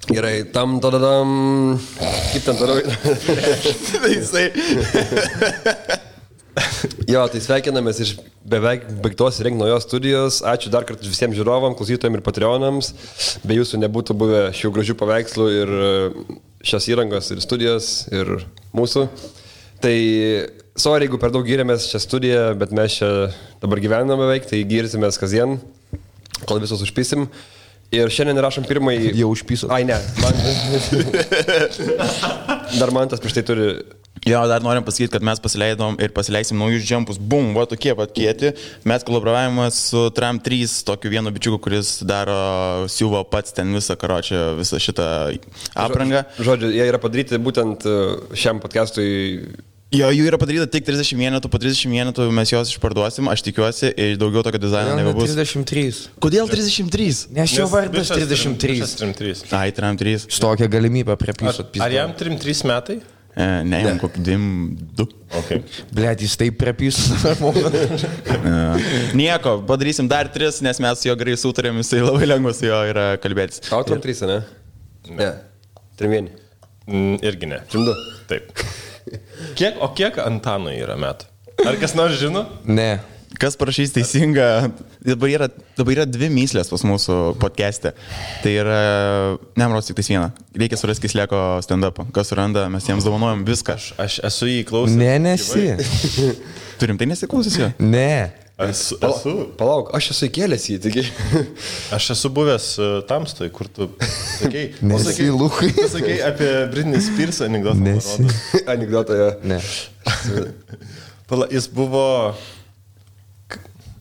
Gerai, tadadam. Kaip ten toliau? Jo, tai sveikinamės iš beveik baigtos rengti naujos studijos. Ačiū dar kartą visiems žiūrovam, klausytojams ir patreonams. Be jūsų nebūtų buvę šių gražių paveikslų ir šios įrangos ir studijos ir mūsų. Tai sorry, jeigu per daug gyrėmės šią studiją, bet mes čia dabar gyvename beveik, tai gyrsimės kasdien, kol visus užpysim. Ir šiandien rašom pirmąjį... Jau užpyso. Ai, ne. Dar man tas prieš tai turi... Jo, dar norim pasakyti, kad mes pasileidom ir pasileisim naujus džempus. Bum, va tokie pat kieti. Mes kolaboravome su Tram 3, tokiu vienu bičiuku, kuris daro siuvo pats ten visą karočią, visą šitą aprangą. Žodžiu, jie yra padaryti būtent šiam podcastui... Jo, jų yra padaryta tik 30 vienetų, po 30 vienetų mes juos išparduosim, aš tikiuosi, ir daugiau tokio dizaino nebebus. 33. Kodėl 33? Nes jo vardas 33. Ai, Tram 3. Šitokią galimybę prie piso. Ar jam 3 metai? Ne, jam kokį 2. Okay. Blet, jis taip prie piso. Nieko, padarysim dar 3, nes mes su jo gerai sutarėm, jisai labai lengvas su jo yra kalbėtis. Tau Tram 3, ne? Ne. 3-1. Irgi ne. 3-2. Taip. Kiek Antanui yra metų? Ar kas nors žino? Ne. Kas parašys teisingą, dabar yra 2 myslės pas mūsų podcast'e. Tai yra, nemros tik tais vieną. Reikia surasti Kisleko stand-upą. Kas suranda, mes jiems dovanojam viską. Aš esu jį klausęs. Ne, nesi. Turim tai nesiklausęs jo? Ne. Esu. Palauk, aš esu įkėlęs jį, taigi. Aš esu buvęs Tamstoj, kur tu sakei. Nesi, Lukai. Tu sakei apie Britney Spears anekdotą. Nesi. Anekdotą, jo. Ne. Jis buvo...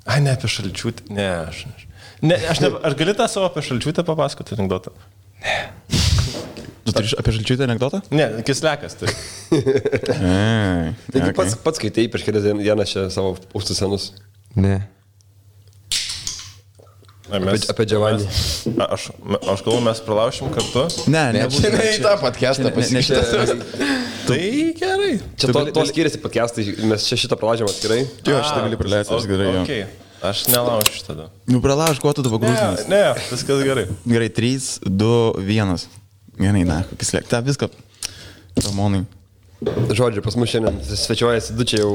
Ai, ne apie Šalčiūtę. Ne, ar gali tą savo apie Šalčiūtę papasakoti anekdotą? Ne. Tu turi apie Šalčiūtę anekdotą? Ne, Kislekas turi. Taigi pats skaitai prieš kelias dienas čia savo pūstus senus. Ne. Apie Giovanni. Aš galvoju, mes pralaušim kartu. Ne, Čia ne į tą podcastą pasikištas. Tai gerai. Čia to skiriasi podcastai, mes čia šitą pralaužėm atskirai. Jo, šitą gali praleisti, aš gerai jo. Okay. Aš nelaušiu tada. Nu, pralauž, kuo tu dabar grūžinas? Ne, viskas gerai. Gerai, 3, 2, 1. Gerai, na, Kislek, tą viską. Ramonai. Žodžiu, pas mus šiandien svečiuojasi du čia jau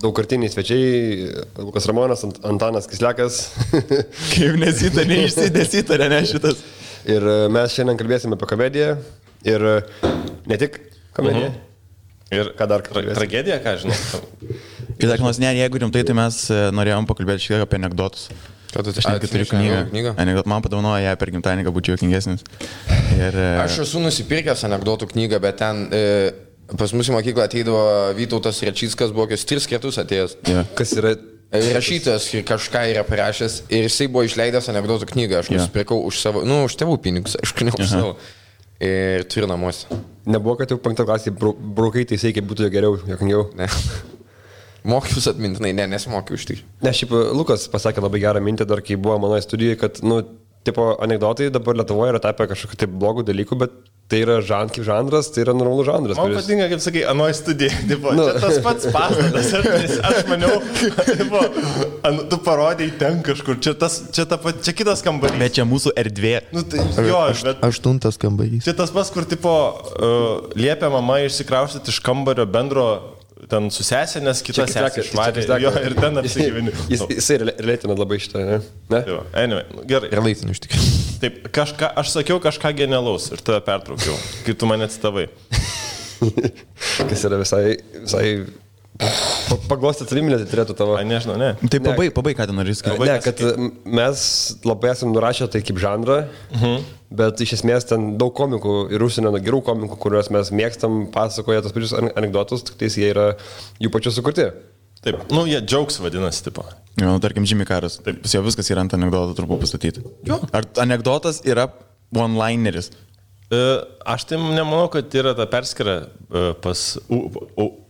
daugkartiniai svečiai, Lukas Ramonas, Antanas Kislekas. Kaip neišsidėsitarė, ne šitas. Ir mes šiandien kalbėsime apie komediją ir ne tik komediją. Ir ką dar kalbėsime? Tragedija, ką žinau. Ir dar, ne, jeigu rimtai, tai mes norėjom pakalbėti šiek tiek apie anekdotus. Aš netgi turiu knygą. Man padovanojo ją per gimtadienį, kad būčiau juokingesnis. Aš esu nusipirkęs anekdotų knygą, bet ten... Pas mūsų mokyklą ateidavo Vytautas Rečickas, buvo 3 kartus atėjęs. Yeah. Kas yra? Rašytas ir kažką yra parašęs ir jisai buvo išleidęs anekdotų knygą. Aš nusipirkau už savo, už tėvų pinigus, aišku, ne už savo. Ir turiu namuose. Nebuvo, kad jau 5 klasėje braukai teisėjai, kaip būtų geriau, jokingiau? Ne. Mokius atmintinai, nesimokiu iš tikrųjų. Ne, šiaip Lukas pasakė labai gerą mintį dar, kai buvo mano studijoje, kad, tipo, anekdotai dabar Lietuvoje yra tapę kažkokiu taip blogų dalykų, bet tai yra kaip žanras, tai yra normalus žanras. Man patinka, kaip sakai, anoj studijai, tipo, čia tas pats pastatas, aš maniau, tipo, tu parodėjai ten kažkur, čia kitas kambarys. Bet čia mūsų erdvė. Tai, jo, bet 8 kambarys. Čia tas pats, kur, tipo, liepia mama išsikraustyti iš kambario bendro ten su sesė, nes kita sesė išvarė jo ir ten apsigyveni. Jisai relėtina labai šitą, ne? Jo, anyway, gerai. Relėtina iš tikrųjų. Taip, aš sakiau kažką genialaus ir tave pertraukiau, kai tu mane citavai. Kas yra visai paglostyti saviminę, tai turėtų tavo... Nežinau, ne. Tai pabaig, ką ten norės kalbėti. Ne, kad mes labai esam nurašę tai kaip žanrą, bet iš esmės ten daug komikų ir užsienio gerų komikų, kuriuos mes mėgstam, pasakoja tos pačius anekdotus, tik tais jie yra jų pačių sukurti. Taip, jie jokes vadinasi, tipo. Jo, tarkim, Jimmy Carras. Taip, pas jo viskas yra ant anekdoto turbūt pastatyti. Jo. Ar anekdotas yra one-lineris? Aš tai nemanau, kad yra ta perskira pas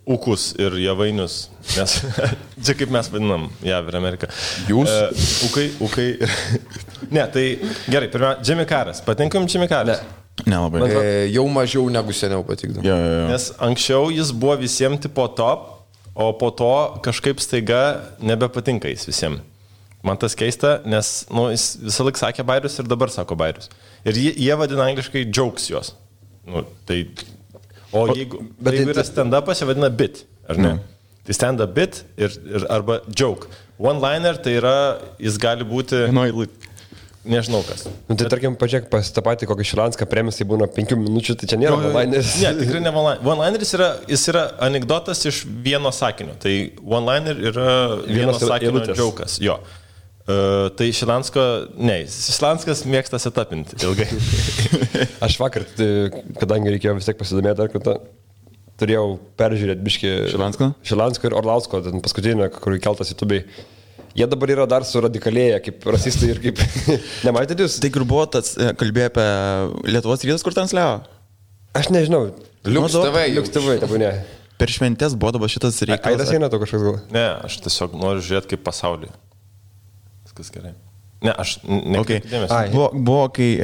Ukus ir Javainius, nes čia kaip mes vadinam JAV ir Ameriką. Jūs? Ukai. Ne, tai gerai, pirmiausia, Jimmy Carras. Patinka jums Jimmy Carras? Nelabai. Jau mažiau negu seniau patikdavo. Jo. Nes anksčiau jis buvo visiems tipo top, o po to kažkaip staiga nebepatinka jis visiems. Man tas keista, nes jis visą laiką sakė bairius ir dabar sako bairius. Ir jie vadina angliškai jokes juos. Jeigu yra stand-upas, jie vadina bit, ar ne? Tai stand-up bit ir arba joke. One-liner tai yra, jis gali būti... Nežinau kas. Tai tarkim, pažiūrėk, pas tą patį kokį Šilanską premisai būna 5 minučių, tai čia nėra one-lineris. Ne, tikrai ne one-lineris. One-lineris yra anekdotas iš vieno sakinio. Tai one-liner yra vieno sakinio jokas. Jo. Tai Šilanskas mėgsta setupinti ilgai. Aš vakar, kadangi reikėjo vis tiek pasidomėti dar kartą, turėjau peržiūrėti biškį Šilansko ir Orlausko, paskutinį, kur keltas YouTube'ai. Jie dabar yra dar suradikalėję kaip rasistai ir kaip... Nematėt jūs? Tai kur buvo tas, kalbėjo apie Lietuvos rytas, kur transliavo? Aš nežinau. Liuks TV, tabu ne. Per šventės buvo dabar šitas reikalas. Aidas eina to kažkas gal? Ne, aš tiesiog noriu žiūrėti kaip pasaulį. Viskas gerai. Ne, aš nekreipiu dėmesio. Buvo, kai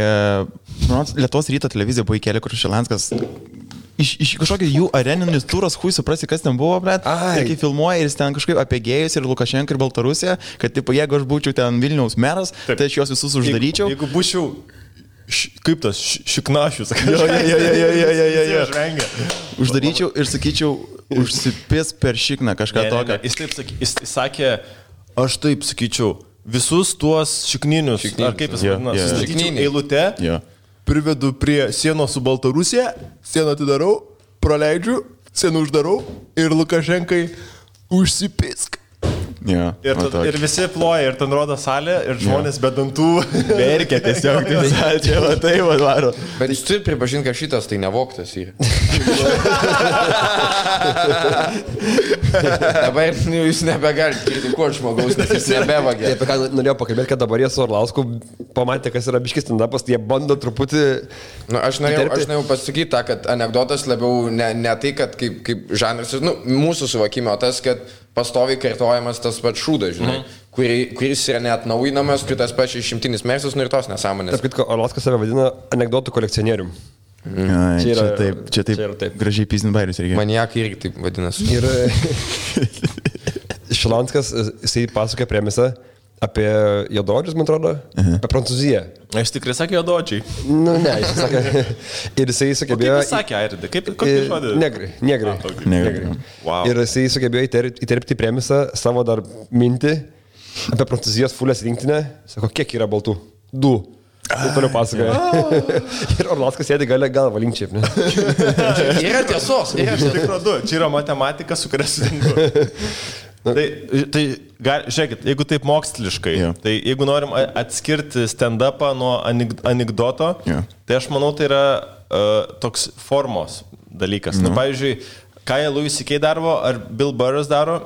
Lietuvos ryto televizija buvo įkelė, kur Šilanskas iš kažkokio jų areninis turas, hui suprasi, kas ten buvo, blet. Ir kai filmuoja ir jis ten kažkaip apie gėjus ir Lukašenką ir Baltarusiją, kad tipo, jeigu aš būčiau ten Vilniaus meras, tai aš juos visus uždaryčiau. Jeigu būčiau kaip tas šiknašius, uždaryčiau ir sakyčiau, užsipės per šikną kažką tokio. Jis sakė, aš taip sakyčiau, visus tuos šikninius, ar kaip jis vadina, sustatyčiau eilute. Privedu prie sienos su Baltarusija, sieną atidarau, praleidžiu, sieną uždarau ir Lukašenkai užsipisk. Ir visi ploja, ir ten rodo salę, ir žmonės be dantų verkia tiesiog, čia va tai varo. Bet jūs turi pripažinti, kad šitas tai nevoktas yra. Dabar jūs nebegalite kritikuoti žmogaus, nes jis nebevagė. Apie ką norėjau pakalbėti, kad dabar jie su Orlausku pamatė, kas yra biškis stand-upas, tai jie bando truputį... Aš norėjau pasakyti tą, kad anekdotas labiau ne tai, kad kaip žanras, mūsų suvokimo tas, kad pastoviai kartojamas tas pats šūdas, žinai, kuris yra neatnaujinamas, kai tas pats išimtinis mersas, ir tos nesąmonės. Taip, kad Orlauskas save vadina anekdotų kolekcionierium. Čia taip gražiai pizdin bairius reikia. Maniakai irgi taip vadinasi. Ir Šilanskas, jisai pasakė premisą apie juodaodžius, man atrodo, apie Prancūziją. Aš tikrai sakė juodaodžiai. Ne, jis sakė. Ir jisai sugebėjo... Kaip jis sakė, Airidai? Kokį žodį? Negrai. Wow. Ir jisai sugebėjo įterpti premisą savo dar mintį apie Prancūzijos fulės rinktinę. Sako, kiek yra baltų? 2. Ir toliau pasakoja. Ir Orlauskas sėdi galvą linkčiai. Yra tiesos. Čia yra matematika, su kuria sutinku. Tai žiūrėkit, jeigu taip moksliškai, tai jeigu norim atskirti stand-upą nuo anekdoto, tai aš manau, tai yra toks formos dalykas. Pavyzdžiui, ką jie Louis C.K. daro, ar Bill Burras daro,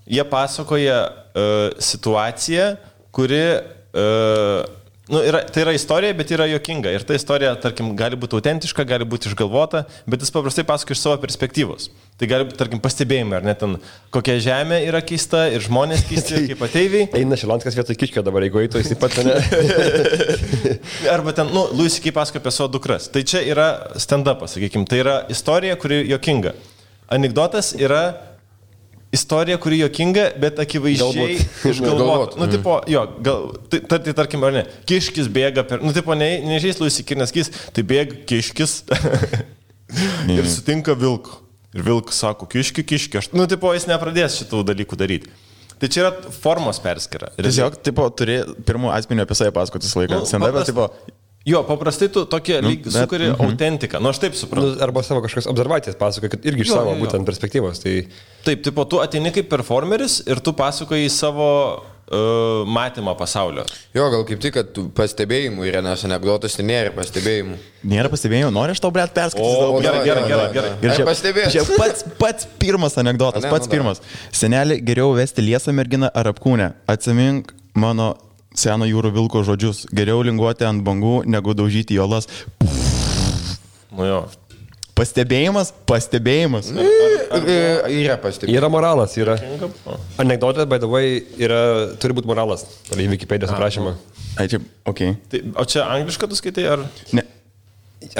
jie pasakoja situaciją, kuri... tai yra istorija, bet yra juokinga. Ir ta istorija, tarkim, gali būti autentiška, gali būti išgalvota, bet jis paprastai pasakoja iš savo perspektyvos. Tai gali būti, tarkim, pastebėjimai, ar net ten kokia žemė yra keista ir žmonės keisti kaip ateiviai. Eina Šilanskas vietoj Kiškio dabar, jeigu eitų, jis taip pat ne. Arba ten, Louis C.K. pasakoja apie savo dukras. Tai čia yra stand-upas, sakykime. Tai yra istorija, kuri juokinga. Anekdotas yra istorija, kuri juokinga, bet akivaizdžiai išgalvota. Tipo, tai tarkim, ar ne, Kiškis bėga per... tipo, nežais Louis C.K. Nes tai bėga Kiškis ir sutinka vilku. Ir vilkas sako, Kiški. Tipo, jis nepradės šitų dalykų daryti. Tai čia yra formos perskyra. Tiesiog, tipo, turi pirmų asmenį apie save pasakotis laiką. Stand-up'as, tipo... Jo, paprastai tu tokie sukuri autentiką. Aš taip suprantu. Arba savo kažkokias observacijas pasakoja, kad irgi iš savo būtent perspektyvos. Tai... Taip, tipo, tu ateini kaip performeris ir tu pasakoji savo matymą pasaulio. Jo, gal kaip tik, kad pastebėjimų yra, nes anekdotas tai nėra pastebėjimų. Nėra pastebėjimų, nori aš tau, blet, perskaityti. Gerai. Ir čia pats pirmas anekdotas, pirmas. Senelį, geriau vesti liesą merginą ar apkūnę. Atsimink mano seno jūrų vilko žodžius. Geriau linguoti ant bangų, negu daužyti jolas. Pastebėjimas. Yra pastebėjimas. Yra moralas, yra. Anekdotė, by the way, turi būti moralas. Į Wikipedijos aprašymą. Ai, čia, okei. O čia anglišką tu skaitai, ar? Ne.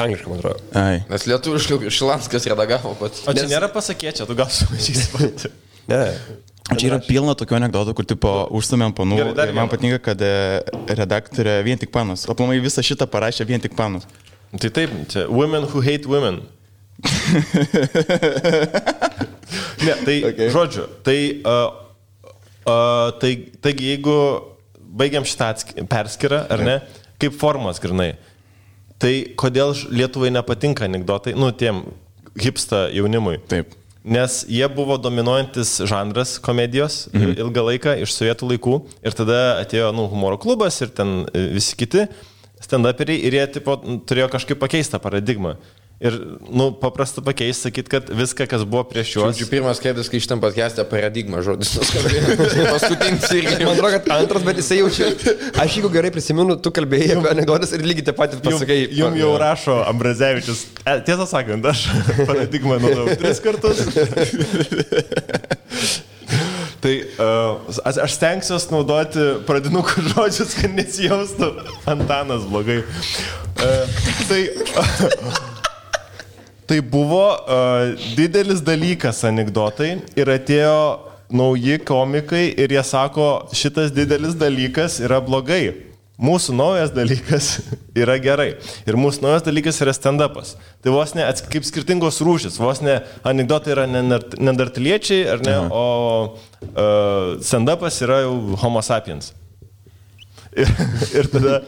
Anglišką, man atrodo. Ai. Nes lietuviškai Šilanskas redagavo pats. O čia nėra pasakėčia, tu gal sumažysi pati. Ne. Čia yra pilna tokių anekdotų, kur tipo užsumėm panų. Gerai, man patinka, kad redaktorė vien tik panus. Aplamai visą šitą parašė vien tik panus. Tai taip, čia women who hate women. Ne, tai okay. Žodžiu, taigi jeigu baigiam šitą perskirą, ar ne, kaip formas grinai, tai kodėl Lietuvai nepatinka anekdotai, tiem hipsta jaunimui. Taip. Nes jie buvo dominuojantis žanras komedijos ilgą laiką iš sovietų laikų ir tada atėjo humoro klubas ir ten visi kiti stand-uperiai ir jie tipo, turėjo kažkaip pakeisti tą paradigmą. Ir, paprasta pakeisti, sakyt, kad viską, kas buvo prieš juos. Žodžiu, pirmas kėdės, kai šitam podcast'e paradigma žodis nuskambėjo. Paskutinis irgi. Man atrodo, kad antras, bet jisai jaučia. Aš jeigu gerai prisimenu, tu kalbėjai apie anekdotas ir lygiai taip pat pasakai. Jums jau rašo Ambrazevičius. Tiesą sakant, aš paradigmą naudojau 3 kartus. Tai aš stengsiuosi naudoti pradinukų žodžius, kad nesijaustų Antanas blogai. Tai buvo didelis dalykas anekdotai ir atėjo nauji komikai ir jie sako, šitas didelis dalykas yra blogai. Mūsų naujas dalykas yra gerai. Ir mūsų naujas dalykas yra stand-upas. Tai vos ne kaip skirtingos rūšis. Vos ne anekdotai yra neandertaliečiai, ar ne, o stand-upas yra jau homo sapiens. Ir tada,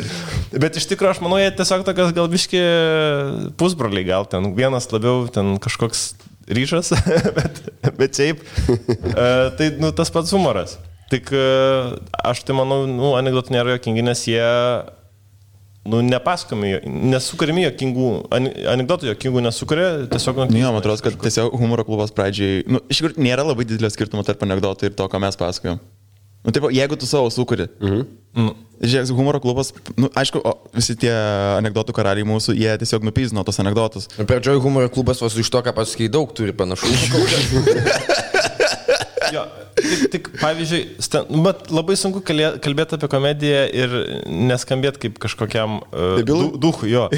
bet iš tikrųjų aš manau, jie tiesiog tokios gal biški pusbroliai, gal ten vienas labiau ten kažkoks ryšas, bet šiaip, tai tas pats humoras. Tik aš tai manau, anekdotų nėra jokingi, nes jie nepasakomi, nesukūrimi jokingų, anekdotų jokingų nesukūrė, tiesiog... Man atrodo, kad tiesiog humoro klubas pradžiai, iš tikrųjų nėra labai didelio skirtumo tarp anekdotų ir to, ką mes pasakojom. Taip, jeigu tu savo sukuri. Žiūrėk, humoro klubas, aišku, visi tie anekdotų karaliai mūsų, jie tiesiog nupyzino tos anekdotus. Pradžioj humoro klubas vos iš to, ką pasakai, daug turi panašumų. Jo, tik pavyzdžiui, bet labai sunku kalbėti apie komediją ir neskambėti kaip kažkokiam duchui, jo.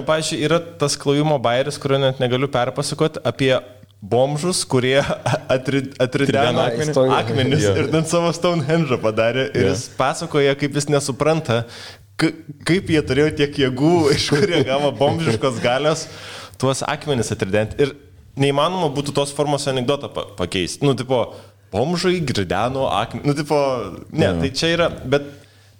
Pavyzdžiui, yra tas klojimo bairis, kurio net negaliu perpasakoti apie bomžus, kurie atrideno akmenis ir ten savo Stonehenge padarė ir jis pasakoja, kaip jis nesupranta, kaip jie turėjo tiek jėgų, iš kur jie gavo bomžiškos galios tuos akmenis atridenti. Ir neįmanoma būtų tos formos anekdotą pakeisti. Tipo, bomžai grideno akmenį. Tai čia yra, bet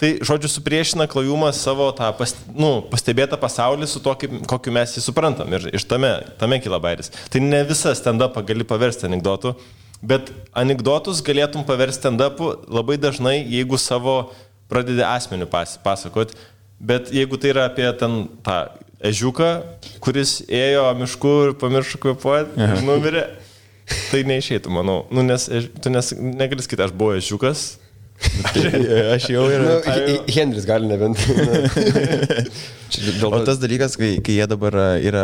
tai, žodžiu, supriešina klojumas savo tą pastebėtą pasaulį su to, kokiu mes jį suprantam. Ir iš tame kyla bairis. Tai ne visą stand-upą gali paversti anekdotų, bet anekdotus galėtum paversti stand-upų labai dažnai, jeigu savo pradedi asmenių pasakot. Bet jeigu tai yra apie ten tą ežiuką, kuris ėjo mišku ir pamiršo kvėpuoti ir numirė, tai neišeitų, manau. Nes tu negali sakyti, aš buvau ežiukas. Aš jau ir... Henris gali nebent. O tas dalykas, kai jie dabar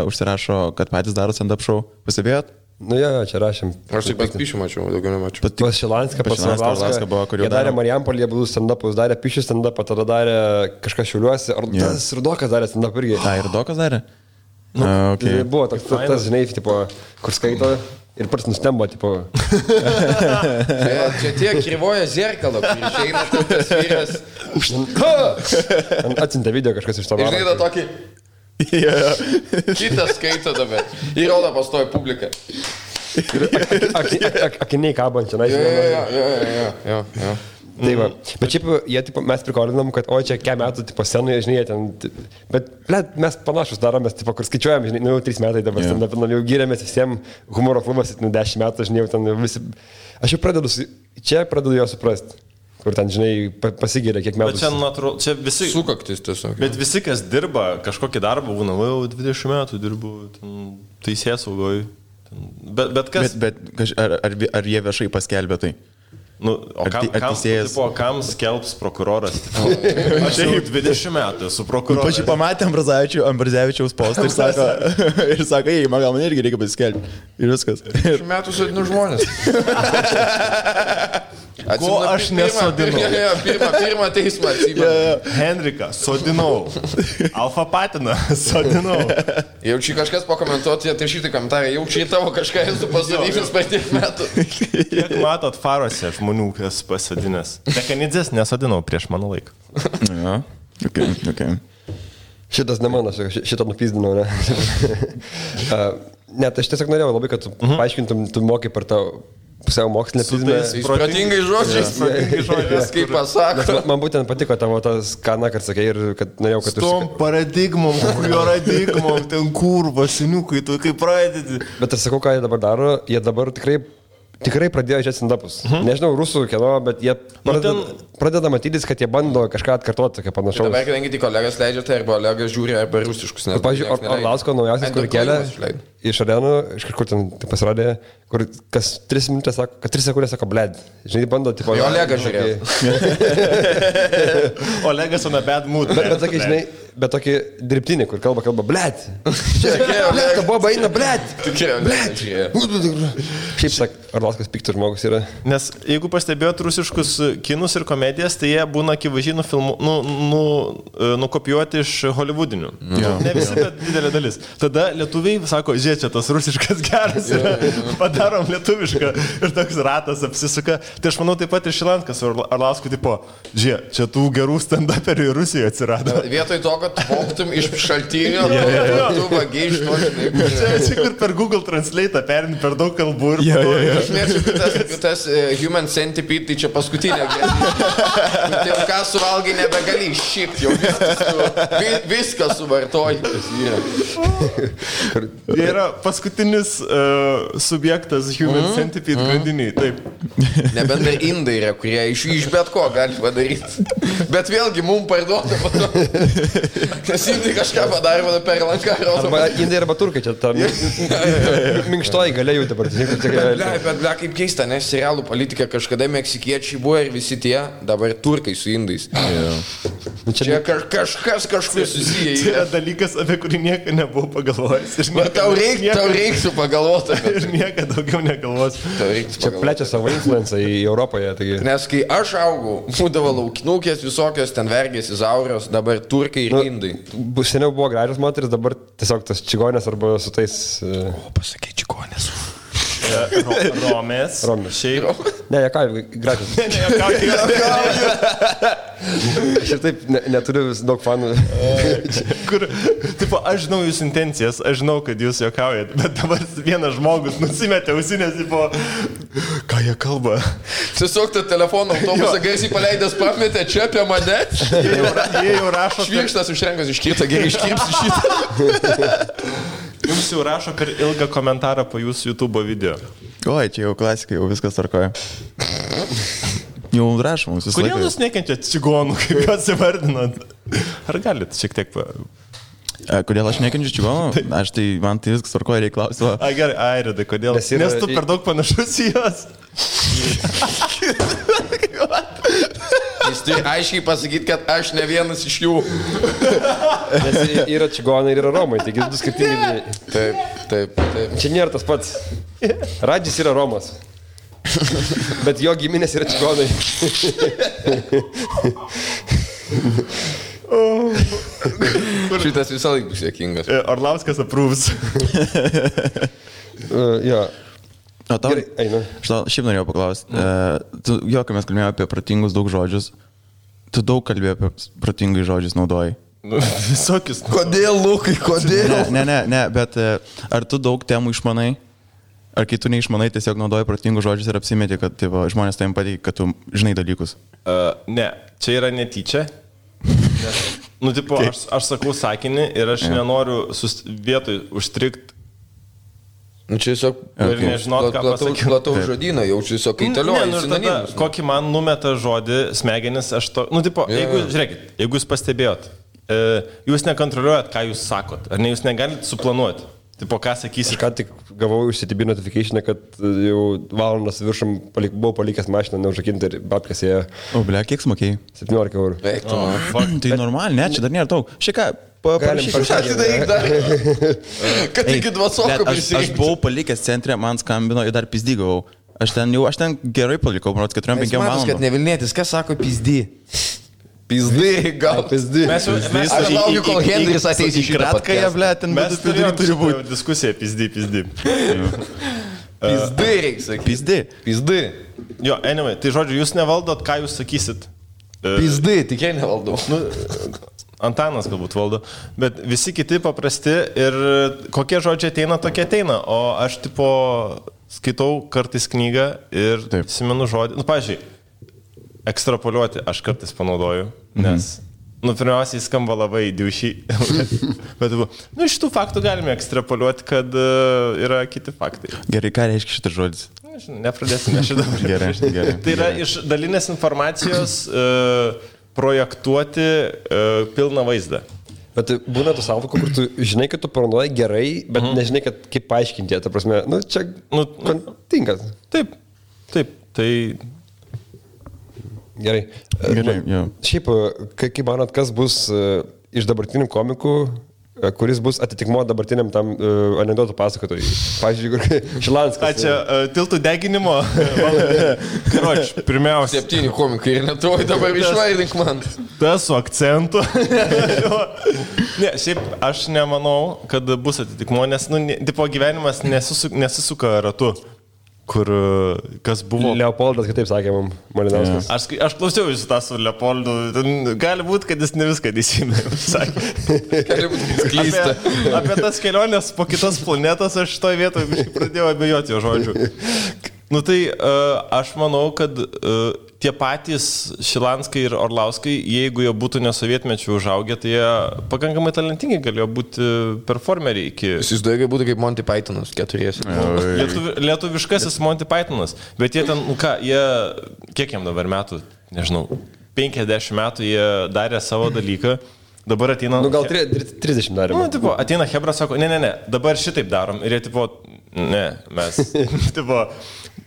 užsirašo, kad patys daro stand-up show, pastebėjot? Čia rašėm. Aš tik pas Pišių mačiau, daugiau nemačiau. Pas Šilanską, pas Šilanską buvo, kur jie darė Marijampolėje būdų stand-upus, darė Pišių stand-upą, tada darė kažkas Šiauliuose, ar tas Rudokas darė stand-up irgi. Rudokas darė? Okay. Buvo tas, žinai, tipo, kur skaito. Ir pats nustemba, tipo. Čia tie krivoja zerkalo, kur išeina tas vyras. Atsintė video kažkas iš to. Ir žinai, tokį... Kitas skaito dabar. Ir rodo pastoja publiką. Akiniai kabančia, na, Jo. Tai va, bet šiaip jie, tipo, mes prikolinam, kad o čia kiek metų, tipo, scenoje, žinai, ten, bet, mes panašus daromės, tipo, kur skaičiuojam, žinai, jau 3 metai dabar, jau gyrėmės visiems humoro klubas, 10 metų, žinai, jau ten visi, aš jau pradedu jo suprasti, kur ten, žinai, pasigyrė kiek metų. Bet čia, natūralu, čia visi... Sukaktis tiesiog. Bet visi, kas dirba kažkokį darbą, būna, jau 20 metų dirbu, teisėsaugoj. Bet kas... Bet ar jie viešai paskelbė tai? Kam skelbs prokuroras? Aš jau 20 metų esu prokuroras. Pačiai pamatė Ambrazevičiaus postą ir sako, ei, man gal man irgi reikia paskelbti. Ir viskas. 20 metų sodinu žmonės. Ko aš nesodinau? Pirmą teismą atsimenu. Henriką sodinau. Alfa patiną sodinau. Jaučiu kažkas pakomentuoti, tai šitą komentarą, jaučiu tavo kažką esu pasodinęs per tiek metų. Kiek matot farose žmonių? žmonių kas pasodinęs. Dekanidzės nesodinau prieš mano laiką. Ja, okay. Šitas ne mano, šitą nupyzdinau, ne? Ne, tai aš tiesiog norėjau labai, kad tu paaiškintum, tu mokai per tą pusiau mokslinę prizmę. Protingai žodžiais, kaip pasako. Man būtent patiko tavo tas kaną, kad sakai, ir kad norėjau, kad tu... Tom paradigmom, paradigmom, ten kurva, seniukai, tu kaip pradedi. Bet aš sakau, ką jie dabar daro, jie dabar tikrai pradėjo žiūrėti stand-upus. Nežinau, rusų kieno, bet jie pradeda matytis, kad jie bando kažką atkartoti, kaip panašaus. Dabar, kadangi tik kolegas leidžia, tai arba kolegas žiūri, arba rusiškus. Pavyzdžiui, Orlausko naujausias, kur kelia iš arenų, iš kažkur ten pasirodė, kur kas 3 minutės sako, kad 3 sekundės sako, bled. Žinai, bando, tipo... Jo, Olegas žiūrėjo. Olegas on a bad mood. Bet sakai, žinai, bet tokį dirbtinį, kur kalba, bled. Bled, boba eina, bled. Bled. Šiaip sak, Orlauskas piktas žmogus yra. Nes jeigu pastebėjot rusiškus kinus ir komedijas, tai jie būna akivaizdžiai nukopijuoti iš holivudinių. Ne visi, bet didelė dalis. Tada lietuviai sako, žiūrėk, čia tas rusiškas geras yra, padarom lietuvišką ir toks ratas apsisuka. Tai aš manau taip pat ir Šilanskas Orlauskui, tipo, žiūrėk, čia tų gerų stand-uperių ir Rusijoje atsirado. Vietoj to, kad poktum iš šaltinio, tu vagiai iš to, žinai. Čia kur per Google Translate perini per daug kalbų ir... Aš mėgstu, tas Human Centipede, tai čia paskutinė. Tai ką suvalgai nebegali iššipti, jau viską suvartoji. Jie yra paskutinis subjektas Human Centipede grandiniai, taip. Nebent dar indai yra, kurie iš bet ko gali padaryti. Bet vėlgi mums parduoda. Nes indai kažką padarė per lanką. Arba indai arba turkai, čia ta minkštoji galėjau dabar. Bet kaip keista, nes serialų politika kažkada meksikiečiai buvo ir visi tie, dabar turkai su indais. Čia kažkas kažkur susiję. Čia yra dalykas, apie kurį niekada nebuvau pagalvojęs. Tau reiktų pagalvoti. Ir niekada daugiau negalvosiu. Čia plečia savo influencą į Europoje. Taigi... Nes kai aš augau, būdavo laukinukės visokios, ten vergės, izaurios, dabar turkai ir indai. Seniau buvo gražios moteris, dabar tiesiog tas čigonės arba su tais... Pasakai čigonės. Romės. Šiaip. Ne, jie ką, gražios. Aš ir taip neturiu daug fanų. Kur, tipo, aš žinau jūsų intencijas, aš žinau, kad jūs juokaujat, bet dabar vienas žmogus nusimetė ausinės, tipo, ką jie kalba. Tiesiog tą telefoną autobusą garsiai paleidęs pametė čia apie mane. Jie jau rašo. Švirkštas užrenkas iškirta, gerai iškirpsi šitą. Jums jau rašo per ilgą komentarą po jūsų YouTube video. Oi, čia jau klasika, jau viskas tvarkoja. Jau rašo mums visą laiką. Kodėl jūs nekenčiat čigonų, kaip juos įvardinat? Ar galit šiek tiek... Kodėl aš nekenčiu čigonų? Aš tai, man tai viskas tvarkoja, reikia klausti. Gerai, Airidai, kodėl? Nes tu per daug panašus į juos. Jis turi aiškiai pasakyti, kad aš ne vienas iš jų. Nes yra čigonai ir yra romai, taigi du skirtingi. Taip. Čia nėra tas pats. Radžis yra romas. Bet jo giminės yra čigonai. Šitas visą laiką bus jėkingas. Orlauskas approves. Jo. O tau, Gerai, einu. Šiaip norėjau paklausti. Jo, kai mes kalbėjome apie protingus daug žodžius, tu daug kalbėjai apie protingai žodžius naudoji. Visokius. Kodėl, Lukai, kodėl? Ne, bet ar tu daug temų išmanai? Ar kai tu neišmanai, tiesiog naudoji protingus žodžius ir apsimeti, kad taip, žmonės tavim pateikia, kad tu žinai dalykus? Ne, čia yra netyčia. Nes, tipo, aš sakau sakinį ir aš nenoriu vietoj užstrikti. Čia tiesiog plataus žodyną, jaučiu tiesiog kaitalioju sinonimus. Kokį man numeta žodį smegenis, aš to... tipo, žiūrėkit, jeigu jūs pastebėjot, jūs nekontroliuojat, ką jūs sakot, ar ne, jūs negalite suplanuoti. Tipo, ką sakysi? Aš ką tik gavau iš CTB notification, kad jau valandas viršum buvau palikęs mašiną neužrakinti ir babkės ėjo. O, ble, kiek smokėjai? 17 eurų. Tai normaliai, ne, čia dar nėra daug. Šieka, kad iki 2 sokų prisijungti. Aš buvau palikęs centre, man skambino ir dar pizdygavau. Aš ten gerai palikau, manau, 4-5 valandų. Kad nevilnėtis, kas sako pizdy? Pizdy, gal pizdy. Aš laukiu, kol Henris ateis į šitą kratką, ble, ten mes turi būti diskusija pizdy. Pizdai reikia sakyti. Pizdai. Jo, anyway, tai žodžiu, jūs nevaldot, ką jūs sakysit. Pizdai, tikrai nevaldau. Nu, Antanas galbūt valdo, bet visi kiti paprasti ir kokie žodžiai ateina, tokie ateina. O aš tipo skaitau kartais knygą ir atsimenu žodį. Nu, pavyzdžiui, ekstrapoliuoti aš kartais panaudoju, nes, pirmiausiai skamba labai diušiai. Bet, iš tų faktų galime ekstrapoliuoti, kad yra kiti faktai. Gerai, ką reiškia šitas žodis? Nepradėsime šitą. Gerai. Tai yra iš dalinės informacijos projektuoti pilną vaizdą. Bet būna tų savokų, kur tu žinai, kad tu paranoji gerai, bet nežinai, kaip paaiškinti. Ta prasme, čia tinkas. Taip. Tai... Gerai. Šiaip, kaip manot, kas bus iš dabartinių komikų, kuris bus atitikmuo dabartiniam tam anekdotų pasakotojui. Pavyzdžiui, Šilanskas. Čia tiltų deginimo. Karoč, pirmiausia. 7 komikai ir netuoj dabar išvaidink man. Tas su akcentu. Ne, šiaip aš nemanau, kad bus atitikmuo, nes tipo gyvenimas nesisuka ratu. Kur kas buvo... Leopoldas kitaip sakė mums, Malinauskas. Aš klausiau jūsų tą su Leopoldu. Gali būti, kad jis ne viską teisingai sakė. Gali būti klysta. Apie tas keliones po kitas planetas aš šitoj vietoje pradėjau abejoti jo žodžių. Tai aš manau, kad tie patys Šilanskai ir Orlauskai, jeigu jie būtų nesovietmečių užaugę, tai jie pakankamai talentingi galėjo būti performeriai iki... Įsivaizduoju, kad būtų kaip Monty Pythonas, 4. Lietuviškasis Monty Pythonas, bet jie ten, jie, kiek jam dabar metų, nežinau, 50 metų jie darė savo dalyką, dabar ateina... gal 30 darėme. Ateina Hebra, sako, ne, dabar šitaip darom ir jie tipo, ne, mes, tipo...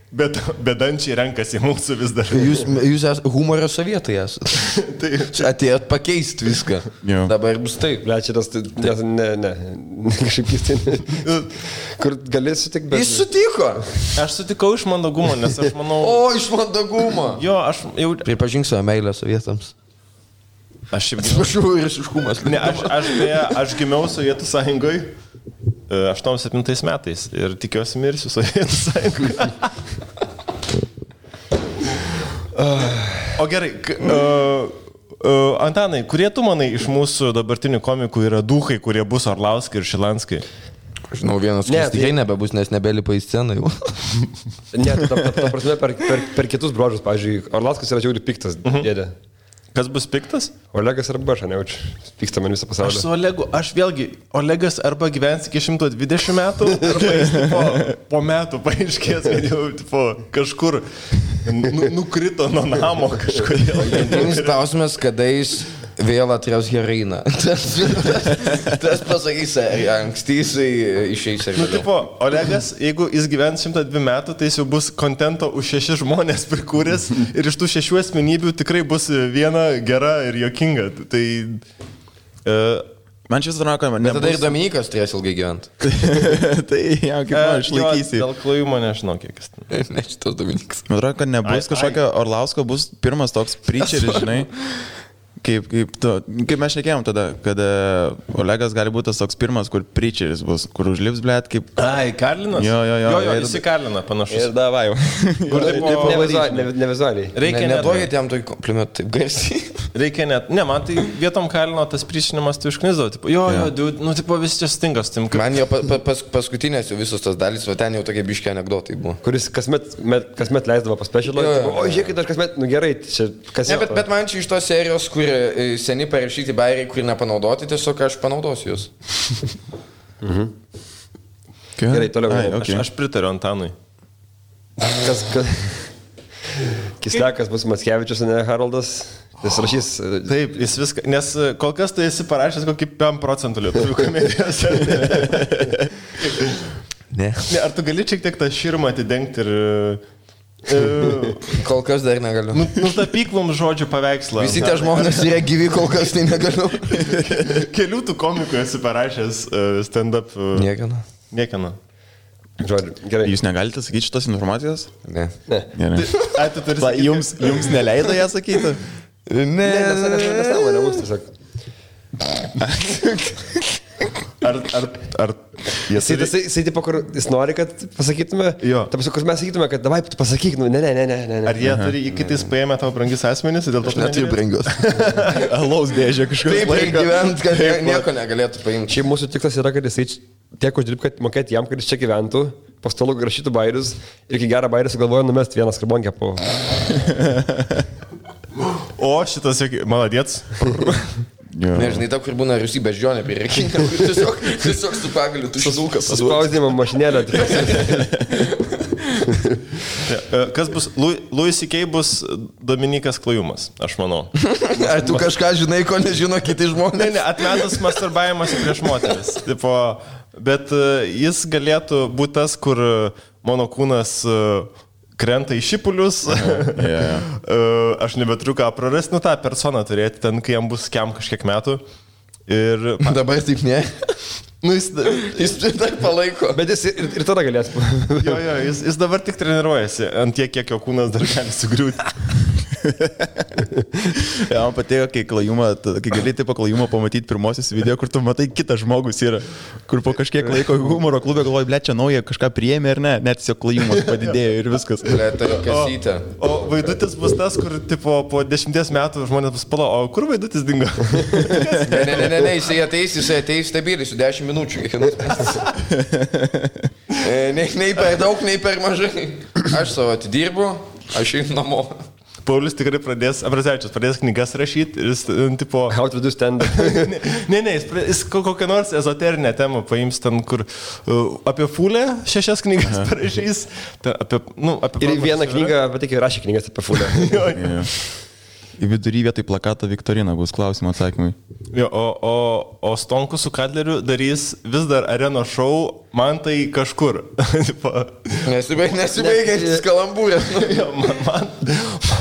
Bet bedančiai renkasi mūsų vis dar. Jūs esate humorio sovietai esate. Atėjot pakeisti viską. Jo. Dabar bus taip. Šitas, ne. Kažkaip keistai. Kur gali sutikti, bet... Jis sutiko. Aš sutikau iš mandagumo, nes aš manau... O, iš mandagumo. Jo, aš jau... Pripažink savo meilę sovietams. Aš šiaip... Atsiprašau ir iššumas. Ne, aš gimiau Sovietų sąjungoje 87 metais ir tikiuosi mirsiu Sovietų sąjungoje. O gerai, Antanai, kurie tu manai iš mūsų dabartinių komikų yra duhai, kurie bus Orlauskai ir Šilanskai? Žinau, vienas, kuris tikrai nebebus, nes nebelipa į sceną jau. Ne, ta prasme per kitus bruožus, pavyzdžiui, Orlauskas yra žiauriai piktas dėdė. Kas bus piktas? Olegas arba aš, nejaučiu. Pyksta man visą pasaulį. Aš su Olegu, Olegas arba gyvens iki 120 metų, arba jis po metų paaiškės, kad jau kažkur nukrito nuo namo kažkodėl. Vienas klausimas, kada jis vėl atras heroiną. Tas pasakys, anksti jisai išeis ir vėliau. Olegas, jeigu jis gyvens 102 metų, tai jis jau bus kontento už 6 žmonės prikūręs ir iš tų 6 asmenybių tikrai bus viena gera ir jokinga. Tai... Man šis atrodo, kad nebus... Tada ir Dominikas turės ilgai gyventi. Tai jau kaip man išlaikysi. Dėl klojimo nežinau, kiek jis ten. Ne, šitas Dominikas. Man atrodo, kad nebus kažkokio Orlausko, bus pirmas toks preacheris, žinai. Kaip mes šnekėjom tada, kad Olegas gali būti tas toks pirmas, kur preacheris bus, kur užlips, blėt, kaip... Ai, Karlinas? Jo, jis į Karliną panašus. Ir davai jau. Nevizualiai. Neduokit jam tokį komplimentą taip garsiai. Reikia net... Ne, man tai vietom Karlino tas priešinimas tai užknizdavo. Jo, visi čia stingas. Man jo paskutinės jau visos tas dalys, o ten jau tokie biški anekdotai buvo. Kuris kasmet leisdavo pas specialą. O, žiūrėkit, aš kasmet, gerai, čia kas... Ne, bet man čia iš tos serijos, kur seni parašyti bairiai, kur nepanaudoti, tiesiog aš panaudosiu jūs. Gerai, toliau. Aš pritariu Antanui. Kislekas bus Mackevičius, ne Haroldas. Jis rašys... Taip, jis viską... Nes kol kas tai esi parašęs kokį 5% lietuvių komedijos. Ne. Ar tu gali šiek tiek tą širmą atidengti ir... Kol kas dar negaliu. Nutapyk mums žodžių paveikslą. Visi tie žmonės yra gyvi, kol kas tai negaliu. Kelių tų komikų esi parašęs stand-up. Niekana. Žodžiu, gerai. Jūs negalite sakyti šitos informacijos? Ne. Jums neleido ją sakyti? Ne, nesąmonė mums tiesiog. Ar Jisai tipo, kur jis nori, kad pasakytume, taip, kur mes sakytume, kad davai, tu pasakyk, nu, ne. Ar jie turi įkitais paėmę tavo brangius asmenys, dėl to neturiu brangius. Alaus dėžė kažkaip. Taip, gyvent, kad nieko negalėtų paimti. Šiaip mūsų tikslas yra, kad jisai tiek uždirb, kad mokėti jam, kad jis čia gyventų, pastalų rašytų bairius ir iki gerą bairį sugalvoja numesti vieną skarbonkę po... O šitas, maladėts. Nežinai, ta, kur būna Rusy beždžionė prie rekinio, tiesiog su pagaliu tušinukas. Suspausdinimo mašinėlę. Kas bus? Louis C.K. bus Dominikas Klajumas, aš manau. Ar tu kažką žinai, ko nežino kiti žmonės? Ne, atmetus masturbavimas prieš moteris. Tipo, bet jis galėtų būti tas, kur mano kūnas krenta į šipulius. Aš nebeturiu ką prarasti, nu tą personą turėti ten, kai jam bus kažkiek metų. Ir... Dabar taip ne. Nu, jis dar palaiko. Bet jis ir tada galės. Jis dabar tik treniruojasi ant tiek, kiek jo kūnas dar gali sugriūti. Ja, man patiko, kai gali taip Klajumą pamatyti pirmosius video, kur tu matai kitas žmogus yra, kur po kažkiek laiko humoro klube galvoji, ble, čia nauja kažką priėmė ir ne, net tiesiog Klajumas padidėjo ir viskas. Ble, tai kasytė. O Vaidutis bus tas, kur tipo, po 10 metų žmonės bus pala, o kur Vaidutis dingo? Ne, jisai ateis stebėlysiu 10 minučių. Nei per daug, nei per mažai. Aš savo atidirbu, aš einu namo. Paulius tikrai Abrazevičius pradės knygas rašyti ir jis, tipo... How to do stand-up. Jis kokią nors ezoterinę temą paims ten, kur apie Fulę 6 knygas parašys. Ir vieną knygą, bet tik rašė knygas apie Fulę. Į vidurį vietoj plakato Viktorina bus klausimų atsakymai. O Stonkus su Kadleriu darys vis dar areno šou, man tai kažkur. Nesibaigiantis kalambūrės.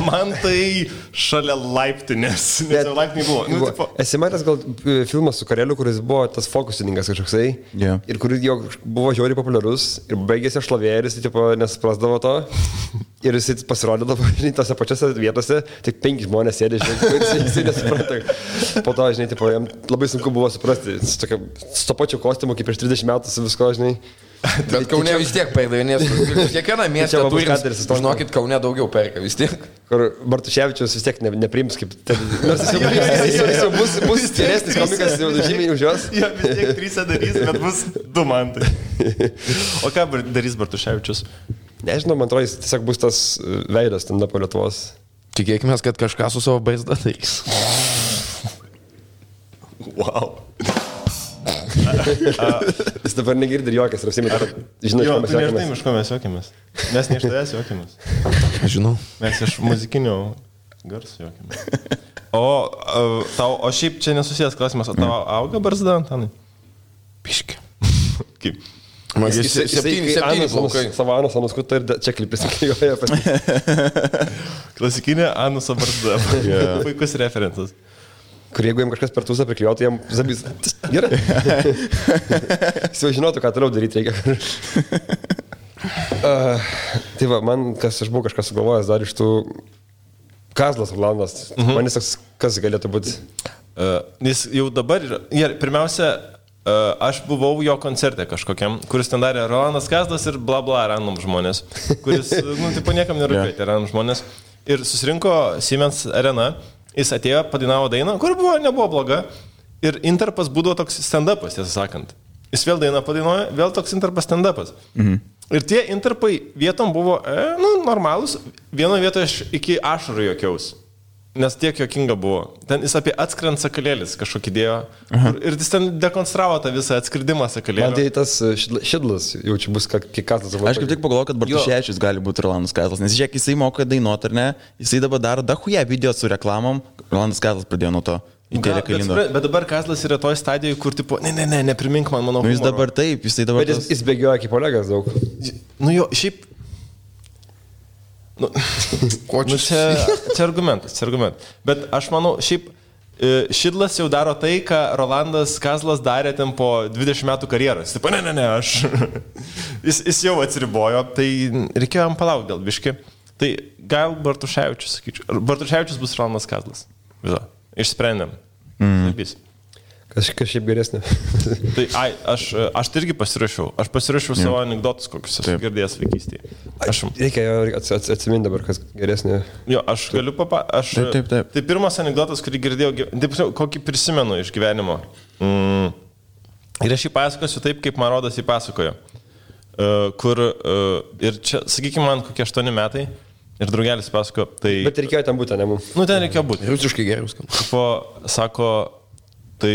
Man tai šalia laiptinės. Nes jau laiptiniai buvo. Esi matęs gal filmas su Kareliu, kuris buvo tas fokusininkas kažkoksai. Ir kuris jau buvo žiauriai populiarus. Ir baigėsi šlovė ir jis nesuprasdavo to. Ir jis pasirodydavo, žinai, tose pačiose vietose, tik 5 žmonės sėdė, žinai, jis nesupranta. Po to, žinai, tipo, jam labai sunku buvo suprasti, su to pačiu kostiumu, kaip prieš 30 metų su visko, žinai. Bet Kaune vis tiek perdavinės, kiekvieną miestą turim, žinokit, Kaune daugiau perka vis tiek. Kur Bartuševičius vis tiek nepriims kaip... Nors jis jau bus stiresnis komikas, jau žymiai už jos. Jo, vis tiek 3 darys, bet bus 2 mantai. O ką darys Bartuševičius? Nežinau, man atrodo, jis tiesiog bus tas veidas ten po Lietuvos. Tikėkime, kad kažką su savo baizda darys. Wow. Jis dabar negirdi ir jokas, ir apsimė, žinai, iš ko mes juokėmės. Iš ko mes juokėmės. Mes ne iš tavęs juokėmės. Aš žinau. Mes iš muzikinio garso juokėmės. O šiaip čia nesusijęs klausimas, o tavo auga barzda, Antanai? Piški. Kaip? Jis 7 plaukai. Savo anusą nuskuto ir čia klipis įklijuoja. Klasikinė anuso barzda. Puikus referencas. Kur jeigu jam kažkas per tūsą priklijuotų, jam zabys. Gerai. Jis jau žinotų, ką toliau daryti reikia. Tai va, man, aš buvau kažką sugalvojęs dar iš tų Kazlas Rolandas. Man jis toks, kas galėtų būti? Jis jau dabar yra. Pirmiausia, aš buvau jo koncerte kažkokiam, kuris ten darė Rolandas Kazlas ir bla bla random žmonės, kuris, tipo niekam nerūpėti random žmonės. Ir susirinko Siemens Arena, jis atėjo, padainavo dainą, kur nebuvo bloga. Ir interpas būdavo toks stand-upas, tiesą sakant. Jis vėl dainą padainuoja, vėl toks interpas stand-upas. Ir tie interpai vietom buvo, normalūs. Vienoje vietoje aš iki ašarų juokiaus. Nes tiek jokinga buvo. Ten jis apie atskrent sakalėlis kažkokį dėjo. Ir jis ten dekonstravo tą visą atskridimą sakalėlį. Man tai tas Šidlas jau čia bus kiek Kazlas. Aš kaip tik pagalvoju, kad Bartuševičius gali būti Rolandas Kazlas. Nes žiūrėk, jisai moka dainuoti, ar ne? Jisai dabar daro dahuja video su reklamom. Rolandas Kazlas pradėjo nuo to. Bet dabar Kazlas yra toj stadijoje, kur tipo, neprimink man mano humoro. Jis dabar taip, jisai dabar... Bet jis bėgioja kaip Olegas daug. Šiaip... Čia argumentas. Bet aš manau, šiaip Šidlas jau daro tai, ką Rolandas Kazlas darė ten po 20 metų karjeros. Taip, aš. Jis jau atsiribojo, tai reikėjo jam palaukti dėl biški. Tai gal Bartuševičius, sakyčiau. Bartuševičius bus Rolandas Kazlas. Viso. Išsprendėm. Kažkas šiaip geresnė. Tai aš irgi pasirašiau. Aš pasirašiau savo anekdotus, kokius esu girdėjęs vaikystėje. Reikia atsiminti dabar, kas geresnė. Jo, aš galiu Taip. Tai pirmas anekdotas, kurį girdėjau, kokį prisimenu iš gyvenimo. Ir aš jį pasakosiu taip, kaip man rodas jį pasakojo. Ir čia, sakykime, man kokie 8 metai. Ir draugelis pasako, tai... Bet reikėjo ten būti, ne mums. Nu, ten reikėjo būti. Rusiškai geriau skamba. Sako, tai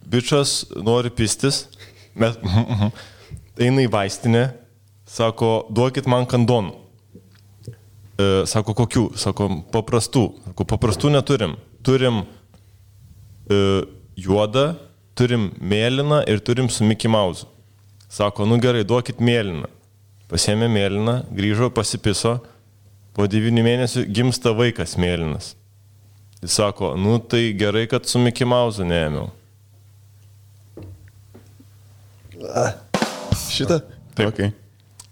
bičas nori pistis, eina į vaistinę, sako, duokit man kandonų. Sako, kokių? Sako, paprastų. Sako, paprastų neturim. Turim juodą, turim mėlyną ir turim su Mickey Mouse. Sako, nu gerai, duokit mėlyną. Pasėmė mėlyną, grįžo, pasipiso, po 9 mėnesių gimsta vaikas mėlynas. Jis sako, nu tai gerai, kad su Mickey Mouse neėmiau. Šitą? Taip. Okay.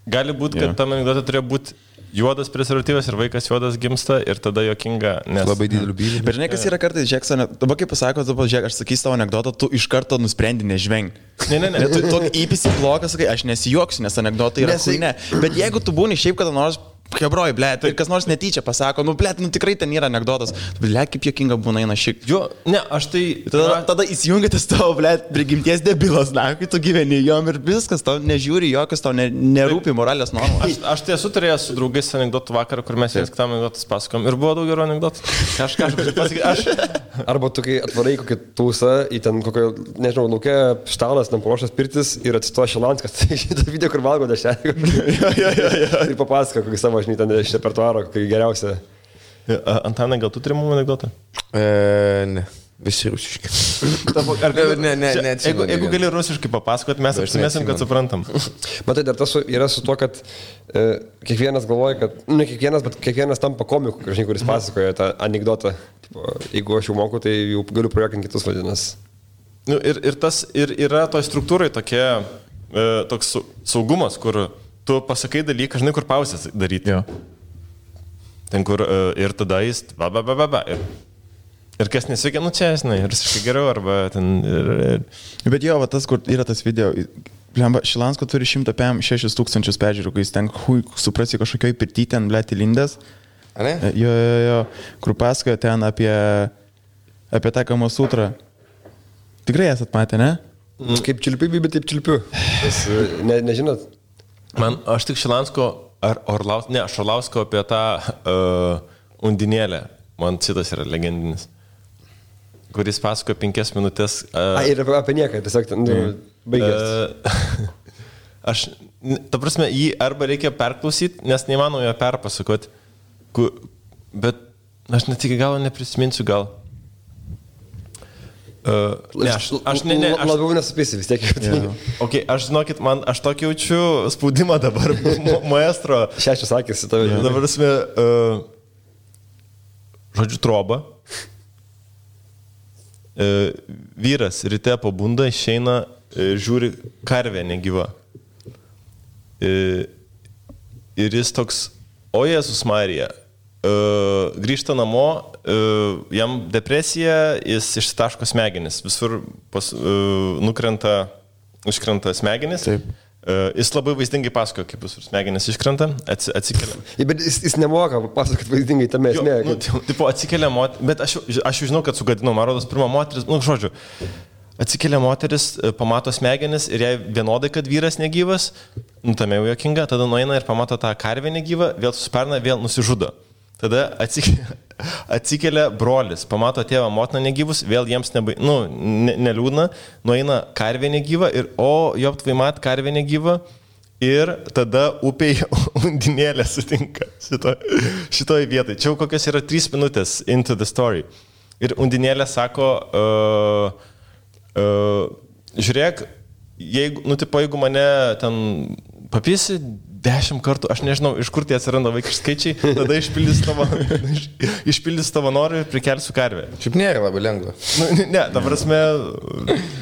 Gali būti, kad tam anekdote turėjo būti juodas prezervatyvas ir vaikas juodas gimsta ir tada juokinga, nes... Labai didelių bylų. Bet žinai, kas yra kartais, žiūrėk, dabar kaip pasako, žiūrėk, aš sakysiu tavo anekdotą, tu iš karto nusprendi nežvengti. Ne. Tu tokį įpisi bloką, sakai, aš nesijuoksiu, nes anekdotai yra ne. Bet jeigu tu būni šiaip kada nors... Hebroj, blėt, ir kas nors netyčia pasako, nu, blėt, nu tikrai ten yra anekdotas. Blėt, kaip jokinga būna eina šiek. Jo, ne, aš tai... Tada įsijungia tas tavo, blėt, prigimties debilas, na, kai tu gyveni jom ir viskas, tau nežiūri jokios, tau nerūpi moralės normos. Aš tai esu turėjęs su draugais anekdotų vakarą, kur mes jas kitam anekdotus pasakom ir buvo daug gerų anekdotų. Kažką pasakyti. Arba tu, kai atvarai kokį tūsą į ten kokio, nežinau, laukia štalas, ten paruoštas pirtis ir atsistoja Šilanskas. Tai šitą video, kur valgo dešelį. Ir papasako kokį savo, žinai, ten iš repertuaro, kokį geriausią. Antanai, gal tu turi mum anekdotą? Ne. Visi rusiški. Ne. Jeigu gali rusiškai papasakoti, mes apsimėsim, kad suprantam. Matai, dar tas yra su tuo, kad kiekvienas galvoja, kad, ne kiekvienas, bet kiekvienas tampa komiku, žinai, kuris pasakoja tą anekdotą. Jeigu aš jau moku, tai jau galiu projektinti kitus vadinas. Nu, ir yra toj struktūrai toks saugumas, kur tu pasakai dalyką, žinai, kur pauzės daryti. Jo. Ten, kur ir tada jis Ir kas nesveikia, nu čia, žinai, rusiškai geriau, arba ten... Bet jo, va tas, kur yra tas video, Šilansko turi 106 000 peržiūrų, kai jis ten, suprasi, kažkokioj pirty ten, blėt, įlindęs. Ne? Jo, kur pasakoja ten apie tą Kama Sutrą. Tikrai esat matę, ne? Kaip čilpiu, bet taip čilpiu. Nežinot? Aš tik Šilansko, Orlausko apie tą undinėlę. Man šitas yra legendinis. Kuris pasako 5 minutės. Ir apie nieką, tiesiog baigęs. Ta prasme, jį arba reikia perklausyti, nes neįmanoma jo perpasakoti. Bet aš net iki galo neprisiminsiu gal. Labiau nesupėsi vis tiek. Okay, aš žinokit, aš tokį jaučiu spaudimą dabar, maestro. 6 sakys į tave. Dabar prasme, žodžiu, troba. Vyras ryte pabunda, išeina, žiūri karvę negyva. Ir jis toks, o Jėzus Marija, grįžta namo, jam depresija, jis išsitaško smegenis, visur užkrenta smegenis. Taip. Jis labai vaizdingai pasakoja, kaip visur smegenis iškrenta, atsikelia. Bet jis nemoka pasakoti vaizdingai tame esmė. Tipo atsikelia moteris, bet aš jau žinau, kad sugadinau, man rodos, pirmą moteris, žodžiu, atsikelia moteris, pamato smegenis ir jai vienodai, kad vyras negyvas, tame jau jokinga, tada nueina ir pamato tą karvę negyvą, vėl susiparna, vėl nusižudo. Tada atsikelia brolis, pamato tėvą, motiną negyvus, vėl jiems neliūdna, nueina karvė negyva ir joptvai mat karvė negyva ir tada upėje undinėlė sutinka šitoj vietai. Čia jau kokios yra 3 minutės into the story. Ir undinėlė sako, žiūrėk, jeigu mane ten papisi 10 kartų, aš nežinau, iš kur tie atsiranda vaikiški skaičiai, tada išpildys tavo norą ir prikelsiu karvę. Šiaip nėra labai lengva. Ne, ta prasme,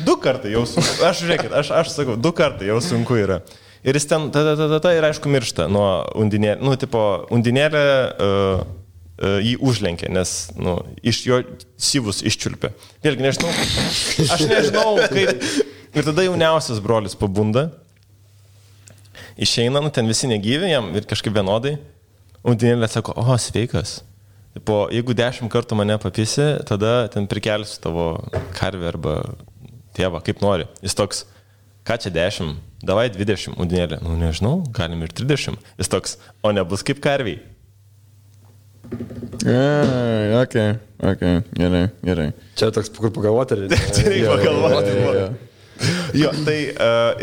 2 kartai jau sunku. Aš sakau, 2 kartai jau sunku yra. Ir jis ten ir aišku miršta nuo undinėlė. Undinėlė jį užlenkė, nes iš jo syvus iščiulpė. Vėlgi nežinau, aš nežinau, kaip. Ir tada jauniausias brolis pabunda, išeina, ten visi negyvi, jam ir kažkaip vienodai. Undinėlė sako, sveikas. Jeigu 10 kartų mane papisi, tada ten prikelsiu tavo karvę arba tėvą, kaip nori. Jis toks, ką čia 10, davai 20, Undinėlė. Nežinau, galim ir 30. Jis toks, o nebus kaip karviai. Okay, gerai. Čia toks, kur pagalvoti, ar ne? Čia reikia pagalvoti. Jo, tai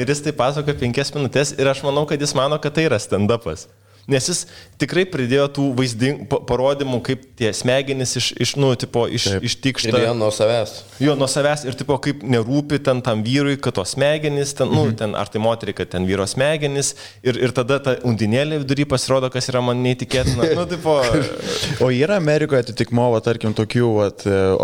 ir jis tai pasako 5 minutės ir aš manau, kad jis mano, kad tai yra stand-upas. Nes jis tikrai pridėjo tų parodymų, kaip tie smegenys ištikšta. Ir nuo savęs. Jo, nuo savęs ir kaip nerūpi tam vyrui, kad tos smegenys, ten, ar tai moteriai, kad ten vyro smegenys. Ir tada ta Undinėlė vidury pasirodo, kas yra man neįtikėtina. O yra Amerikoje atitikmo, tarkim, tokių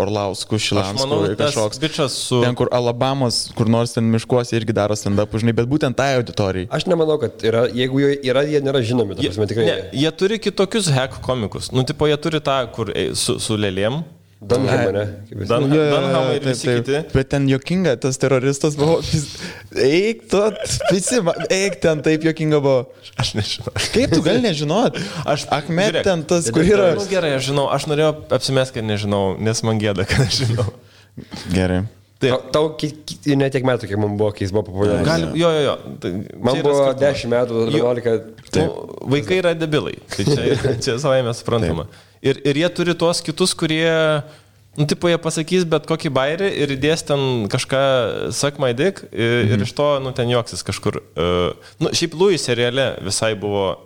Orlauskų, Šilanskų ir kažkoks. Su... Ten, kur Alabamos, kur nors ten miškuose irgi daro stand-up, žinai, bet būtent tai auditorijai. Aš nemanau, kad yra, jeigu yra, jie nėra žinomi. Jie turi kitokius hack komikus. Jie turi tą, kur su lėlėm. Dunhamą, ne? Dunhamą ir visi kiti. Bet ten jokinga, tas teroristas buvo. Eik ten taip jokinga buvo. Aš nežinau. Kaip tu gali nežinot? Ahmed ten tas, kur yra. Gerai, aš žinau. Aš norėjau apsimesti, kad nežinau, nes man gėda, kad aš žinau. Gerai. Tau ne tiek metų, kiek man buvo, kai jis buvo populiarus. Jo. Man buvo 10 metų, 11. Vaikai yra debilai. Tai čia savai mes suprantama. Ir jie turi tuos kitus, kurie, jie pasakys bet kokį bairį ir įdės ten kažką suck my dick ir iš to, ten juoksis kažkur. Šiaip Louis seriale visai buvo.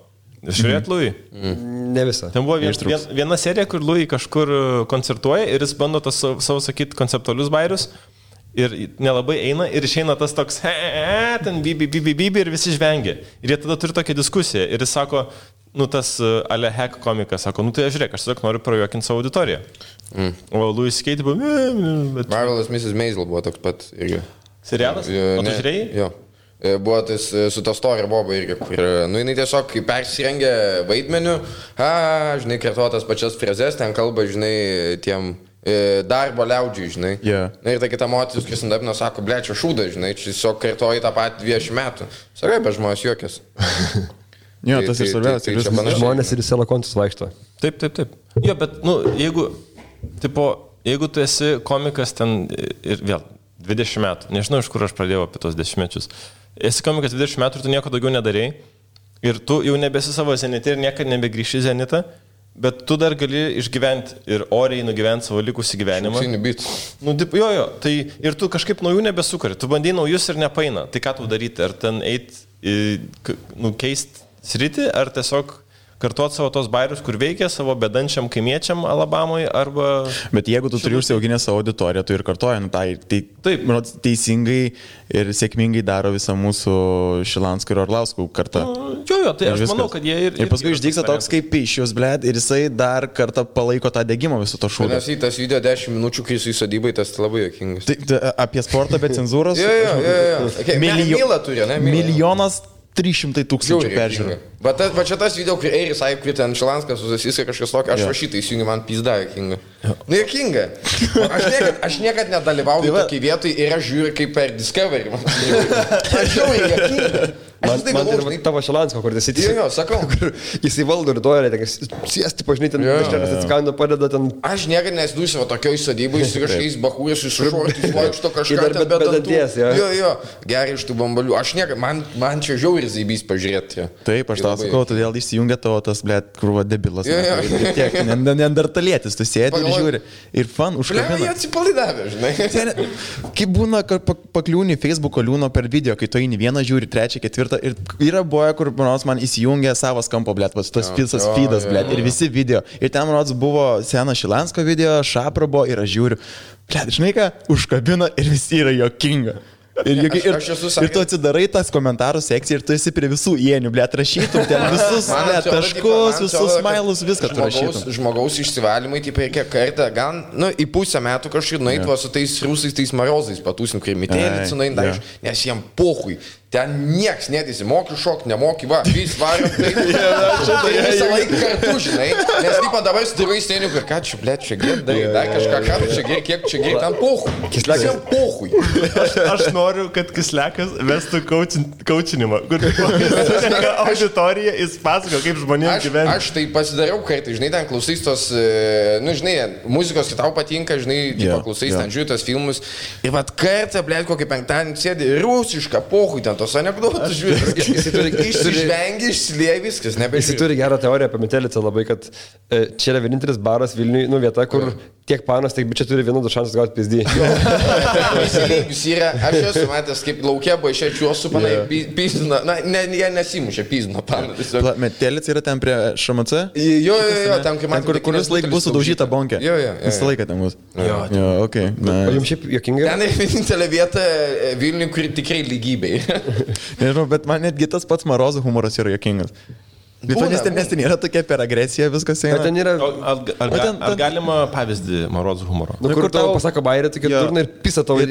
Žiūrėt, Louis? Ne visą. Ten buvo viena serija, kur Louis kažkur koncertuoja ir jis bando tas savo sakyti konceptualius bairius. Ir nelabai eina ir išeina tas toks ten bibi ir visi žvengia. Ir jie tada turi tokią diskusiją. Ir jis sako, tas ale hack komikas, sako, tai žiūrėk, aš tiesiog noriu prajuokinti savo auditoriją. O Louis Skate buvo... Marvelous Mrs. Maisel buvo toks pat irgi. Serialas? O tu žiūrėjai? Jo. Buvo tas su ta Story Boba irgi, kur, jinai tiesiog persirengė vaidmeniu, žinai, kartuotas pačias frazes, ten kalba, žinai, tiem darbo liaudžiui, žinai. Yeah. Ir ta kita moteris, kuris ant apino, sako, blečia šūdą, žinai, čia tiesiog kartuoji tą patį 20 metų. Sakai, bet žmonės juokės. Jo, tas ir svarbiausia. Žmonės ir į selakontus vaikšto. Taip. Jo, bet, jeigu tu esi komikas ten ir vėl 20 metų, nežinau, iš kur aš pradėjau apie tos 10 mečius. Esi komikas 20 metų ir tu nieko daugiau nedarėjai. Ir tu jau nebesi savo zenite ir niekada nebegrįši zenitą. Bet tu dar gali išgyventi ir oriai nugyventi savo likusį gyvenimą. Jo, tai ir tu kažkaip naujų nebesukari. Tu bandai naujus ir nepaina. Tai ką tu daryti? Ar ten keist sritį, ar tiesiog kartuoti savo tos bairius, kur veikia savo bedančiam kaimiečiam Alabamoje, arba... Bet jeigu tu turi užsiauginę savo auditoriją, tu ir kartuoji, taip, teisingai ir sėkmingai daro visą mūsų Šilanskų ir Orlauskų kartą. Jo, tai aš manau, kad jie ir... Ir paskui išdygsta toks kaip Pišius, blėd, ir jisai dar kartą palaiko tą degimą viso to šūdą. Nes į tas video 10 minučių, kai jis į sodybai, tas labai jokingas. Apie sportą be cenzūros? Jo. Mylą turi, ne? Milijonas 300 000 peržiūrų. Va čia tas video, kur Eiris Aip, kur ten Šilanskas susisiskai kažkas tokio, aš va šitą įsijungiu, man pizda jokinga. Jokinga. Aš niekad nedalyvauju tokiai vietoj ir aš žiūriu kaip per Discovery. Aš žiūriu jokinga. Man ir tavo Šilansko, kur jis įtėjo. Jo, sakau. Jis įvaldo ir duoja, sėsti, pažinai, ten kažkas atsikando, padeda ten. Aš niekada nesidūsiu tokioj sodybai, su kažkokiais bahūrės, su šortais, vaikšto kažką ten be danties. Jo, gerai iš tų bambalių. Aš niekada, man čia žiauri zybys pažiūrėti. Taip, aš tau sakau, todėl išsijungia tavo tas, blėt, krūva debilas. Tiek, neandertalietis, tu sėdi ir žiūri. Ir fan užkabina. Jie atsipalaidavė, žinai. Kaip būna, kad pakliūni Facebook'o liūno per video, kai tu eini vieną žiūri, trečią, ketvirtą. Ir yra boja, kur man įsijungia savas kampo, blėt, tas visas feedas, blėt, ir visi video. Ir ten, man buvo senas Šilansko video, Šapra buvo ir aš žiūriu, blėt, žinai ką, užkabina ir visi yra jokinga. Ir tu atsidarai tas komentarų sekciją ir tu esi prie visų ienių, blėt, rašytum ten visus taškus, visus smailus, viską tu rašytum. Žmogaus išsivalymai, taip reikia kartą, gal, į pusę metų kažkaip nueit su tais rusais, tais marozais patūsim krimitėlį, nes jiem pohui. ten nieks netisi, moki šok, nemoki, va, vis varom, taip, visą laiką kartu, žinai, nes taip dabar stirai sėniu, ir ką čia, blėt, čia gėdai, dar kažką, ką čia gėdai, kiek čia gėdai, ten pohui. Kislekas pohui. Aš noriu, kad Kislekas vestų kaučinimą, kur auditorija, jis pasako, kaip žmonėms gyventi. Aš tai pasidariau kartą, žinai, ten klausys tos, nu, žinai, muzikos, kai tau patinka, žinai, klausys, ten žiūri tos filmus, ir vat kartą, blėt, kokį penktadienį sėdi, rusišką pohui, ten tos anekdotus žiūri, išsižvengi, išsilieja viskas, nebežiūri. Jis turi gerą teoriją apie Metelicą labai, kad čia yra vienintelis baras Vilniui, nu, vieta, kur tiek panas, tiek bičiai turi vienodus šansus gauti pizdį. Įsilygius yra, aš esu matęs, kaip laukia baišėčiuos su panai pizdina, na, jie nesimušė pizdino paną. Metelica yra ten prie ŠMC? Jo, ten, kai man... Kuris laik bus sudaužyta bonkė? Jo. Visą laiką ten bus. Jo, okei. O jums šiaip juokinga? Ten yra vienintelė vieta Vilniui, kuri tikrai lygybei. Nežinau, bet man netgi tas pats Marozų humoras yra juokingas. Nes ten yra tokia per agresiją viskas eina. Ten yra... Ar galima pavyzdį Marozų humoro? Nu, kur tau pasako bairį, tokia durna ir pisa tau.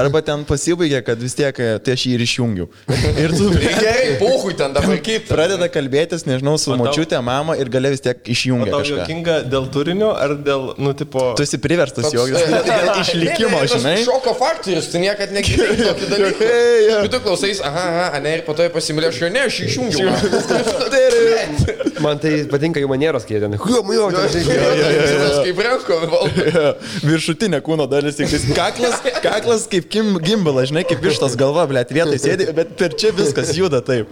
Arba ten pasibaigė, kad vis tiek tai aš jį ir išjungiau. Ir tu... Gerai, pohui ten dabar kaip. Pradeda kalbėtis, nežinau, su močiutė, mama ir gale vis tiek išjungia kažką. O tau juokinga dėl turinio ar dėl, nu, tipo... Tu esi priverstas juoktis. Dėl išlikimo, žinai. Šoko faktorius, tu niekad negirdėjai tokį dalyką. Tu klausais, aha, ne, ir po to pasimylė, aš jo ne, aš išjungiau. Man tai patinka jų manieros, kai jie ten. Kaip renko, viršutinė kūno dalis, tik kaklas kaip gimbalas, žinai, kaip vištas galva, blėt, vietoj sėdi, bet per čia viskas juda taip.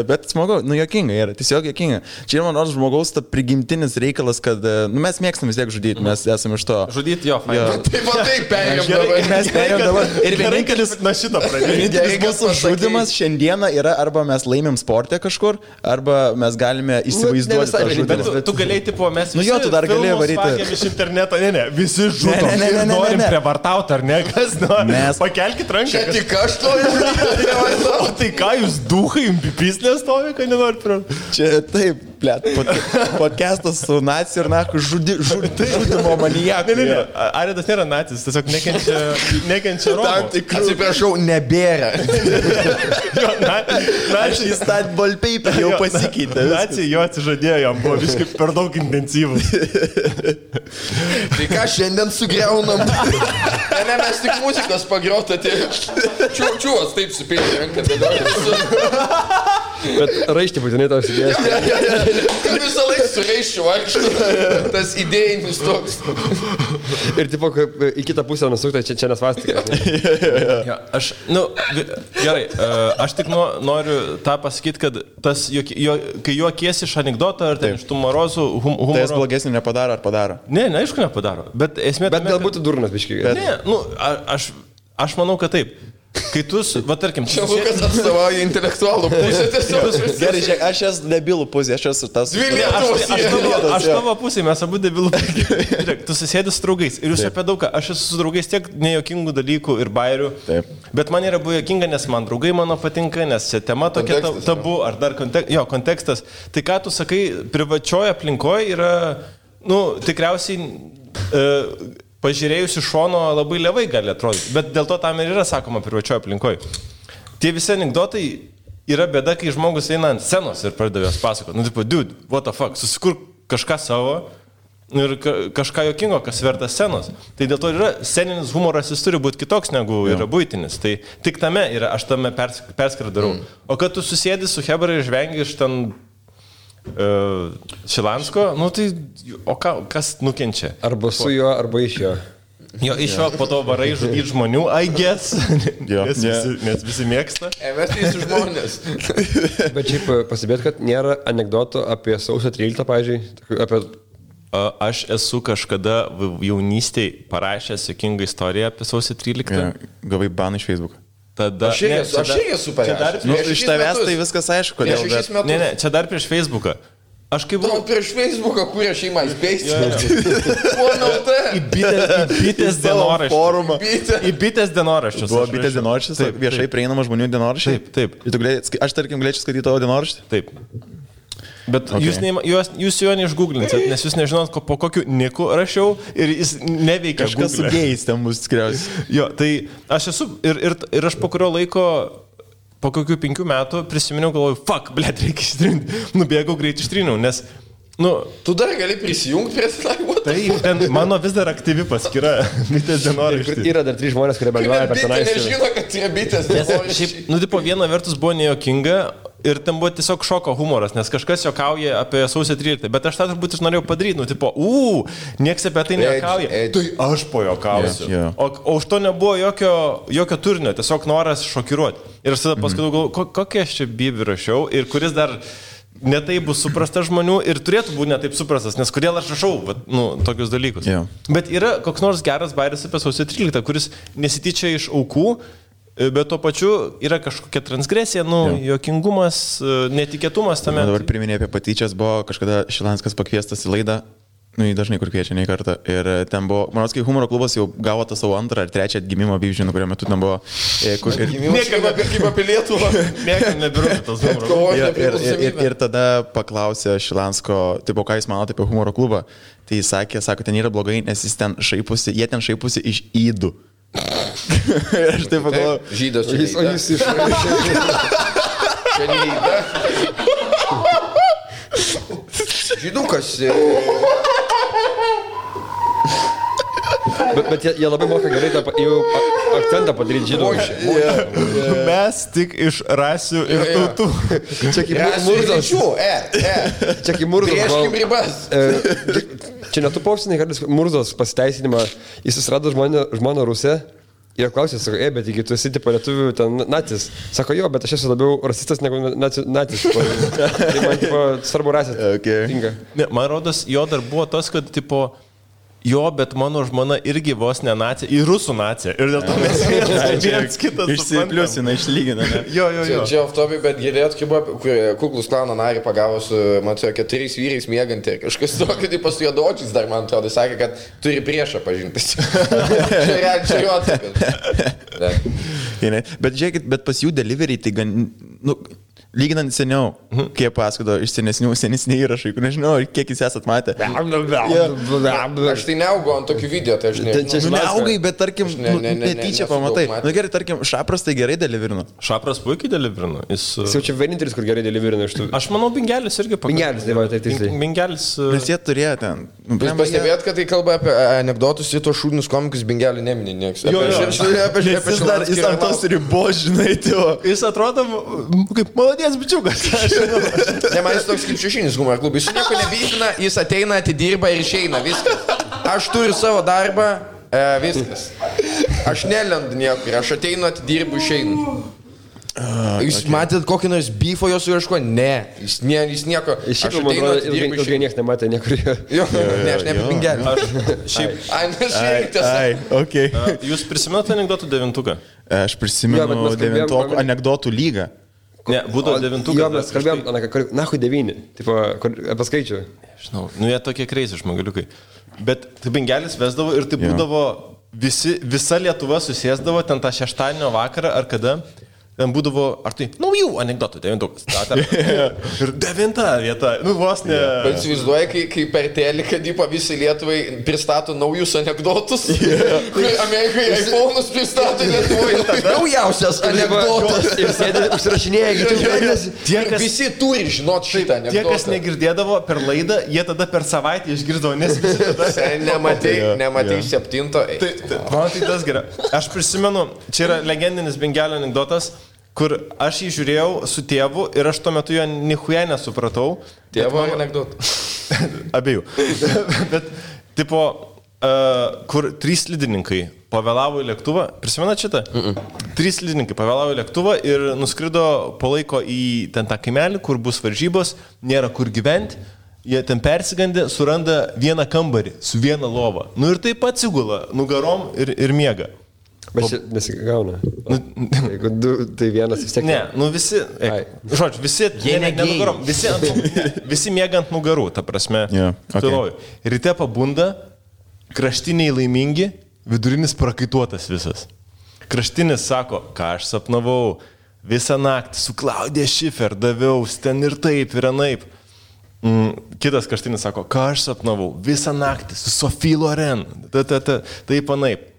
Bet smagu, nu jokinga yra, tiesiog jokinga. Čia yra man nors žmogaus ta prigimtinis reikalas, kad nu, mes mėgstam vis tiek žudyti, mes esame iš to. Žudyti jo, fain. Taip perėjom dabar. Mes perėjom dabar. Ir vienintelis mūsų žudimas šiandieną yra arba mes laimim sportę kažkur, arba mes galime įsivaizduoti tą žudimą. Tu galėjai, tipo, mes visi tu dar galėjai varyti iš interneto, ne, visi žudom ir norim prievartauti, ar ne, kas nori. Pakelkit ranką. Čia tik aš noriu žudyti. O tai ką jūs duhai, pislės stovi, kad nenori prievartauti? Čia taip, blėt, podcastas su naciu ir naku žudimo manijaku. Ne, Aridas nėra nacis, tiesiog nekenčia Romų. Atsiprašau, nebėra. Naciai stat ballpaper jau pasikeitė. Naciai jo atsižadėjo, jam buvo visiškai per daug intensyvus. Tai ką šiandien sugriaunam? Ne, mes tik muzikos pagrota, tai čiūvas taip supėlė ranką dėlioja. Bet raištį būtinai tau sudės. Visą laiką su raiščiu vaikštų, tas idėjinis toks. Ir tipo, į kitą pusę nusukta, čia nesvastika. Aš, nu, gerai, aš tik noriu tą pasakyti, kad tas, kai juokiesi iš anekdoto ar ten iš tų Marozų humoro... Tai jis blogesnį nepadaro ar padaro? Ne, aišku nepadaro, bet esmė... Bet galbūt durnas biškiai. Ne, nu, aš manau, kad taip. Kai tu, va tarkim... Čia Lukas atstovauja intelektualų pusę tiesiog. Gerai, žiūrėk, aš esu debilų pusė, aš esu tas... Aš tavo pusė, mes abu debilų pusė. Žiūrėk, tu susėdė su draugais ir jūs apie daugą. Aš esu su draugais tiek nejokingų dalykų ir bairių. Bet man yra buvo jokinga, nes man draugai mano patinka, nes čia tema tokia tabu, ar dar kontekstas. Tai ką tu sakai, privačioje aplinkoje yra, nu, tikriausiai... pažiūrėjus iš šono labai levai gali atrodyti, bet dėl to tam ir yra sakoma privačioje aplinkoje. Tie visi anekdotai yra bėda, kai žmogus eina ant scenos ir pradeda jos pasakoti. Nu, tipo, dude, what the fuck, susikur kažką savo ir kažką jokingo, kas verta scenos. Tai dėl to yra sceninis humoras, jis turi būti kitoks negu yra buitinis. Tai tik tame yra, aš tame perskirą darau. O kad tu susėdi su Hebra ir žvengi iš ten... Šilansko, nu tai, o kas nukenčia? Arba su juo, arba iš jo. Jo, iš jo po to varai žudyti žmonių, I guess, nes visi mėgsta. Mes visi žmonės. Bet šiaip pasibėt, kad nėra anekdotų apie sausio 13, pavyzdžiui, apie... Aš esu kažkada jaunystėje parašęs jokingą istoriją apie sausio 13. Gavai baną iš Facebook'o. Tada... Aš irgi esu parašęs. Iš tavęs tai viskas aišku, kodėl. Ne, čia dar prieš Facebook'ą. Aš kaip buvau... Prieš Facebook'ą kūrė šeimą įspėsti. Į bitės dienoraštį. Į bitės dienoraščius. Buvo bitės dienoraštis, viešai prieinama žmonių dienoraštį? Taip. Aš tarkim galėčiau skaityti tavo dienoraštį? Taip. Bet jūs jo neišgooglinsit, nes jūs nežinot, po kokiu niku rašiau ir jis neveikia. Kažkas su gėjais ten bus tikriausiai. Jo, tai aš esu ir aš po kurio laiko, po kokių 5 metų prisiminiau, galvoju, fuck, blėt, reikia ištrinti. Nubėgau greit ištrinau, nes tu dar gali prisijungti prie Slack. Taip, ten mano vis dar aktyvi paskyra, bitės dienoraštis. Yra dar 3 žmonės, kurie bendrauja per tenais. Nežino, kad yra bitės dienoraštis. Tipo, viena vertus buvo nejokinga ir ten buvo tiesiog šoko humoras, nes kažkas jokauja apie sausio 13, bet aš tą turbūt norėjau padaryti, tipo, nieks apie tai nejuokauja. Tai aš pojokausiu. O už to nebuvo jokio turinio, tiesiog noras šokiruoti. Ir aš tada paskui galvoju, kokie aš čia bibį rašiau ir kuris dar netai bus suprastas žmonių ir turėtų būti netaip suprastas, nes kodėl aš rašau tokius dalykus. Yeah. Bet yra koks nors geras bairis apie sausio 13, kuris nesityčia iš aukų, bet tuo pačiu yra kažkokia transgresija, juokingumas, netikėtumas tame. Dabar priminė apie patyčias, buvo kažkada Šilanskas pakviestas į laidą, jį dažnai kur kviečia, nei kartą. Ir ten buvo, manau, kai humoro klubas jau gavo tą savo 2 ar 3 atgimimo bivžinų, kurio metu ten buvo... Niekam apie Lietuvą. Niekam nebirūtų tas humoro. Ir tada paklausė Šilansko, tipo, ką jis mano apie humoro klubą. Tai jis sako, ten yra blogai, nes jie ten šaipusi iš įdų. Ir aš taip pagalvoju. Žydas čia neįda. O jis iš... Čia neįda. Žydukas. Bet jie labai moka gerai jau akcentą padaryti žydų. Mes tik iš rasių ir tautų. Čia kaip Murzas. Čia kaip Murzas. Prieškim ribas. Čia netu pausinai, kad Murzas pasiteisinimą, jis susirado žmoną Rusę. Ir klausė, sako, bet jeigu tu esi tipo lietuvių ten nacis, sako, jo, bet aš esu labiau rasistas negu nacis. Tai man tipo svarbu rasė. Okay. Ne, man rodos, jo dar buvo tas, kad tipo, jo, bet mano žmona irgi vos ne nacija, į rusų naciją. Ir dėl to mes vienas kitas išsipliusina, išlygina. Jo. Čia off-topic, bet girdėjot, kaip buvo, kur Kuklus klano narį pagavo su, man atrodo, 4 vyrais miegantį. Kažkas tokio, tai pas juodočiais dar, man atrodo, sakė, kad turi priešą pažintis. Čia jo atsakas. Bet žiūrėkit, bet pas jų delivery tai gan... Lyginant seniau, kiek pasakodo iš senesnių įrašai, nežinau, kiek jūs esat matę. Aš tai neaugau ant tokių video, tai aš nežinau. Neaugai, bet tarkim, netyčia pamatai. Na gerai, tarkim, Šapras tai gerai deliverino. Šapras puikiai deliverino. Jis jau čia vienintelis, kur gerai deliverino iš tų. Aš manau, Bingelis irgi pakankamai. Bingelis, tai va, tai tiksliai. Bingelis. Nes jie turėjo ten. Jūs pastebėjot, kad tai kalba apie anekdotus ir tos šūdinius komikus Bingelį neminė nieks. Jis ant tos ribos, žinai, jis atrodo kaip malodės bičiukas. Ne, man jis toks kaip šešinis humor klubas. Jis nieko nebijina, jis ateina, atidirba ir išeina. Viskas. Aš turiu savo darbą, viskas. Aš nelendu niekur, aš ateinu, atidirbu, išeinu. Jūs matėt kokį nors beefo jos ieško? Ne, jis nieko. Iš šiaip, man atrodo, ilgai niekas nematė niekur. Jo, ne, aš ne apie Bingelį. Šiaip. Okay. Jūs prisimenate anekdotų 9-uką? Aš prisimenu 9-oko anekdotų lygą. Ne, būdavo 9-uką. Jo, mes kalbėjom, nahui 9, tipo, apie skaičių. Žinau, jie tokie kreisi žmogaliukai. Bet tai Bingelis vesdavo ir tai būdavo, visa Lietuva susėsdavo ten tą šeštadienio vakarą ar kada. Ten būdavo, ar tai naujų anekdotų 9-ukas. Ir 9 vieta, vos ne. Bet įsivaizduoja, kai per teliką dypa visi Lietuvai pristato naujus anekdotus. Kur Amerikai iPhone'us pristato Lietuvai. Naujausias anekdotas. Ir sėdė, užsirašinėja. Visi turi žinot šitą anekdotą. Tie, kas negirdėdavo per laidą, jie tada per savaitę išgirdavo, nes visi tada. Nematei 7. Man tai tas gerai. Aš prisimenu, čia yra legendinis Bingelio anekdotas, kur aš jį žiūrėjau su tėvu ir aš tuo metu jo nichuja nesupratau. Tėvo anekdotų. Abiejų. Bet, tipo, kur 3 slidininkai pavėlavo į lėktuvą, prisimenat šitą? 3 slidininkai pavėlavo į lėktuvą ir nuskrido po laiko į ten tą kaimelį, kur bus varžybos, nėra kur gyventi. Jie ten persigandė, suranda vieną kambarį su viena lova. Ir taip atsigula nugarom ir miega. Bet čia nesigauna. Jeigu 2, tai vienas vis tiek. Ne, visi, žodžiu, visi, nugarom, visi miega ant nugarų, ta prasme. Okay. Ryte pabunda, kraštiniai laimingi, vidurinis prakaituotas visas. Kraštinis sako, ką aš sapnavau, visą naktį su Klaudija Šifer daviaus ten ir taip ir anaip. Kitas Kaštinis sako, ką aš sapnavau, visą naktį su Sophie Loren, taip panaip.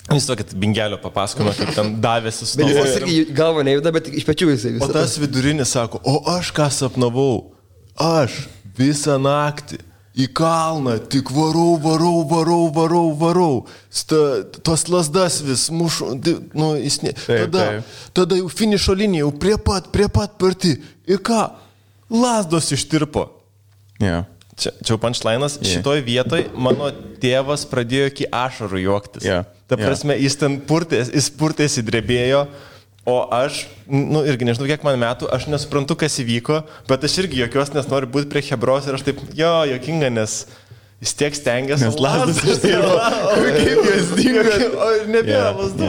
Jis tokį bingelio papasakino, kaip ten davėsi su to. Jis irgi galva nejuda, bet iš pečių jisai visą. O tas vidurinis sako, o aš ką sapnavau, aš visą naktį į kalną tik varau. Tos lasdas vis mušu, tada jau finišo linija, jau prie pat parti. Ir ką? Lasdos ištirpo. Yeah. Čia punchline'as, šitoj vietoj mano tėvas pradėjo iki ašarų juoktis. Ta prasme, jis ten purtėsi, drebėjo, o aš, irgi nežinau, kiek man metų, aš nesuprantu, kas įvyko, bet aš irgi jokios, nes noriu būti prie Hebros ir aš taip, jokinga, nes jis tiek stengiasi. Nes lasdas ištirpo. Kaip jos dingo, o ir nebėra lasdų.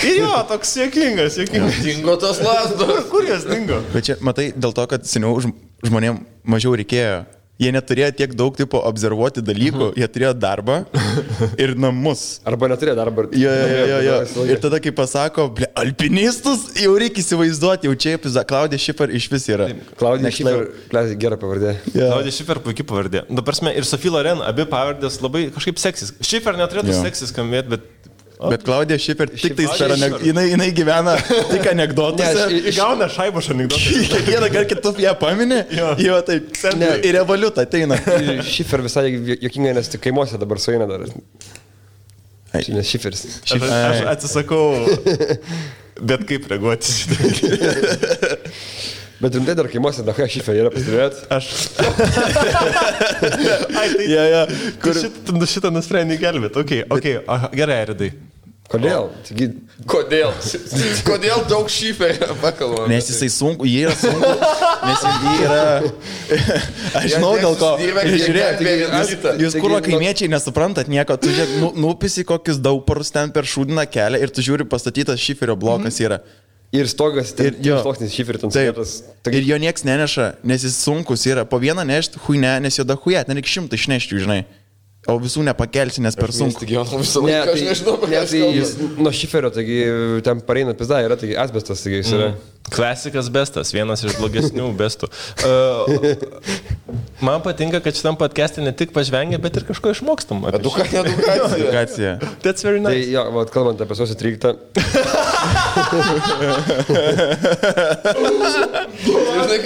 Ir toks jokingas. Dingo tos lasdos. Kur jos dingo? Bet čia, matai, dėl to, kad seniau žmonėm mažiau reikėjo. Jie neturėjo tiek daug tipo observuoti dalykų, jie turėjo darbą ir namus. Arba neturėjo darbą. Jo. Ir tada, kai pasako, alpinistus, jau reikia įsivaizduoti, jau čia Klaudija Schiffer iš vis yra. Klaudija Schiffer, gera pavardė. Klaudija Schiffer puikiai pavardė. Prasme, ir Sophie Loren, abi pavardės labai kažkaip seksis. Schiffer neturėtų seksis skambėti, Bet Klaudija Schiffer tik tais per jinai gyvena tik anekdotuose. Gauna šaibą iš anekdotų. Kiekvieną kartą kitus ją paminė, jo taip. Ir revoliut ateina. Schiffer visai jokingai, nes tik kaimuose dabar sueina dar. Nes Schifferis. Aš atsisakau, bet kaip reaguoti šitą. Bet rimtai dar kaimuose dahoja Schiffer yra, pastebėjot? Šitą nusprendė gelbėti. Okay. Gerai, Aridai. Kodėl? Kodėl daug Schifferio pakalbame? Nes jisai sunku, jie yra sunku, nes jie yra... Aš žinau dėl ko. Žiūrėk, jūs kurva kaimiečiai nesuprantat nieko, tu žiūrėk, nupisi kokius dauparus ten per šūdiną kelią ir tu žiūri pastatytas Schifferio blokas yra. Ir stogas, sluoksnis Schifferio ten sėtas. Ir jo nieks neneša, nes jis sunkus yra. Po vieną nešti huine, nes jo da hujet, nereik 100 išnešti, žinai. O visų nepakelsi, nes per sunku. Nuo Schifferio, taigi ten pareina pizda, yra taigi asbestas, taigi jis yra. Klasikas bestas, vienas iš blogesnių bestų. Man patinka, kad šitam podcast'e ne tik pažvengia, bet ir kažko išmokstam. Edukacija. That's very nice. Tai jo, kalbant apie sausio 13. Žinai,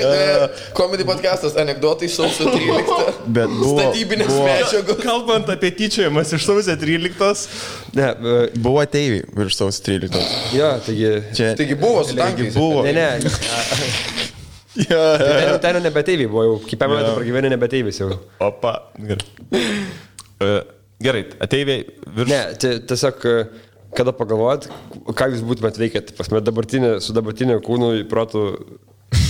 comedy podcastas, anekdotai sausio 13. Statybinės medžiagos. Kalbant apie tyčiojimas iš sausio 13. Buvo ateiviai virš sausio 13. Jo, taigi buvo su tankais. Ne. Ten nebeteiviai buvo jau, kaip metų pragyvenė nebeteivis jau. Opa, gerai, ateiviai virš... Ne, tiesiog, kada pagalvojat, ką jūs būtumėt veikėt, su dabartiniu kūnu protų...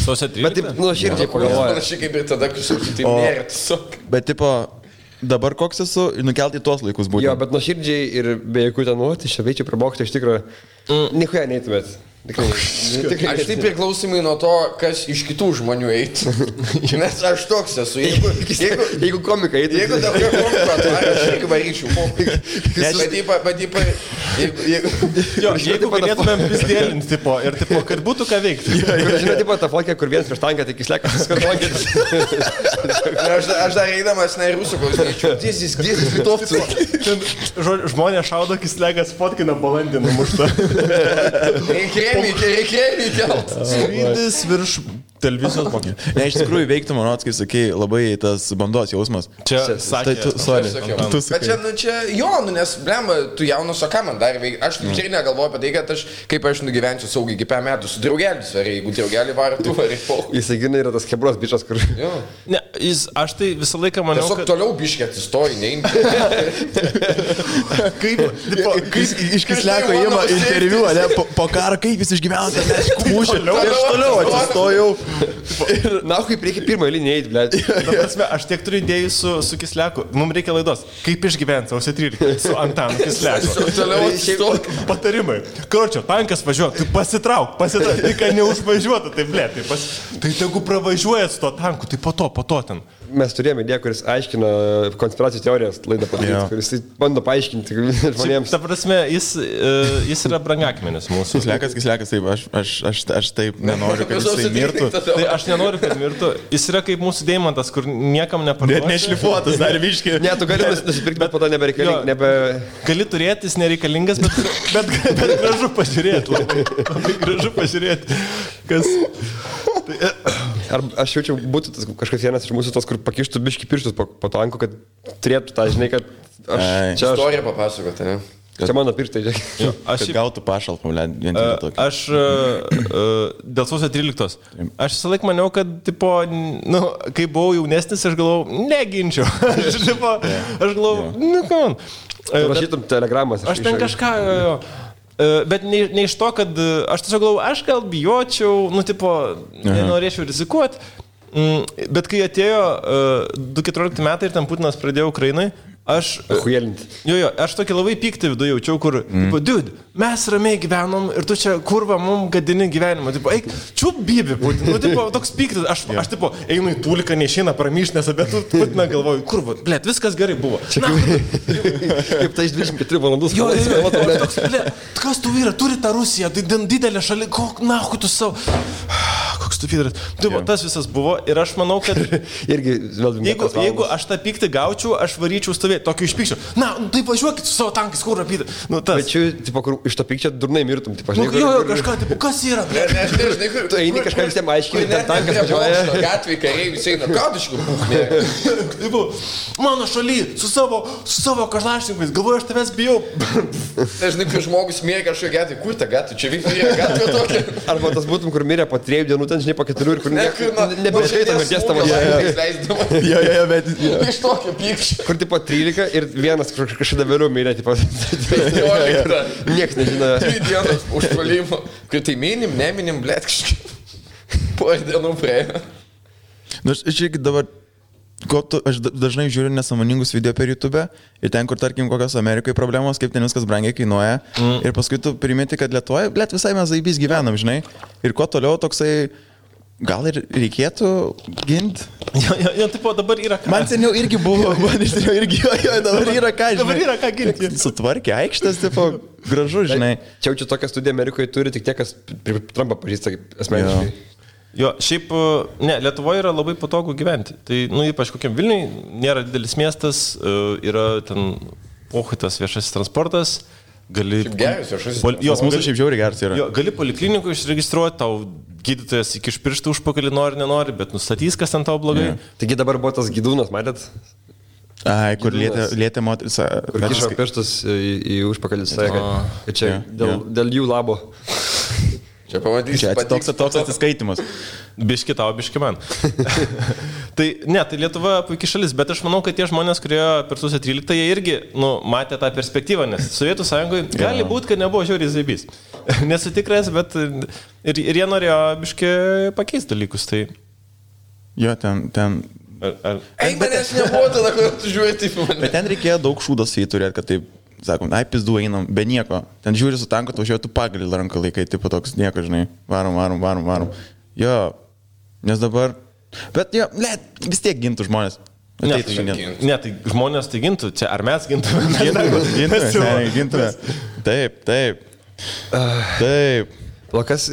Sausio 13? Bet taip, širdžiai pagalvojat. Panašiai kaip ir tada, kai tai nėra tiesiog. Bet tipo, dabar koks esu, nukelti į tuos laikus būtent. Jo, bet nuoširdžiai ir be jokių ten, tai čia veičiai prabokti, iš tikrųjų, nichuja neįtumėt. Aš tai priklausomai nuo to, kas iš kitų žmonių eitų. Nes aš toks esu. Jeigu komika eitų. Jeigu dabar komika, tai aš irgi varyčiau. Jeigu galėtumėm pizdėlinti, tipo, ir tipo, kad būtų ką veikti. Žinai, tipo, ta fotkę, kur vienas prieš tanką, tik įslekas skartlankėtis. Aš dar eidamas, na, ir rusų klausyčiau. Dėsis, litovcų. Žmonės šaudo, kislekas fotkina balandį numuštą. Reikia kelt. Skrydis virš televizijos mokė. Ne, iš tikrųjų veiktų, manau, kai sakai, labai tas bandos jausmas. Čia sakė. Bet čia jo, nes, blemba, tu jaunas, o ką man dar veikti? Aš tikrai negalvoju apie tai, kad kaip aš nugyvensiu saugiai iki 5 metų su draugelis, ar jeigu draugelį varai, tu varai po. Jisai gina yra tas Hebros bičas, kur... Ne, aš tai visą laiką maniau, kad... Tiesiog toliau biškė atsistoji, neimti. Kaip iš Kisleko įima interviu, ne, po karą, kaip jis išgyveno, tai mes kūšė. Aš toliau atsistojau. Na, kaip reikia pirmą eilinį eiti, blėt. Aš tiek turiu idėjų su Kisleku. Mums reikia laidos. Kaip išgyventi sausio 13 su Antanu Kisleku. Patarimai. Karočio, tankas važiuoja, tu pasitrauk, tik neužvažiuotų, tai blėt. Tai tegu pravažiuojat su to tanku, tai po to ten. mes turėjome idėją, kuris aiškina konspiracijų teorijas laidą padaryti, kuris bando paaiškinti žmonėms. Ta prasme, jis yra brangakmenis mūsų. Kislekas, taip, aš taip nenoriu, kad jisai mirtų. Tai aš nenoriu, kad mirtų. Jis yra kaip mūsų deimantas, kur niekam neparduosi. Net nešlifuotas, dar viški. Ne, tu gali nusipirkti, bet po to nebereikalingas. Gali turėti, jis nereikalingas, bet gražu pažiūrėti. Labai gražu pažiūrėti. Ar aš jaučiu, būtų kažkas vienas iš mūsų tos, kur pakištų biški pirštus po tanku, kad turėtų tą, žinai, kad aš... Istoriją papasakoti, ne? Čia mano pirštai, žinai. Aš gautų pašalpą, vien tik tokį. Aš dėl sausio 13. Aš visą laiką maniau, kad, tipo, kai buvau jaunesnis, aš galvojau, neginčiau. Aš galvojau, kam. Rašytum telegramas. Aš ten kažką... Bet ne iš to, kad aš tiesiog galvoju, aš gal bijočiau, nenorėčiau rizikuoti, bet kai atėjo 2014 metai ir ten Putinas pradėjo Ukrainai, aš tokį labai pyktį viduje jaučiau, kur, dude, mes ramiai gyvenom ir tu čia kurva mums gadini gyvenimą, eik, čiup bibi, Putin, toks pyktis, aš einu į tūliką, neišeina pramyšnės, bet Putiną galvoju, kurva, blėt, viskas gerai buvo. Kaip tai iš 24 valandus. Kas tu vyra, turi tą Rusiją, didelę šalį, nahu tu savo... Koks tu vyras. Tas visas buvo ir aš manau, kad jeigu aš tą pyktį gaučiau, aš varyčiau stovėti, tokį išpykščiau. Na, tai važiuokit su savo tankais, kur rapyti. Bet čia, kur iš to pykčio durnai mirtum. Kažką, kas yra? Tu eini kažką visiems aiškiai, ten tankas važiuoja. Gatvėje kariai visi eina, gaudiškų. Mano šaly, su savo kažlašninkais, galvoju, aš tavęs bijau. Dažnai, kai žmogus mėga kažkokią gatvę, kur ta gatvė, čia vyksta gatvė tokia. Arba tas būtum, kur mirė po 3 dienų, ten žinai po 4 ir kur nebeiškaita mirties tavo šalia. Bet iš tokio pykščio. Kur tipo 13 ir vienas kažkada vėliau mirė, tipo 15. Niekas nežino. 3 dienos užpuolimo. Kai tai neminim, blėt, kažkaip. Po dienų praėjo. Aš irgi dabar, aš dažnai žiūriu nesąmoningus video per YouTube ir ten, kur tarkim kokios Amerikoje problemos, kaip ten viskas brangiai kainuoja ir paskui tu primeti, kad Lietuvoje, blėt, visai mes zaibys gyvenam, žinai, ir kuo toliau toksai, gal ir reikėtų ginti. Jo, tipo, dabar yra ką. Man seniau irgi buvo, dabar yra ką, žinai. Dabar yra ką ginti. Sutvarkė aikštės, tipo, gražu, žinai. Čia tokią studiją Amerikoje turi tik tie, kas Trumpą pažįsta asmeniškai. Jo, šiaip, Lietuvoje yra labai patogu gyventi. Tai, ypač kokiam Vilniui, nėra didelis miestas, yra ten pohuitas viešasis transportas, gali... Šiaip geras viešasis transportas. Jos mūsų šiaip žiauriai geras yra. Jo, gali poliklinikų išregistruoti, tau gydytojas iki pirštų užpakalį nenori, bet nustatys, kas ten tau blogai. Taigi dabar buvo tas gydūnas, matėt? Ai, kur lietė moteris. Kur kišo pirštus į užpakalį, sakė, kad čia dėl jų labo. Čia pamatysi. Čia toks atsiskaitimas. Biški tau, biški man. Tai Lietuva puikiai šalis, bet aš manau, kad tie žmonės, kurie per sausio 13, jie irgi matė tą perspektyvą, nes Sovietų Sąjungoje gali būti, kad nebuvo žiauriai zaibys. Nesu tikras, bet ir jie norėjo biški pakeisti dalykus. Tai... Jo, ten... Eik, manęs nebuvo tada, kad tu žiūrėjai taip mane. Bet ten reikėjo daug šūdos į turėti, kad taip... Sakom, pizdu einam, be nieko. Ten žiūri su tanku, tu važiuoji, tu pagalį ranką laikai, tipo toks nieko, žinai. Varom. Jo, nes dabar... Bet jo, vis tiek gintų žmonės. Ne, tai žmonės tai gintų. Čia ar mes gintume? Gintume. Taip. Lukas,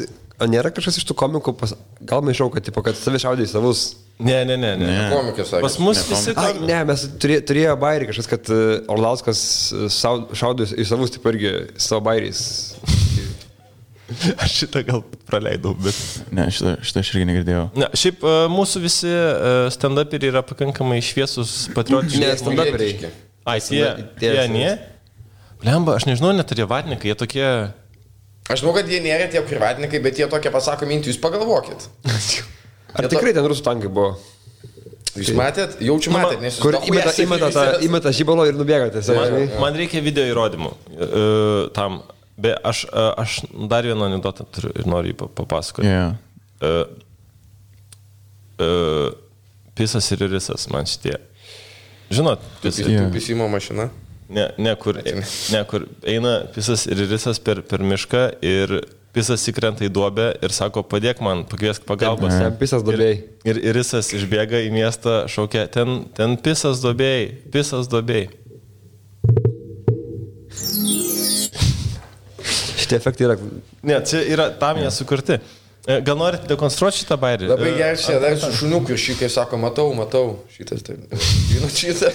nėra kažkas iš tų komikų, gal maišau, kad savi šaudė į savus... Ne. Komikas sakė. Pas mus visi... Ne, mes turėjo bairį kažkas, kad Orlauskas šaudo į savus, taip irgi savo bairiais. Aš šitą gal praleidau, bet... Ne, šitą aš irgi negirdėjau. Ne, šiaip mūsų visi stand-uperiai yra pakankamai šviesus, patriotiški. Ne, stand-uperiai. Jie ne? Blemba, aš nežinau, net ar jie vatnikai, jie tokie... Aš žinau, kad jie nėra tie privatnikai, bet jie tokie pasako mintį, jūs pagalvokit. Ar tikrai ten rusų tankai buvo? Jūs matėt? Jaučiu matėt, nes jūs... Kur įmeta žybalo ir nubėgate. Man reikia video įrodymų tam. Bet aš dar vieną anekdotą turiu ir noriu jį papasakoti. Pisas ir irisas man šitie. Žinot, pisimo mašina? Ne, kur eina pisas ir irisas per mišką ir pisas įkrenta į duobę ir sako, padėk man, pakviesk pagalbos. Ten pisas duobėjai. Ir jisas išbėga į miestą, šaukia, ten pisas duobėjai. Šitie efektai yra... Ne, čia yra tam jie sukurti. Gal norite dekonstruoti šitą bairį? Labai gerai, čia dar su šuniuku ir šitai sako, matau, šitas taip. Žinot šitą?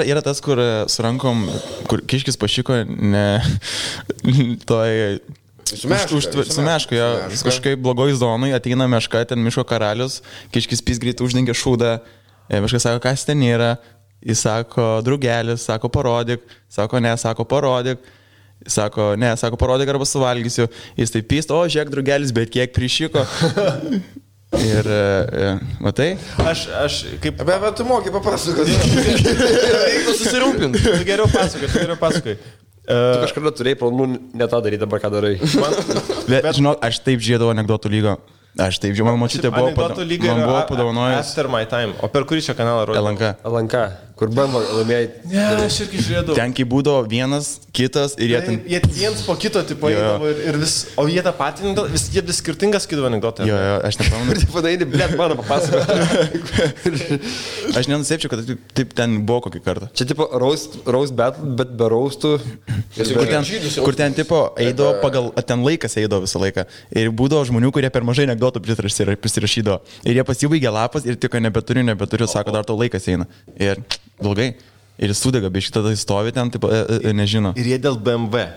Yra tas, kur su rankom, kur kiškis pašiko, ne... Su meška, jo. Kažkaip blogoj zonai ateina meška, ten miško karalius, kiškis pys greit uždengia šūdą, meškas sako, kas ten yra, jis sako, drugelis, sako, parodyk, sako, ne, sako, parodyk. Sako, ne, sako, parodyk arba suvalgysiu. Jis taip pyst, o, žiūrėk, drugelis, bet kiek prišiko. Ir, matai? Aš kaip... Bet tu moki papasakoti. Reikia susirūpinti. Tu geriau pasakoji. Tu kažkada turėjai planų ne tą daryti, dabar ką darai. Bet, žinok, aš taip žiedavau anekdotų lygą. Aš taip žiūrėjau, man mačytė buvo padovanojęs. After my time. O per kurį čia kanalą rodė? LNK. Kur BMW laimėjai. Ne, aš irgi žiūrėjau. Ten kai būdavo vienas, kitas ir jie ten... Jie viens po kito tipo eidavo ir vis... O jie tą patį anekdotą, jie vis skirtingas skidavo anekdotą. Jo, aš nepamenu. Ir taip padaini, blėt, mano papasakoti. Aš nenusėpčiau, kad taip ten buvo kokį kartą. Čia tipo roast battle, bet be roastų. Kur ten tipo eidavo pagal... Ten laikas eidavo visą laiką. Ir būdavo žmonių, kurie per mažai anekdotų prisirašydavo. Ir jie pasibaigė lapas ir tik nebeturiu, sako, dar to laikas eina. Ir blogai. Ir jis sudega, bet šitą stovi ten, taip, nežino. Ir jie dėl BMW.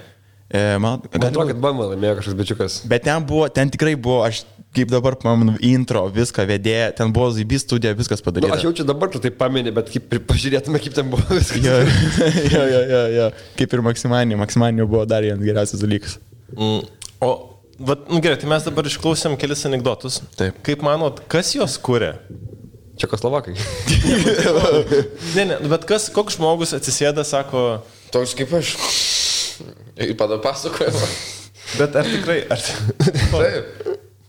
Man atrodo, kad BMW laimėjo kažkoks bičiukas. Bet ten tikrai buvo, aš kaip dabar pamenu, intro, viską vedėja, ten buvo ZB studija, viskas padaryta. Aš jaučiu dabar, tu taip pameni, bet kaip pažiūrėtume, kaip ten buvo viskas. Jo. Kaip ir Maksimanio buvo dar vienas geriausias dalykas. O, gerai, tai mes dabar išklausėm kelis anekdotus. Taip. Kaip manot, kas juos kuria? Čekoslovakai. Ne, bet koks žmogus atsisėda, sako... Toks kaip aš. Ir pasakoju. Bet ar tikrai... Taip.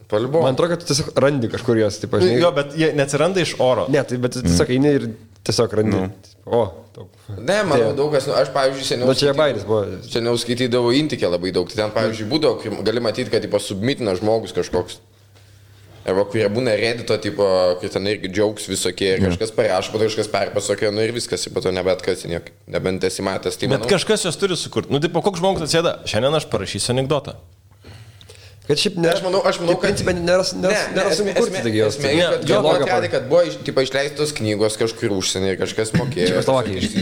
Paliubo. Man atrodo, kad tu tiesiog randi kažkur jos, taip aš. Jo, bet jie neatsiranda iš oro. Ne, tai bet tiesiog eini ir tiesiog randi. O, daug. Ne, manau, daug kas, aš, pavyzdžiui, seniau skaitydavau Intikę labai daug. Tai ten, pavyzdžiui, būdavo, gali matyti, kad submitina žmogus kažkoks. Arba kurie būna Reddito, tipo, kur ten irgi jokes visokie ir kažkas parašo, bet kažkas perpasakė, nu ir viskas, ir po to nebet kas, nebent esi matęs. Tai, bet kažkas jos turi sukurti. Nu, tipo, koks žmogus atsėda, šiandien aš parašysiu anekdotą. Kad šiaip nėra, aš manau, kad principė nėra sunku kurti, taigi jos. Jo, atradė, kad buvo išleistos knygos kažkur užsienį ir kažkas mokėjo.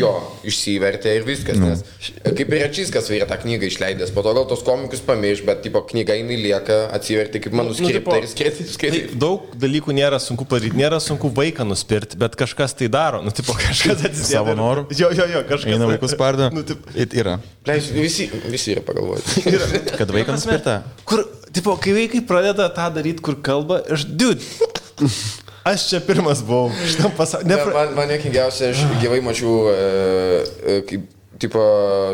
Jo, išsivertė ir viskas, nes kaip ir Račyskas yra tą knygą išleidęs, po to gal tos komikus pamirš, bet tipo knyga jinai lieka, atsivertė kaip manuskriptą ir skaitai. Daug dalykų nėra sunku padaryti, nėra sunku vaiką nuspirti, bet kažkas tai daro, nu tipo kažkas atsisėda. Savo noru. Jo, kažkas. Eina vaikus spardo. Yra. Visi yra pagalvoti. Kad vaiką nuspirta. Kur tipo, kai vaikai pradeda tą daryti, kur kalba, aš čia pirmas buvau šitam pasaulyje. Man nekingiausia, aš gyvai mačiau, kaip, tipo,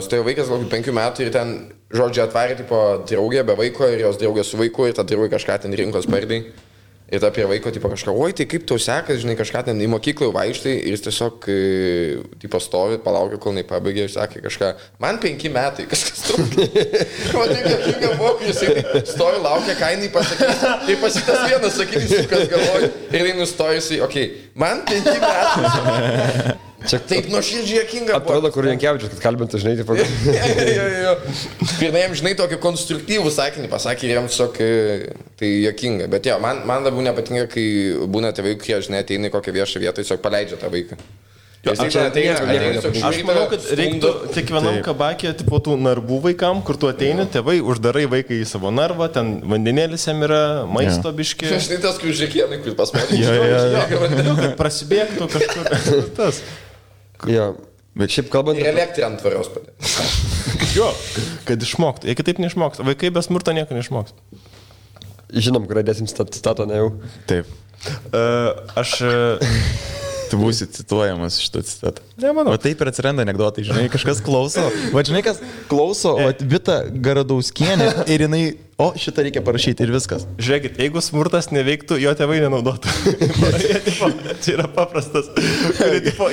stovėjo vaikas gal 5 metų ir ten, žodžiu, atvarė, tipo, draugė be vaiko ir jos draugė su vaiku ir ta draugė kažką ten rinkos pardai. Ir ta prie vaiko, tipo, kažką, oi, tai kaip tau sekas, žinai, kažką ten į mokyklą vaikštai ir jis tiesiog, tipo, stovi, palaukia, kol nepabaigė ir sakė kažką, man 5 metai, kažkas trūkia. Man nekinga buvo, jis stovi, laukia, ką jinai pasakys. Ir pasitas vienas sakyti, kas galvoja. Ir jinai nustojusi, okei, man 5 metai. Čia taip nuoširdžiai jokinga buvo. Atrodo, kur Jankevičius, kad kalbintų, žinai, tipo. Jo. Ir jam, žinai, tokį konstruktyvų sakinį pasakė ir jam tiesiog tai jokinga. Bet jo, man labiau nepatinka, kai būna tėvai, kurie, žinai, ateina į kokią viešą vietą, tiesiog paleidžia tą vaiką. Aš manau, kad reiktų kiekvienam kabakė, tipo, tų narvų vaikam, kur tu ateini, tėvai uždarai vaiką į savo narvą, ten vandenėlis jam yra, maisto biški. Aš tai tas, kur žiūrėkienai, kur pas mane. Jo, prasibėgtų kažkur. Tas. Jo, bet šiaip kalbant... Ir elektrą ant tvarios padė. Jo, kad išmoktų. Jei kitaip neišmoktų. Vaikai be smurto nieko neišmoktų. Žinom, kur dėsim citatą, ne jau. Taip. Tu būsi cituojamas šitą citatą. Nemanau. O taip ir atsiranda anekdotai, žinai, kažkas klauso. Va, žinai, kas klauso, o Vita Garadauskienė ir jinai o šitą reikia parašyti ir viskas. Žiūrėkit, jeigu smurtas neveiktų, jo tėvai nenaudotų. Čia yra paprastas.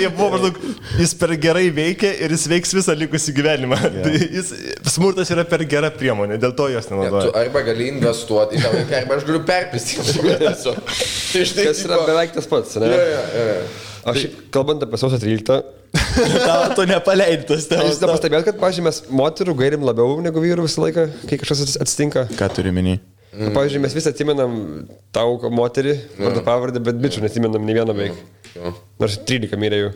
Jie buvo maždaug, jis per gerai veikia ir jis veiks visą likusį gyvenimą. Smurtas yra per gera priemonė, dėl to jos nenaudoja. Tu arba gali investuoti į tą vaiką, arba aš galiu perpistyti. Kas yra beveik tas pats, ne? Aš, kalbant apie sausio 13, Tu nepaleidai tos temos. Jūs nepastebėjot, kad, pavyzdžiui, mes moterų gairim labiau negu vyrų visą laiką, kai kažkas atsitinka? Ką turi minį? Pavyzdžiui, mes visi atsimenam tau moterį, vardą pavardę, bet bičių nesimenam nei vieną beveik. Nors 13 mirė jų.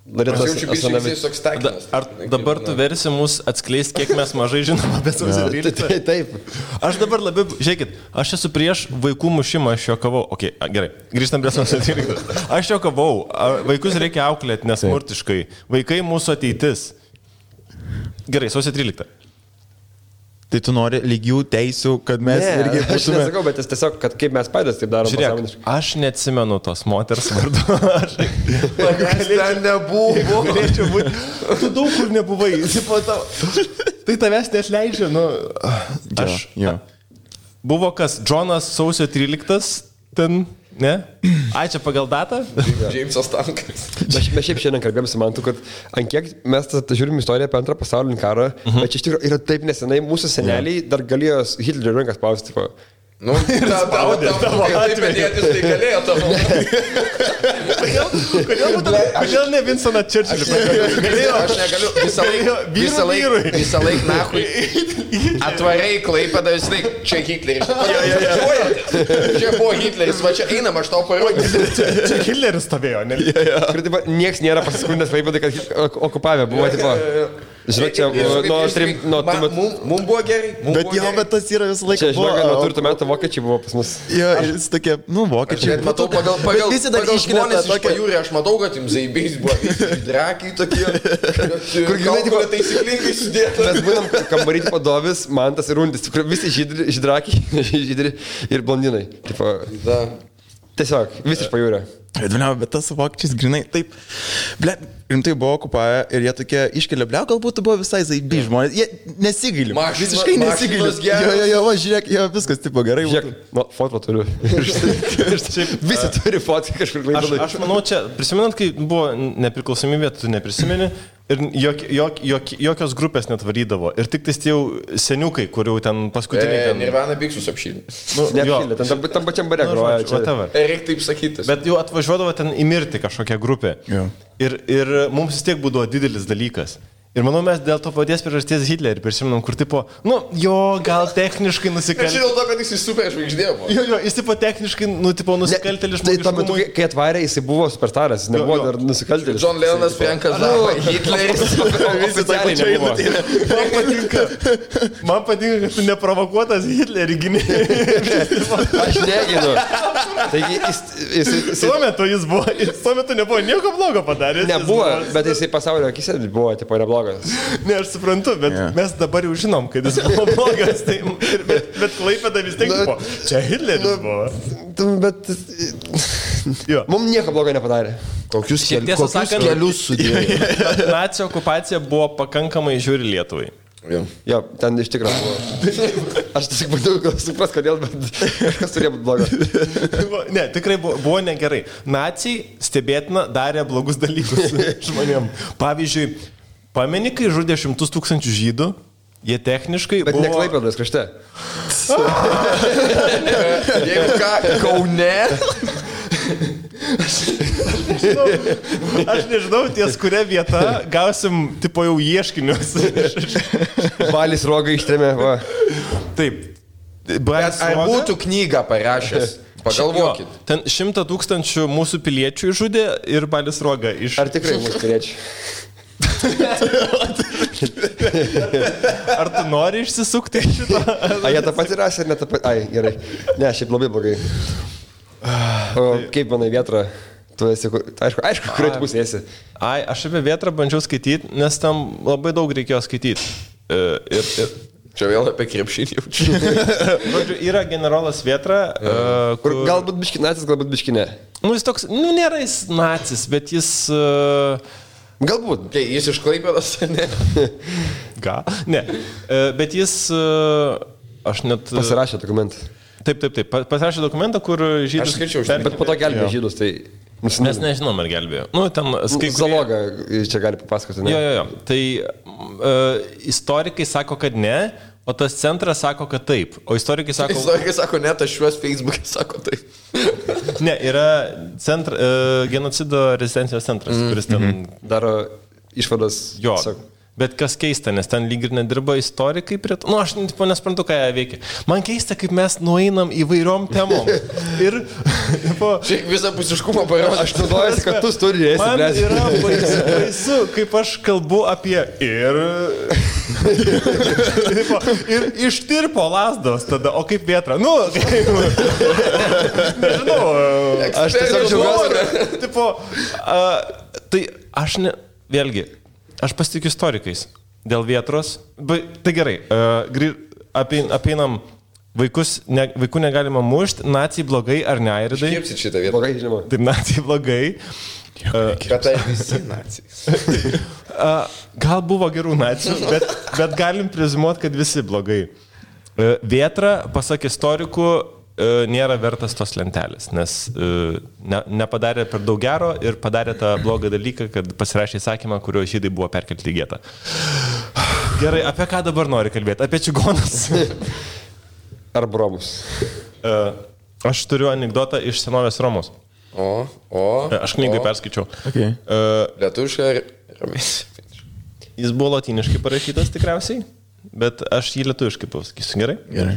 Aš jaučiu bičiulis toks takinas. Ar dabar tu versi mus atskleisti, kiek mes mažai žinom apie sausio 13? Taip. Aš dabar labiau, žiūrėkit, aš esu prieš vaikų mušimą, aš juokavau. Ok, gerai, grįžtam prie sausio 13. Aš juokavau, vaikus reikia auklėti nesmurtiškai. Vaikai mūsų ateitis. Gerai, sausio 13. Tai tu nori lygių teisių, kad mes irgi būtume... Aš nesakau, bet tiesiog, kad kaip mes patys taip darom. Žiūrėk, aš neatsimenu tos moters vardu. Manęs ten nebuvo. Tu daug kur nebuvai. Tai tavęs neatleidžia. Nu, aš... Buvo kas? Džonas sausio 13 ten... Ne? Ai, čia pagal datą? Džeimsas Tankas. Mes šiaip šiandien kalbėjom su Mantu, kad ant kiek mes žiūrim istoriją apie antrą pasaulinį karą, bet čia iš tikrųjų yra taip nesenai, mūsų seneliai dar galėjo Hitlerio rankas spausti. Nu, taip medėtis tai galėjo tavo. Kodėl ne Vinstoną Churchillį? Aš negaliu visą laik nahui atvarai Klaipėdą, vis laik čia Hitleris. Čia buvo Hitleris, va čia einam, aš tau parodysiu. Čia Hitleris stovėjo, ne? Niekas nėra pasiskundęs Klaipėdai, kad okupavę buvo, tipo... Žinok, čia mums buvo gerai. Bet jo, bet tas yra visą laiką. Čia, žinok, nuo turtų metų vokiečiai buvo pas mus. Jo, jis tokie, vokiečiai. Bet matau, pagal žmonės iš pajūrį, aš matau, kad jums zaibės buvo drakiai tokie, kur galbūt taisyklingai sudėta. Mes būnam kambaryti padovis, Mantas ir Undis, visi žydrakiai, žydri ir blondinai. Tiesiog, visi iš pajūrio. Bet tas vokiečiais grinai, taip, rimtai buvo okupavę ir jie tokie iškelia, galbūt buvo visai zaibi žmonės, jie nesigaili, visiškai nesigaili. Jo, žiūrėk, jo, viskas tipo gerai. Žiūrėk, foto turiu. Visi turi fotį kažkur Klaipėdai. Aš manau, čia, prisimenant, kai buvo nepriklausomybė, tu neprisimeni. Ir jokios grupės net varydavo. Ir tik tais tie jau seniukai, kurių ten paskutiniai... Nirvana Biksus apšylė. Neapšylė, tam pačiam bare groja. Reikia taip sakyti. Bet jau atvažiuodavo ten įmirti kažkokią grupę. Ir mums vis tiek būdavo didelis dalykas. Ir manau, mes dėl to paties priežasties Hitlerį prisiminam, kur tipo, gal techniškai nusikaltėlis. Aš žinau to, kad jis super žvaigždė buvo. Jo, jis tipo techniškai, nusikaltėlis žmogus. Tai tuo metu, kai atvarė, jis buvo superstaras, jis nebuvo dar nusikaltėlis. John Lennonas, Frankas Zappa, Hitleris. Visi tai nebuvo. Man patinka, kad tu neprovokuotas Hitlerį gynė. Aš neginu. Taigi, tuo metu jis buvo, tuo metu nebuvo nieko blogo padaręs. Nebuvo, bet jisai pasaulio akise buvo, tipo, neblogas. Ne, aš suprantu, bet mes dabar jau žinom, kad jis buvo blogas, tai, bet Klaipėda vis tiek buvo. Čia Hitleris buvo. Bet... Mums nieko blogo nepadarė. Kokius kelius sudėjo. Nacių okupacija buvo pakankamai žiūri Lietuvai. Jo, ten iš tikrųjų buvo. Aš tiesiog bandau supras, kodėl, bet kažkas turėjo būti blogo. Ne, tikrai buvo negerai. Naciai stebėtina darė blogus dalykus žmonėm. Pavyzdžiui, pameni, kai žudė 100 000 žydų, jie techniškai bet buvo... Bet ne Klaipėdos krašte. Jeigu ką, Kaune... Aš nežinau, ties kuria vieta gausim, tipo, jau ieškinius. Balis Roga ištrėmė, va. Taip. Ar būtų knygą parašęs? Pagalvokit. Ten 100 000 mūsų piliečių žudė ir Balis Roga iš... Ar tikrai mūsų piliečių? Ar tu nori išsisukti šitą? A, jie tą patį rasė ar ne tą patį? Ai, gerai. Ne, šiaip labai blogai. O kaip manai Vėtra? Tu esi, aišku, kuriuo tu pusė esi. Ai, aš apie Vėtrą bandžiau skaityti, nes tam labai daug reikėjo skaityti. Čia vėl apie krepšinį jaučiu. Yra generolas Vėtra, kur galbūt biški nacis, galbūt biški ne. Jis toks, nėra jis nacis, bet jis... Galbūt. Tai jis iš Klaipėdos, ne? Gal? Ne. Bet jis, aš net... Pasirašė dokumentą. Taip. Pasirašė dokumentą, kur žydus... Aš skaičiau, Bet po to gelbėjo žydus, tai... Mes nežinom, ar gelbėjo. Nu, ten... Zaloga čia gali papasakoti, ne? Jo. Tai istorikai sako, kad ne, o tas centras sako, kad taip. O istorikai sako ne, tas šiuos Facebook'e sako taip. Ne, yra genocido rezistencijos centras, kuris ten... Daro išvadas. Jo. Bet kas keista, nes ten lyg ir nedirba istorikai prie to. Nu, aš nesprantu, ką jie veikia. Man keista, kaip mes nueinam įvairiom temom. Ir... Šiek visapusiškumą parodė. Aš naudojuosi, kad tu studijai esi. Man yra baisu, kaip aš kalbu apie ir ištirpo lasdos tada, o kaip vėtra. Nu, nežinau. Aš tiesiog džiaugiuosi. Tai aš ne... Vėlgi, aš pasitikiu istorikais dėl vėtros. Tai gerai, apeinam vaikų negalima mušti, nacijai blogai ar ne, Airidai? Iškirpsit šitą vietą. Blogai, žinoma. Taip, nacijai blogai. Bet tai visi nacijai. Gal buvo gerų nacijų, bet galim prezimuoti, kad visi blogai. Vėtra, pasak istorikų, nėra vertas tos lentelės, nes nepadarė per daug gero ir padarė tą blogą dalyką, kad pasirašė įsakymą, kurio žydai buvo perkelti į getą. Gerai, apie ką dabar nori kalbėti? Apie čigonus? Ar bromus? Aš turiu anekdotą iš senovės Romos. Aš knygai perskaičiau. Okay. Lietuviškai ramiai. Jis buvo lotyniškai parašytas tikriausiai, bet aš jį lietuviškai pasakysiu. Gerai? Gerai.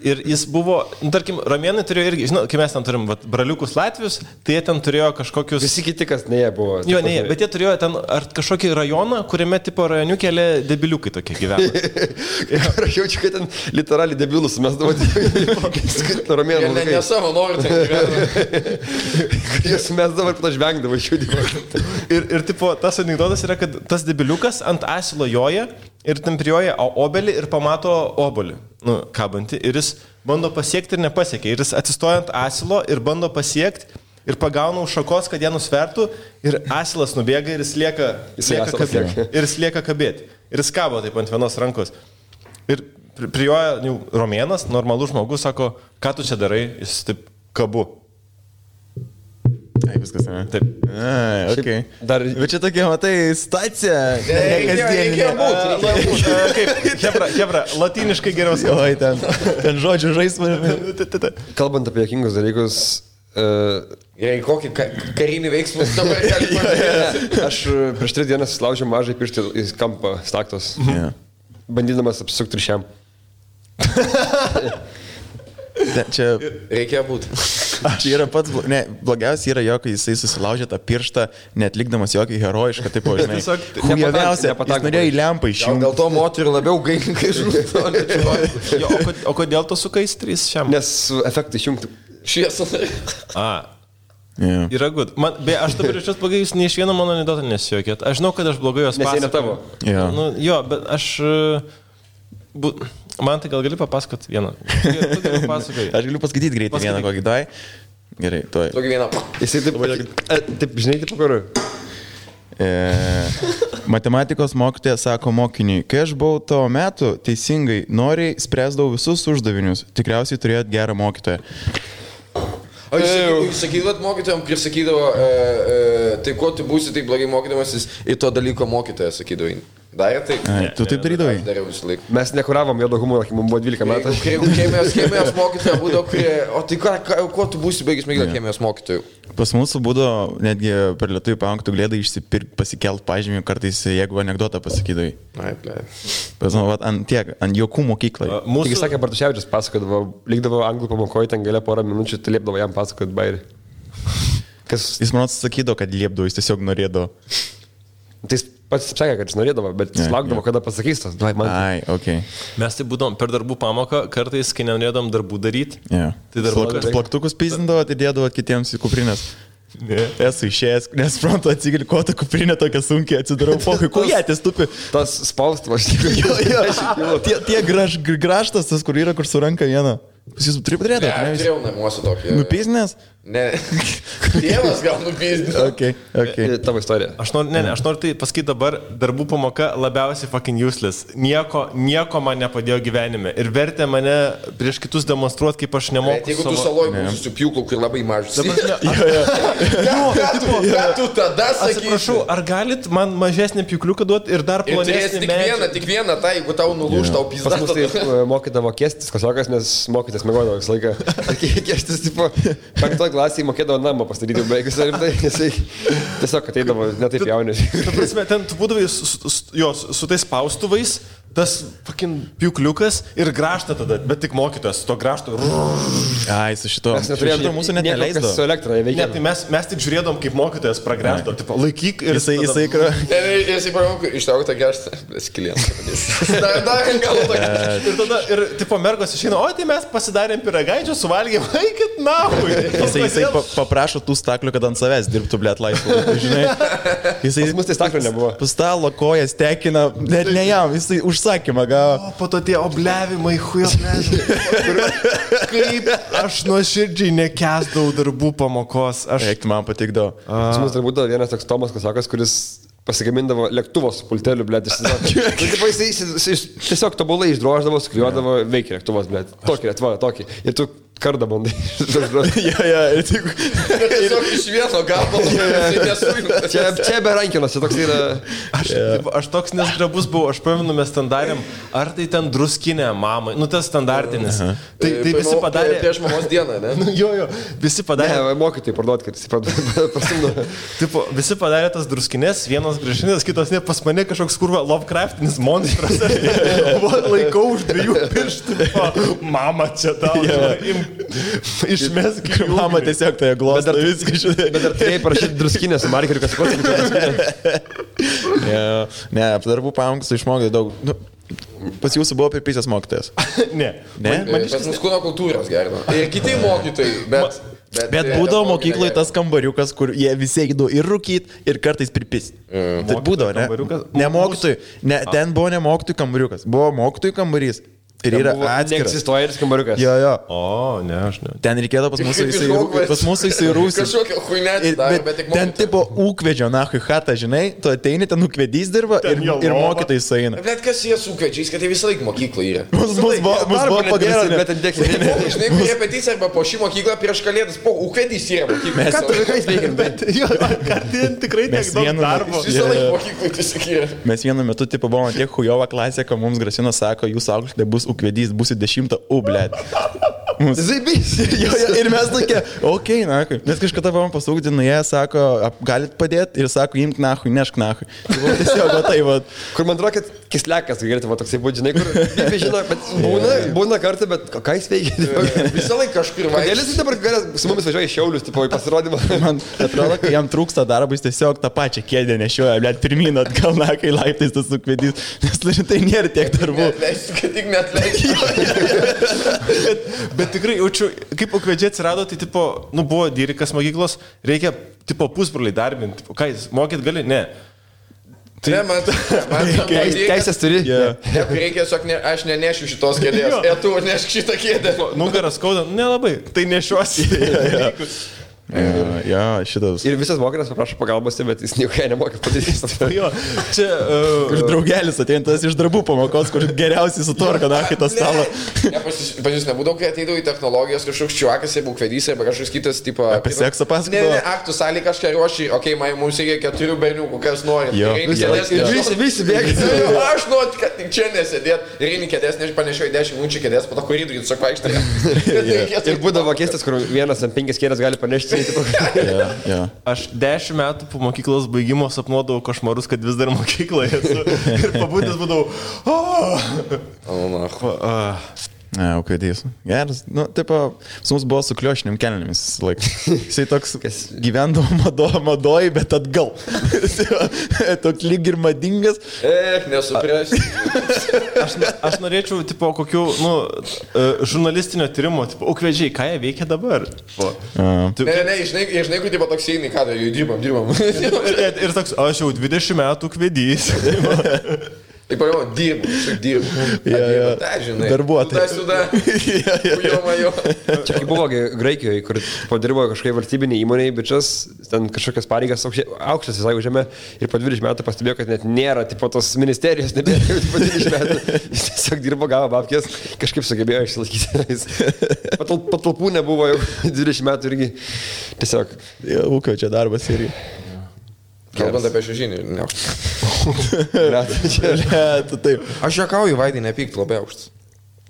Ir jis buvo, tarkim, romėnai turėjo irgi, žinau, kai mes ten turim braliukus latvius, tai jie ten turėjo kažkokius... Visi kiti, kas ne jie buvo. Jo, ne jie, bet jie turėjo ten ar kažkokį rajoną, kuriame tipo rajoniukėlė debiliukai tokie gyvena. Aš jaučiu, kad ten literaliai debilus mes davot. Romėnų. Ne savo noriu ten gyvena. Jis mes dabar pat žvengdavo šiūdimo. Ir tipo, tas anekdotas yra, kad tas debiliukas ant asilo joja ir ten prijoja obelį ir pamato obolį, kabantį, ir jis bando pasiekti ir nepasiekia. Ir jis atsistoja ant asilo ir bando pasiekti ir pagauna už šakos, kad ją nusvertų, ir asilas nubėga ir jis lieka kabėti. Ir jis kabo taip ant vienos rankos. Ir prijoja romėnas, normalus žmogus, sako, ką tu čia darai, jis taip kabu. Ai, viskas, ne? Taip. Ai, okei. Dar... Bet čia tokia, matai, stacija. Reikėjo būt. Hebra, latyniškai geriau skamba. Oi, ten žodžių žaismai. Kalbant apie jokingus dalykus... Kokį karinį veiksmą dabar galima. Aš prieš 3 dienas laužiau mažai pirštį į kampą staktos. Bandydamas apsisukti ryšiam. Čia... Reikėjo būti. Čia yra pats, blogiausia yra jo, kai jisai susilaužė tą pirštą, netlikdamas jokį herojišką, taip, žinai. Hujaviausia, jis norėjo į lempą išjungti. Dėl to moterį labiau gailinkai žūtų. O kodėl tu sukais 3 šiam? Nes efektą išjungti. Šviesą. Yra good. Aš dabar iš jos blogai, jūs nei iš vieno mano anekdotą nesijokėt. Aš žinau, kad aš blogai jos pasakau. Nes jie ne tavo. Jo, bet aš... Man tai gal gali papasakot vieną. Aš galiu paskaityti greitai vieną kokį dai. Gerai, tuoj. Tokį vieną. Jisai taip, žinai, taip kur. Matematikos mokytoja sako mokiniui, kai aš buvau tavo metų, teisingai, noriai spręsdavau visus uždavinius. Tikriausiai turėjot gerą mokytoją. O jūs sakydavot mokytojams, kai sakydavo, tai kuo tu būsi taip blogai mokydamasis, į to dalyko mokytoją sakydavai. Darė taip? Tu taip darydavai? Aš dariau visą laiką. Mes nekuravom juodo humoro, kai mums buvo 12 metų. Chemijos mokytoja būdavo, o tai kuo tu būsi baigęs mėgdavo chemijos mokytojų? Pas mūsų būdavo netgi per lietuvių pamoką galėdai išsipirkti, pasikelt pažymį, kartais jeigu anekdotą pasakydavai. Ai, ble. Ant jokų mokyklai. Tik sakė, Bartuševičius pasakodavo, likdavo anglų pamokoje, ten galia porą minučių, tai liepdavo jam pasakoti bairį. Jis man sakydavo, kad liepdavo, jis tiesiog norėdavo. Tai jis pats sakė, kad jis norėdavo, bet jis laukdavo, kada pasakys tas. Ai, ok. Mes tai būdom per darbų pamoką, kartais, kai nenorėdom darbų daryti. Tai plaktukus pizdindavo, tai dėdavo kitiems į kuprinės. Esu išėjęs, nesuprantu, atsigili, ko ta kuprinė tokia sunkiai atsidarau, pokai, kujatės tupi. Tas spaustuvas. Tie graštas, tas, kur yra, kur su ranka viena. Pas jūs turi padarėti? Ne, turėjau namuose tokį. Nupiznės? Ne, tėvas gal nupiznės. Okay. Tavo istorija. Aš noriu tai pasakyti dabar, darbų pamoka labiausiai fucking useless. Nieko man nepadėjo gyvenime. Ir vertė mane prieš kitus demonstruoti, kaip aš nemoku. Bet jeigu tu saloj būsi su pjūklu, kur labai mažas. Ką tu tada sakysi? Atsiprašau, ar galit man mažesnį pjūkliuką duoti ir dar plonesnį medžiagą? Tik vieną, tai jeigu tau nulūž, tau pizda. Pas mus tai mokydavo kėstis kasiokas, nes mokytis mėgodavo visą laiką. Kėstis, tipo, 5 klasėje mokėdavo namą pastatyti baigus ir tai jisai tiesiog ateidavo netaip jaunis. Ta prasme, ten tu būdavai su tais spaustuvais, tas fucking piukliukas ir graštą tada, bet tik mokytas, to grašto. Ai, su šito. Mes neturėjome mūsų net neleisdavo. Su elektra neveikia. Ne, tai mes tik žiūrėdom, kaip mokytojas pragręžto, tipo, laikyk ir Jisai Jisai paramau, ištrauk tą graštą, skilientas. Dar gal tokia. Ir tipo mergos išeina, o tai mes pasidarėm piragaičių, suvalgėm, eikit nahui. Jisai paprašo tų staklių, kad ant savęs dirbtų, blėt, laisvų. Žinai, jisai Pas mus tai staklių nebuvo. Pastalo kojas tekina, net ne jam, jisai užsakymą gavo. O po to tie obliavimai, kaip aš nuoširdžiai nekęsdavau darbų pamokos. Eik, man patikdavo. Pas mus dar būdavo vienas toks Tomas Kasakas, kuris pasigamindavo lėktuvo su pulteliu, blėt, jis tiesiog tobulai išdroždavo, sukliuodavo, veikia lėktuvas, blėt. Tokį. Ir tu kardą bandai. Ir tik... Tiesiog iš vieno gabalo. Čia be rankinos, čia toks yra... Aš toks nesgrabus buvau, aš pamenu, mes ten darėm, ar tai ten druskinė mamai, tas standartinis. Tai visi padarė... Prieš mamos dieną, ne? Jo, visi padarė... Ne, mokytojai parduot, kad jis pasimdo. Tipo, visi padarė tas druskinės, vienos gražinės, kitos ne, pas mane kažkoks kurva Lovecraftinis monstras. Laikau už 2 pirštų. Mama čia tau. Išmesk į Mama tiesiog toje glosto viską žinai. Bet dar turėjai parašyti druskinę su markeriu, kas Ne, darbų pamokas išmokė daug. Pas jūsų buvo pirpysės mokytojas? Ne. Pas mus kūno kultūros gerino. Ir kiti mokytojai, Bet būdavo mokykloje tas kambariukas, kur jie visi eidavo ir rūkyt, ir kartais pripist. Tai būdavo, ne? Ne mokytojai. Ten buvo ne mokytojų kambariukas. Buvo mokytojų kambarys. Ir yra atskiras. Neegzistuoja ir skambariukas. Jo. O, ne, aš ne. Ten reikėdavo pas mūsų įsirūsti. Kažkokia huinetė dar, bet tik mokytojai. Ten tipo ūkvedžio, nahui hatą, žinai, tu ateini, ten ūkvedys dirba ir mokytojai sueina. Bet kas jie su ūkvedžiais, kad tai visą laiką mokykla yra? Mus buvo pagrindinis. Bet ten dėkime. Žinai, repeticija arba po šį mokyklą prieš kalėdas, po ūkvedys yra mokykla. Ką tu vaikais veikim? Ten tikrai tiek daug darbo. Visą laiką mokyklai tiesiog yra. Mes vienu metu, tipo, buvome tiek hujova klasė, kad mums grasino, sako, jūs auklėte bus ūkvedys, būsit 10, blėt. Zaibys. Ir mes tokie, okei, nahui. Mes kažkada buvom pasūkti, jie sako, galit padėti ir sako, imk nahui, nešk nahui. Tiesiog, tai va. Kur man atrodo, kad kislekas, galėtų va toksai būti, žinai, kur žino, bet būna kartą, bet ką jis veikia? Visą laiką kažkur vaikščiai. Kodėl jis dabar su mumis važiuoja į Šiaulius, tipo, į pasirodymą? Man atrodo, kai jam trūksta darbo, jis tiesiog tą pačią kėdę nešioja, blėt, pirmyn atgal, nahui, laiptais tas ūkvedys, nes tai nėra tiek darbų. Neatleisiu, kad tik neatleisiu. Bet tikrai jaučiu, kaip ūkvedžiai atsirado, tai tipo, buvo dyrikas mokyklos, reikia tipo pusbroliai darbinti, tipo, ką jis, mokyt gali? Ne. Tai man teisės turi. Reikia tiesiog, aš nenešiu šitos kėdės, tu nešk šitą kėdę. Nugaras skauda, nelabai, tai nešiuosi. Jo, šitas. Ir visas mokytas paprašo pagalbos, bet jis nieko nemokė padaryti. Jo, čia... Kur draugelis ateintas iš darbų pamokos, kur geriausiai sutvarka, nahui, tą stalą. Pas jūs nebūdavo, kai ateidavo į technologijas, kažkoks čiuakas, jeigu kvedys, arba kažkoks kitas, tipo... Apie seksą pasakojo? Ne, aktų salį kažką ruošį, okei, mums reikia 4 berniukų, kas nori. Visi bėga. Aš noriu, kad tik čia nesėdėt. Ir eini kėdės, nežpanešioju 10 minučių kėdės, po to koridorių tiesiog vaikštai. Ir būdavo keistas, kur vienas ant 5 kėdės gali panešti. Aš 10 metų po mokyklos baigimo sapnuodavau košmarus, kad vis dar mokykloje esu. Ir pabudęs būdavau. Ne, ūkvedys. Geras. Nu, tipo, su mums buvo su kliošiniam kelnėmis laik. Jisai toks gyvendavo madoj, bet atgal. Toks lyg ir madingas. Nesuprasi. Aš norėčiau, tipo, kokių, žurnalistinio tyrimo, tipo, ūkvedžiai, ką jie veikia dabar? Ne, žinai, kur tipo toks eini, ką tai dirbam. Ir toks, aš jau 20 metų ūkvedys. Taip, dirbu. Ta, žinai. Darbuotojas. Čia kaip buvo Graikijoje, kur padirbo kažkokia valstybinė įmonė, bičias, ten kažkokias pareigas aukštas visai užėmė ir po 20 metų pastebėjo, kad net nėra tipo tos ministerijos, nebėra po 20 metų. Jis tiesiog dirbo, gavo babkės, kažkaip sugebėjo išsilaikyti. Patalpų nebuvo jau 20 metų irgi. Tiesiog. Ūkio čia darbas irgi. Kalbant apie šiužinį, ne aukštas. Taip. Aš juokauju, Vaidai, nepykt, labai aukštas.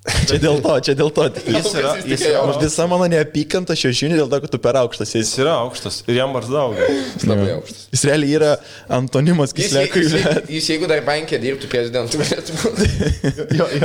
Čia dėl to. Jis yra visa mano neapykanta šiužinį dėl to, kad tu per aukštas. Jis yra aukštas ir jam barzdaugia. Jis labai aukštas. Jis realiai yra antonimas Kislekui. Jis jeigu dar bankė dirbtų prezidentų, galėtų būti.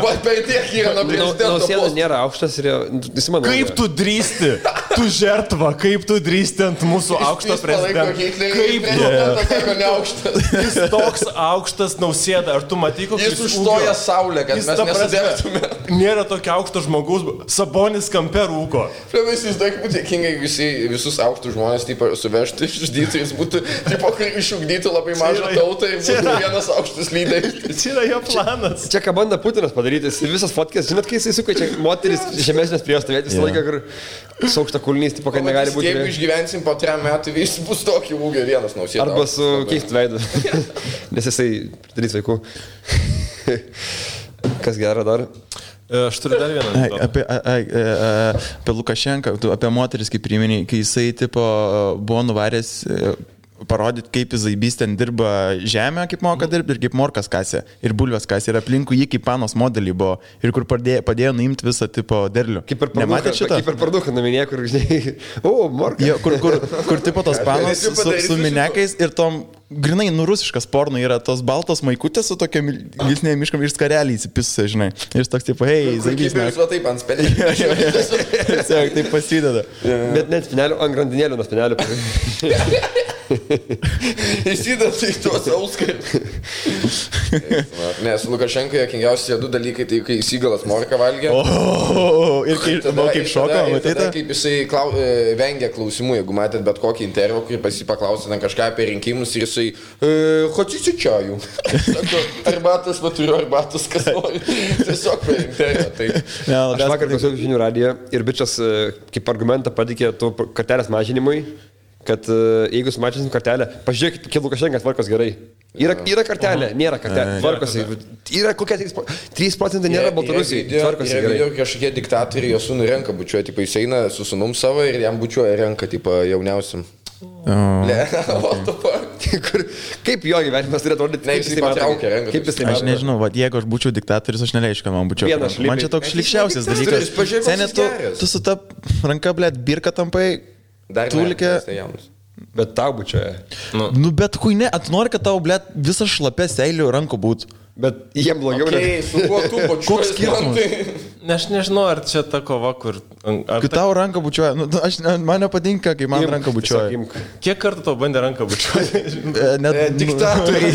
Va, per tiek yra nuo prezidento. Nausėda nėra aukštas ir jis manau. Kaip tu drįsti? Tu žertva, kaip tu drįsti ant mūsų aukšto prezidento? Kaip neaukštas? Jis toks aukštas Nausėda. Ar tu matai, koks jis užstoja saulę, kad mes nesidėtume? Nėra tokio aukšto žmogaus, Sabonis kampe rūko. Vis daug būtų dėkingai visus aukštus žmonės suvežtų, išžudytų, jis būtų, išugdytų labai mažą tautą ir būtų vienas aukštas lyderis. Čia yra jo planas. Čia ką bando Putinas padaryti, visas fotkės, žinot, kai jisai suka, čia moteris žemesnės prie jo stovėti visą laiką, kur su aukšta kulnys, tipo, kad negali būti. Jeigu išgyvensim po 3 metų, vis bus tokį ūgį vienas Nausėda. Arba su keistu veidu, nes jisai darys vaikų. Kas gera dar? Aš turiu dar vieną. Apie Lukašenką, apie moteris, kaip priminėjai, kai jisai tipo, buvo nuvaręs parodyti, kaip Zaibys ten dirba žemę, kaip moka dirbti ir kaip morkas kasė ir bulvės kasė ir aplinkui jį kaip panos modelį buvo ir kur padėjo nuimti visą tipo derlių. Nematėte šitą? Kaip per parduką naminė, kur, žinai, morka. Jo, kur tipo tos panos su minekais ir tom grinai nurusiškas porno yra tos baltos maikutės su tokia gilsnė miškam ir skarelį įsipisusi, žinai. Ir jis toks tipo, hei, Zaibys. Kaip ir taip ant spenelio. Taip pasideda. Bet net spinelio, ant grandinėlių nuo spinelio. Įsidat į tuos auskai. Nes Lukašenkai jokingiausi 2 dalykai, tai kai įsigalas morką valgė. Ir kaip šoko, matėte? Kaip jisai vengia klausimų, jeigu matėt bet kokį intervą, kurį pasipaklausė ten kažką apie rinkimus ir jisai хочете чаю? Sako, arbatas, va turiu arbatas, kas nori. Tiesiog per intervą. Aš vakar klausiau žinių radiją ir bičias kaip argumentą patikė tų kartelės mažinimui, kad jeigu sumažinsim kartelę, pažiūrėkit, kiek Lukašenkas tvarkos gerai. Yra kartelė, nėra kartelė, tvarkosi. Yra kokia 3% nėra Baltarusijai, tvarkosi gerai. Ir kažkokie diktatoriai jo sūnų renka bučiuoja, tipo jis eina su sūnum savo ir jam bučiuoja renka, tipo jauniausiam. Kaip jo gyvenimas turėtų rodyti, kaip jis patraukia renka. Aš nežinau, jeigu aš būčiau diktatorius, aš neleičiau, kad man bučiuoja. Man čia toks šlikščiausias dalykas. Senė, tu su ta ranka, blėt, birka tampai. Dar tulkė. Bet tau bučioja. Nu bet hui ne, nori, kad tau, blėt, visas šlapės seilių rankų būtų. Bet jiem blogiau. Su kuo tu bučiuoji? Koks skirtumas? Aš nežinau, ar čia ta kova, kur... Kai tau ranką bučiuoja, man nepatinka, kai man ranką bučiuoja. Kiek kartų tau bandė ranką bučiuoti? Diktatoriai.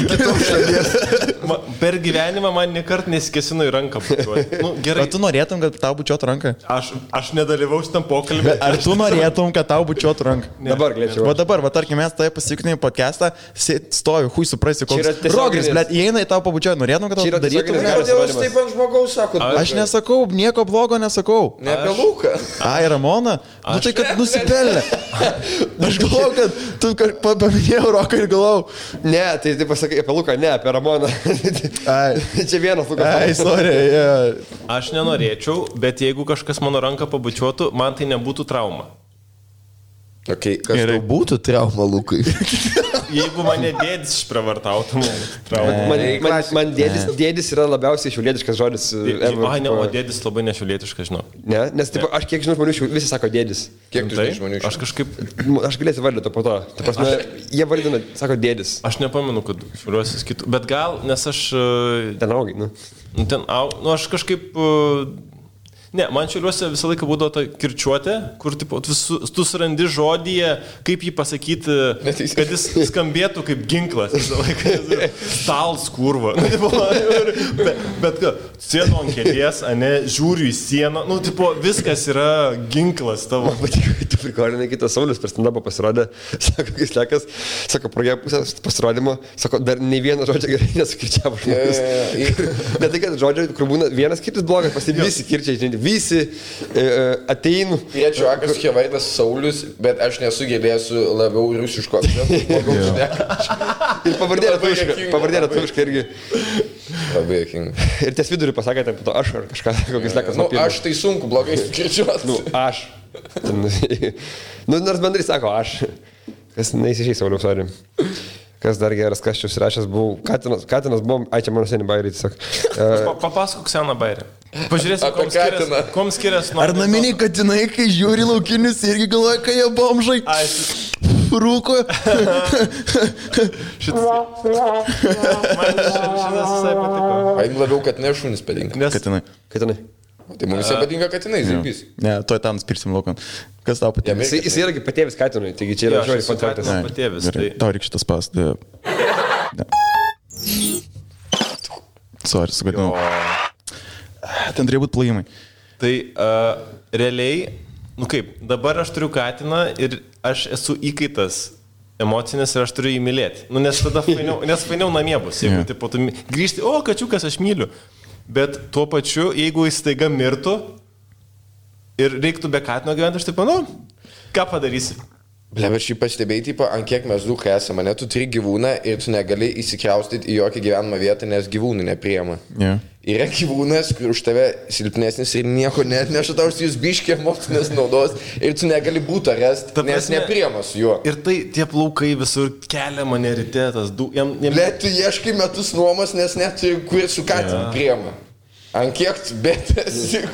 Per gyvenimą man niekart nesikesino į ranką bučiuoti. Gerai. Ar tu norėtum, kad tau bučiuotų ranką? Aš nedalyvausiu tam pokalbį. Ar tu norėtum, kad tau bučiuotų ranką? Dabar galėčiau. Va dabar, tarkim, mes tai pasieknėjom podcastą, stoju, hui suprasi, koks rogris, blėt, įeina į tau pabučiuoja, norėtum, kad tau darytum. Kodėl jūs taip ant žmogaus sakot? Aš nesakau, nieko blogo nesakau. Ne apie Luką. Ai, Ramona? Nu tai, kad nusipelnė. Aš galvau, kad tu paminėjau Roką ir galvau. Ne, tai pasakai apie Luką, ne, apie Ramoną. Čia vienas Lukas. Ai, sorry, yeah. Aš nenorėčiau, bet jeigu kažkas mano ranką pabučiuotų, man tai nebūtų trauma. Okay, kas tau būtų trauma, Lukai? Jeigu mane dėdis išpravartautų, man dėdis yra labiausiai šiaulietiškas žodis. Ai, ne, o dėdis labai nešiaulietiškas, žinau. Ne, nes taip, aš kiek žinau žmonių, visi sako dėdis. Kiek tu žinai žmonių? Aš kažkaip... Aš galėsiu vardyti po to. Ta prasme, jie vardina, sako dėdis. Aš nepamenu, kad šiauliuosis kitų. Bet gal, nes aš... Ten augai, aš kažkaip... Ne, man Šiauliuose visą laiką būdavo ta kirčiuotė, kur tipo, tu surandi žodyje, kaip jį pasakyti, kad jis skambėtų kaip ginklas visą laiką. Stals kurva. Bet sėdu ant kėdės, ane, žiūriu į sieną, nu, tipo, viskas yra ginklas tavo. Tu prikolinai, kitas Saulius per stand-upą pasirodė, sako, kai slekas, sako, pradėjo pusės pasirodymo, sako, dar nei vieną žodžią gerai nesukirčiavo žmogus. Ne tai, kad žodžiai, kur būna vienas kirtis blogas, visi kirčiai, žinai, visi ateinu. Piečiu akas Kevaitas Saulius, bet aš nesugebėsiu labiau rusiško. Ir pavardė lietuviška irgi. Labai jokinga. Ir ties vidurį pasakė, taip, to aš ar kažką, kokis lekas. Nu, aš tai sunku, blogai skirčiuos. Nu, aš. Nu, nors bendrai sako, aš. Kas neįsižiai, Sauliaus, sorry. Kas dar geras, kas čia užsirašęs buvau. Katinas buvo, ai čia mano seniai bairį tiesiog. Papasakok seną bairį. Pažiūrėsim, kom skiriasi nuo... Ar naminiai katinai, kai žiūri laukinius, irgi galvoja, kai jie bomžai. Rūko. Šitas visai patiko. Aim labiau katinai šunis patinka. Katinai. Tai mums visai patinka katinai, zirbys. Ne, tuoj tam spirsim laukan. Kas tau patinka? Jis yra patėvis katinui, taigi čia yra žodžiai kontraktas. Patėvis. Tau reikia šitas pas. Sorry, sugadinau. Ten turėjo būti plojimai. Tai realiai, nu kaip, dabar aš turiu katiną ir aš esu įkaitas emocinis ir aš turiu jį mylėti. Nu, nes tada fainiau namie bus. Jeigu tipo, tu grįžti, o, kačiukas, aš myliu. Bet tuo pačiu, jeigu jis staiga mirtų ir reiktų be katino gyventi, aš taip, nu, ką padarysi? Ble, bet šį pastebėjai, tipo, ant kiek mes dukai esame, ne, tu turi gyvūną ir tu negali įsikraustyti į jokią gyvenamą vietą, nes gyvūnų nepriema. Yeah. Yra gyvūnas, kur už tave silpnesnis ir nieko net neša tau, jūs biškė emocinės naudos ir tu negali būti rest, nes nepriema su juo. Ir tai tie plaukai visur kelia mane ryte, tas Ble, tu ieškai metus nuomos, nes net kur su katinu priema. Ant kiek tu betesi.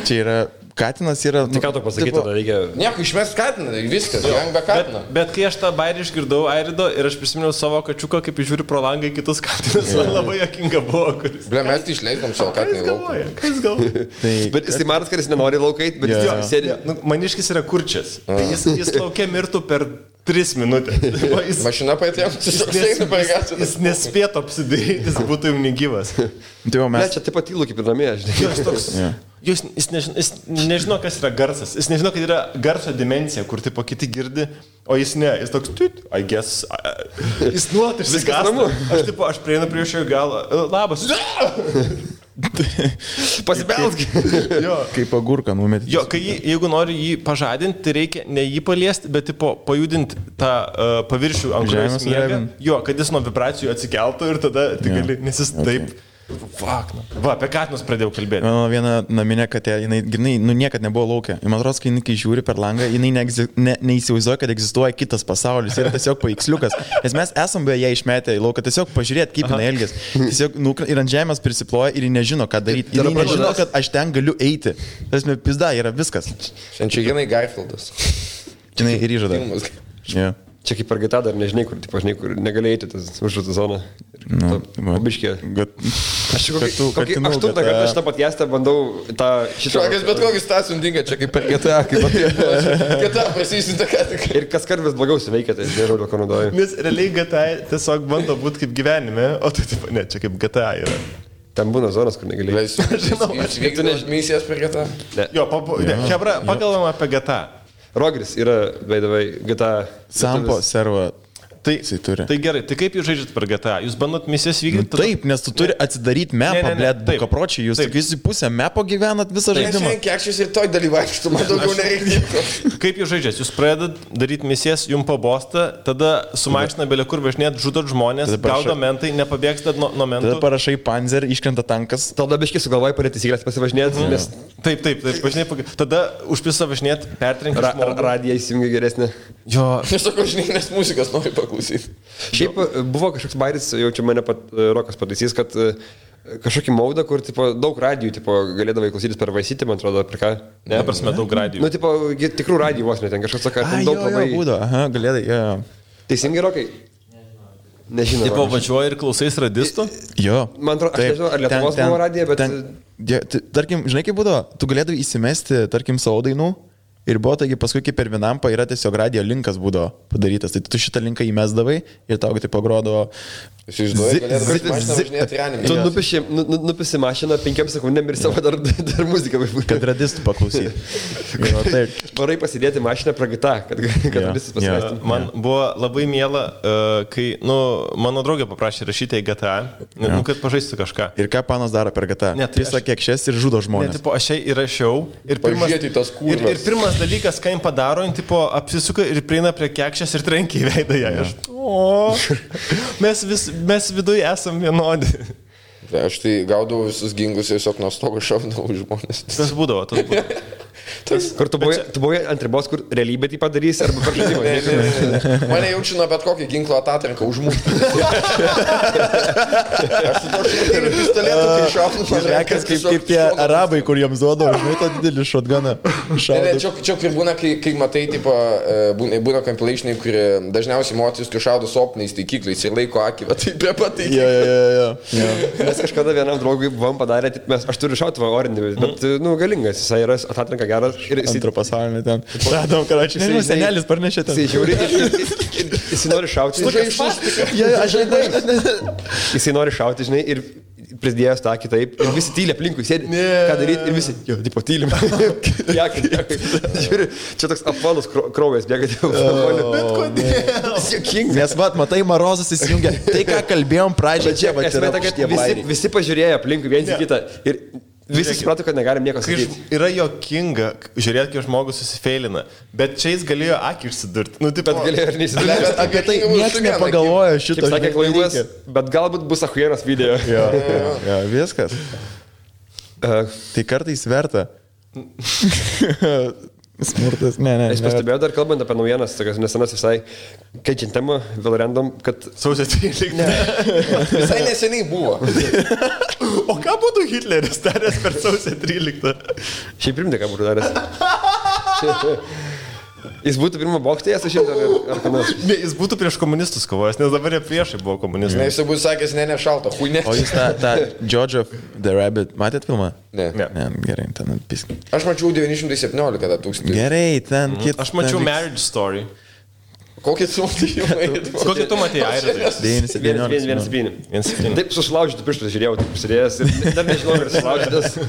Čia yra... Katinas yra... Tik ką tu pasakyti, tada reikia... Nieko, išmest katiną, viskas, gyvenk be katino. Bet kai aš tą bairį išgirdau Airido ir aš prisiminiau savo kačiuką, kaip žiūri pro langą į kitus katinus, man labai jokinga buvo, kuris... Ble, mes tai išleidom savo katiną į lauką. Ką jis galvoja? Bet jis tai matas, kad jis nenori laukait, bet jis sėdi... Maniškis yra kurčias. Jis laukia mirtų per 3 minutės. Mašina paėtėm, jis nespėtų apsidaryti, jis būtų jau negyvas. Ne, čia taip pat įlų kaip ir namie, žinai. Jis nežino, kas yra garsas. Jis nežino, kad yra garso dimensija, kur tipo kiti girdi, o jis ne. Jis toks, I guess. Jis nuolat išsigąsta. Aš prieinu prie šio galo. Labas. Pasibelsk. Kaip agurką numetį. Jo, jeigu nori jį pažadinti, tai reikia ne jį paliesti, bet tipo pajudinti tą paviršių ant žemės miegą. Jo, kad jis nuo vibracijų atsikeltų ir tada gali, nes jis taip... Fuck, nu. Va, apie katinus pradėjau kalbėti. Mano viena naminė katė, jinai niekad nebuvo laukia. Man atrodo, kai žiūri per langą, jinai neįsivaizduoja, kad egzistuoja kitas pasaulis. Yra tiesiog paveiksliukas. Nes mes esam beje ją išmetę į lauką, tiesiog pažiūrėti, kaip jinai elgiasi. Tiesiog ir ant žemės prisiploja ir ji nežino, ką daryti. Jinai nežino, kad aš ten galiu eiti. Tas me pizda, yra viskas. Šiandien jinai Garfieldas. Jinai ir įžada. Yeah. Čia kaip per GTA dar nežinai, kur negali eiti tas užžutų zoną. Pabiškė. Aš kokį 8 kartą šitą podcastą bandau tą šitą... Šokas bet kokį stasį undinga, čia kaip per GTA, kaip apie GTA prasisinta ką tik. Ir kas kart vis blogiau suveikia, tai nežinau, dėl ko naudoju. Nes realiai GTA tiesiog bando būti kaip gyvenime, o tai taip, ne, čia kaip GTA yra. Ten būna zonas, kur negali eiti. Aš vykdau misijas per GTA. Jo, Hebra, pakalbam apie GTA. Rogris yra, veidavai, GTA. Sampo servo. Tai gerai, tai kaip jūs žaidžiat per GTA? Jūs bandot misijas vykdyti? Taip, nes tu turi atsidaryti mapą, blėt, bukapročiai, jūs tik visi pusę mapo gyvenat visą žaidimą. Nes kiek šis ir toj dalyvaikštų, man daugiau nereikia. Kaip jūs žaidžiat? Jūs pradedat daryti misijas, jums pabosta, tada su mašina belė kur važinėt, žudot žmonės, gaudo mentai, nepabėgstat nuo mentų. Tada parašai panzer, iškrenta tankas. Tada biškai sugalvojai parėti įsigręs pasivažinėti, nes... Taip, važinėt, tada užpisa važinėt, pertrenki žmogų. Radiją įsijungia geresnė. Jo. Nesakau, žinai, nes muzikas nori paklausyti. Šiaip buvo kažkoks bairis, jau čia mane Rokas pataisys, kad kažkokį maudą, kur tipo, daug radijų tipo, galėdavai klausytis per Vaisitį, man atrodo, per ką? Ne, prasme, daug radijų. Nu, tipo, tikrų radijų vos net, ten kažkas sako, ten daug labai... Būdo, aha, galėdai, jo. Teisingai, Rokai? Nežinau. Tipo, važiuoji ir klausais radistų? Jo. Man atrodo, aš nežinau, ar Lietuvos buvo radija, bet... Tarkim, žinai kaip būdavo, tu galėdavai įsimesti, tarkim, savo dainų ir buvo, taigi paskui kaip per Vinampą yra tiesiog radio linkas būdavo padarytas, tai tu šitą linką įmesdavai ir tau tai pagrodavo... Tu nupisi mašiną 5 sekundėm ir savo dar muziką. Kad radistų paklausyti. Varai pasidėti mašiną pragita, kad radistus pasimestum. Man buvo labai miela, kai, mano draugė paprašė rašyti į GTA, kad pažaistų kažką. Ir ką panas daro per GTA? Pisa kiekšies ir žudo žmonės. Ne, tipo, aš įrašiau ir pirmas dalykas, ką jim padaro, tipo, apsisuka ir prieina prie kiekšės ir trenkia į veidą ją. Mes viduje esam vienodi. Aš tai gaudavau visus gingus tiesiog nuo stogo šaudavau žmonės. Tas būdavo. Kur tu buvai ant ribos, kur realybė tai padarys, arba per žaidimą? Mane jaučiu nuo bet kokį ginklo atatranką užmušti. Aš su to šitą pistoletu, kai šaunu. Rekas kaip tie arabai, kur jiems duoda, žinai, tą didelį šotganą. Čia kur būna, kai matai, tipo, būna compilationai, kur dažniausiai moteris, kai šaudo su optiniais taikikliais ir laiko akį, tai prie pat taikiklių. Mes kažkada vienam draugui buvom padarę, aš turiu šautuvą orinį, bet, galingas, jisai yra atatranka geras. Antro pasaulinį ten. Radom, karačiai. Nežinau, senelis parnešė ten. Jisai žiūri ir jisai nori šauti. Jisai nori šauti, žinai, ir prisidėjęs tą kitaip. Ir visi tylia aplinkui sėdi. Ką daryti? Ir visi, jo, tipo, tylim. Žiūri, čia toks apvalus kraujas bėga. Bet kodėl? Nes, matai, Marozas įsijungia. Tai, ką kalbėjom pradžioje, čia, visi pažiūrėjo aplinkui viens į kitą. Ir visi suprato, kad negalim nieko sakyti. Yra jokinga, žiūrėt, kaip žmogus susifeilina, bet čia jis galėjo akį išsidurti. Bet galėjo ir neįsidurti. Bet apie tai niekas nepagalvojo šito. Kaip sakė Klaimas, bet galbūt bus achuieras video. Jo, viskas. Tai kartais verta. Smurtas, ne. Aš pastebėjau dar kalbant apie naujienas, tokias nesenas visai, keičiant temą, vėl random, kad... Sausio 13. Visai neseniai buvo. O ką būtų Hitleris daręs per sausio 13? Šiaip primti, ką būtų daręs. Jis būtų pirmą bokštėje, aš žinau, ar ką nors. Ne, jis būtų prieš komunistus kovojęs, nes dabar jie priešai buvo komunistai. Ne, jis būtų sakęs, ne šalta, huinė. O jūs tą George of the Rabbit matėt filmą? Ne. Gerai, ten atpisk. Aš mačiau 917 tūkstantį. Gerai, ten kitą. Aš mačiau Marriage Story. Kokį tu matėjai? Kokį tu matėjai, Airidai? 117. Taip, susilaužytų pirštus žiūrėjau, taip prisidėjęs ir dar nežinau, ar susilaužytas.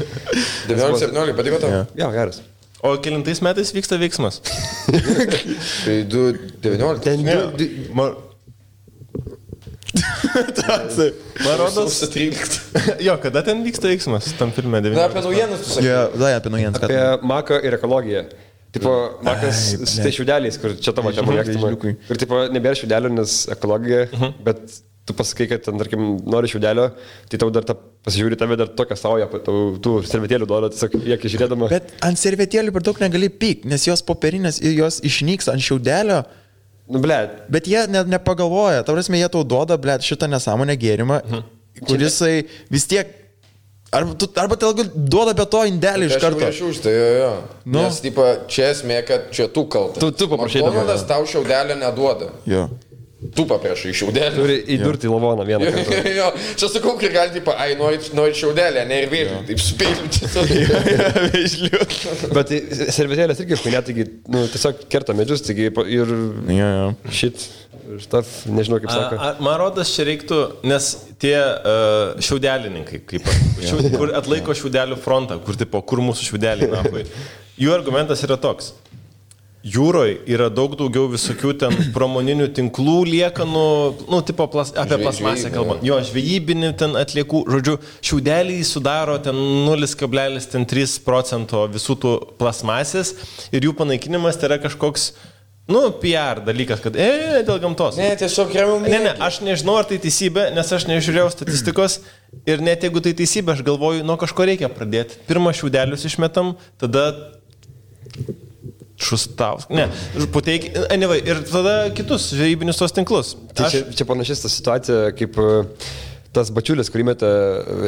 917, patiko tau? Jo, geras. O kelintais metais vyksta veiksmas? Tai 19. Man rodos 13. Jo, kada ten vyksta veiksmas tam filme 19? Na, apie naujienas tu sakai. Jo, apie naujienas. Apie Maką ir ekologiją. Tipo, Makas su tai šiaudeliais, kur čia tavo čia mėgstama. Ir tipo, nebėra šiaudelių, nes ekologija, bet tu pasakai, kad ten, tarkim, nori šiaudelio, tai tau dar pasižiūri tave dar tokią saują, tų servetėlių duoda, tiesiog jie žiūrėdama. Bet ant servetėlių per daug negali pyk, nes jos popierinės ir jos išnyks ant šiaudelio. Nu, blėt. Bet jie nepagalvoja, ta prasme, jie tau duoda, blėt, šitą nesąmonę gėrimą, kurisai vis tiek, arba tai duoda be to indelį iš karto. Aš už tai, jo. Nes, tipo, čia esmė, kad čia tu kaltas. Tu paprašai. McDonald's tau šiaudelio neduoda. Jo. Tu paprašai šiaudelį. Turi įdurti į lavoną vieną kartą. Jo, čia sakau, kai gali, tipo, nori šiaudelį, ne ir vėliau, taip spėliu. Bet servetėlės irgi, kai net, tiesiog kerta medžius, taigi ir šit, štaf, nežinau kaip sako. Man rodas, čia reiktų, nes tie šiaudelininkai, kur atlaiko šiaudelių frontą, kur mūsų šiaudeliai napai, jų argumentas yra toks. Jūroje yra daug daugiau visokių ten pramoninių tinklų liekanų, tipo apie plasmasę kalbant. Jo, žvejybinių ten atliekų, žodžiu, šiaudeliai sudaro ten 0,3% visų tų plasmasės ir jų panaikinimas tai yra kažkoks, PR dalykas, kad, dėl gamtos. Ne, tiesiog remiam. Ne, aš nežinau, ar tai teisybė, nes aš nežiūrėjau statistikos ir net jeigu tai teisybė, aš galvoju, nuo kažko reikia pradėti. Pirmą šiaudelius išmetam, tada... Šustaus. Ne, puteik, anyway, ir tada kitus žvejybinius tos tinklus. Tai čia panašis ta situacija, kaip tas bačiulis, kurį metė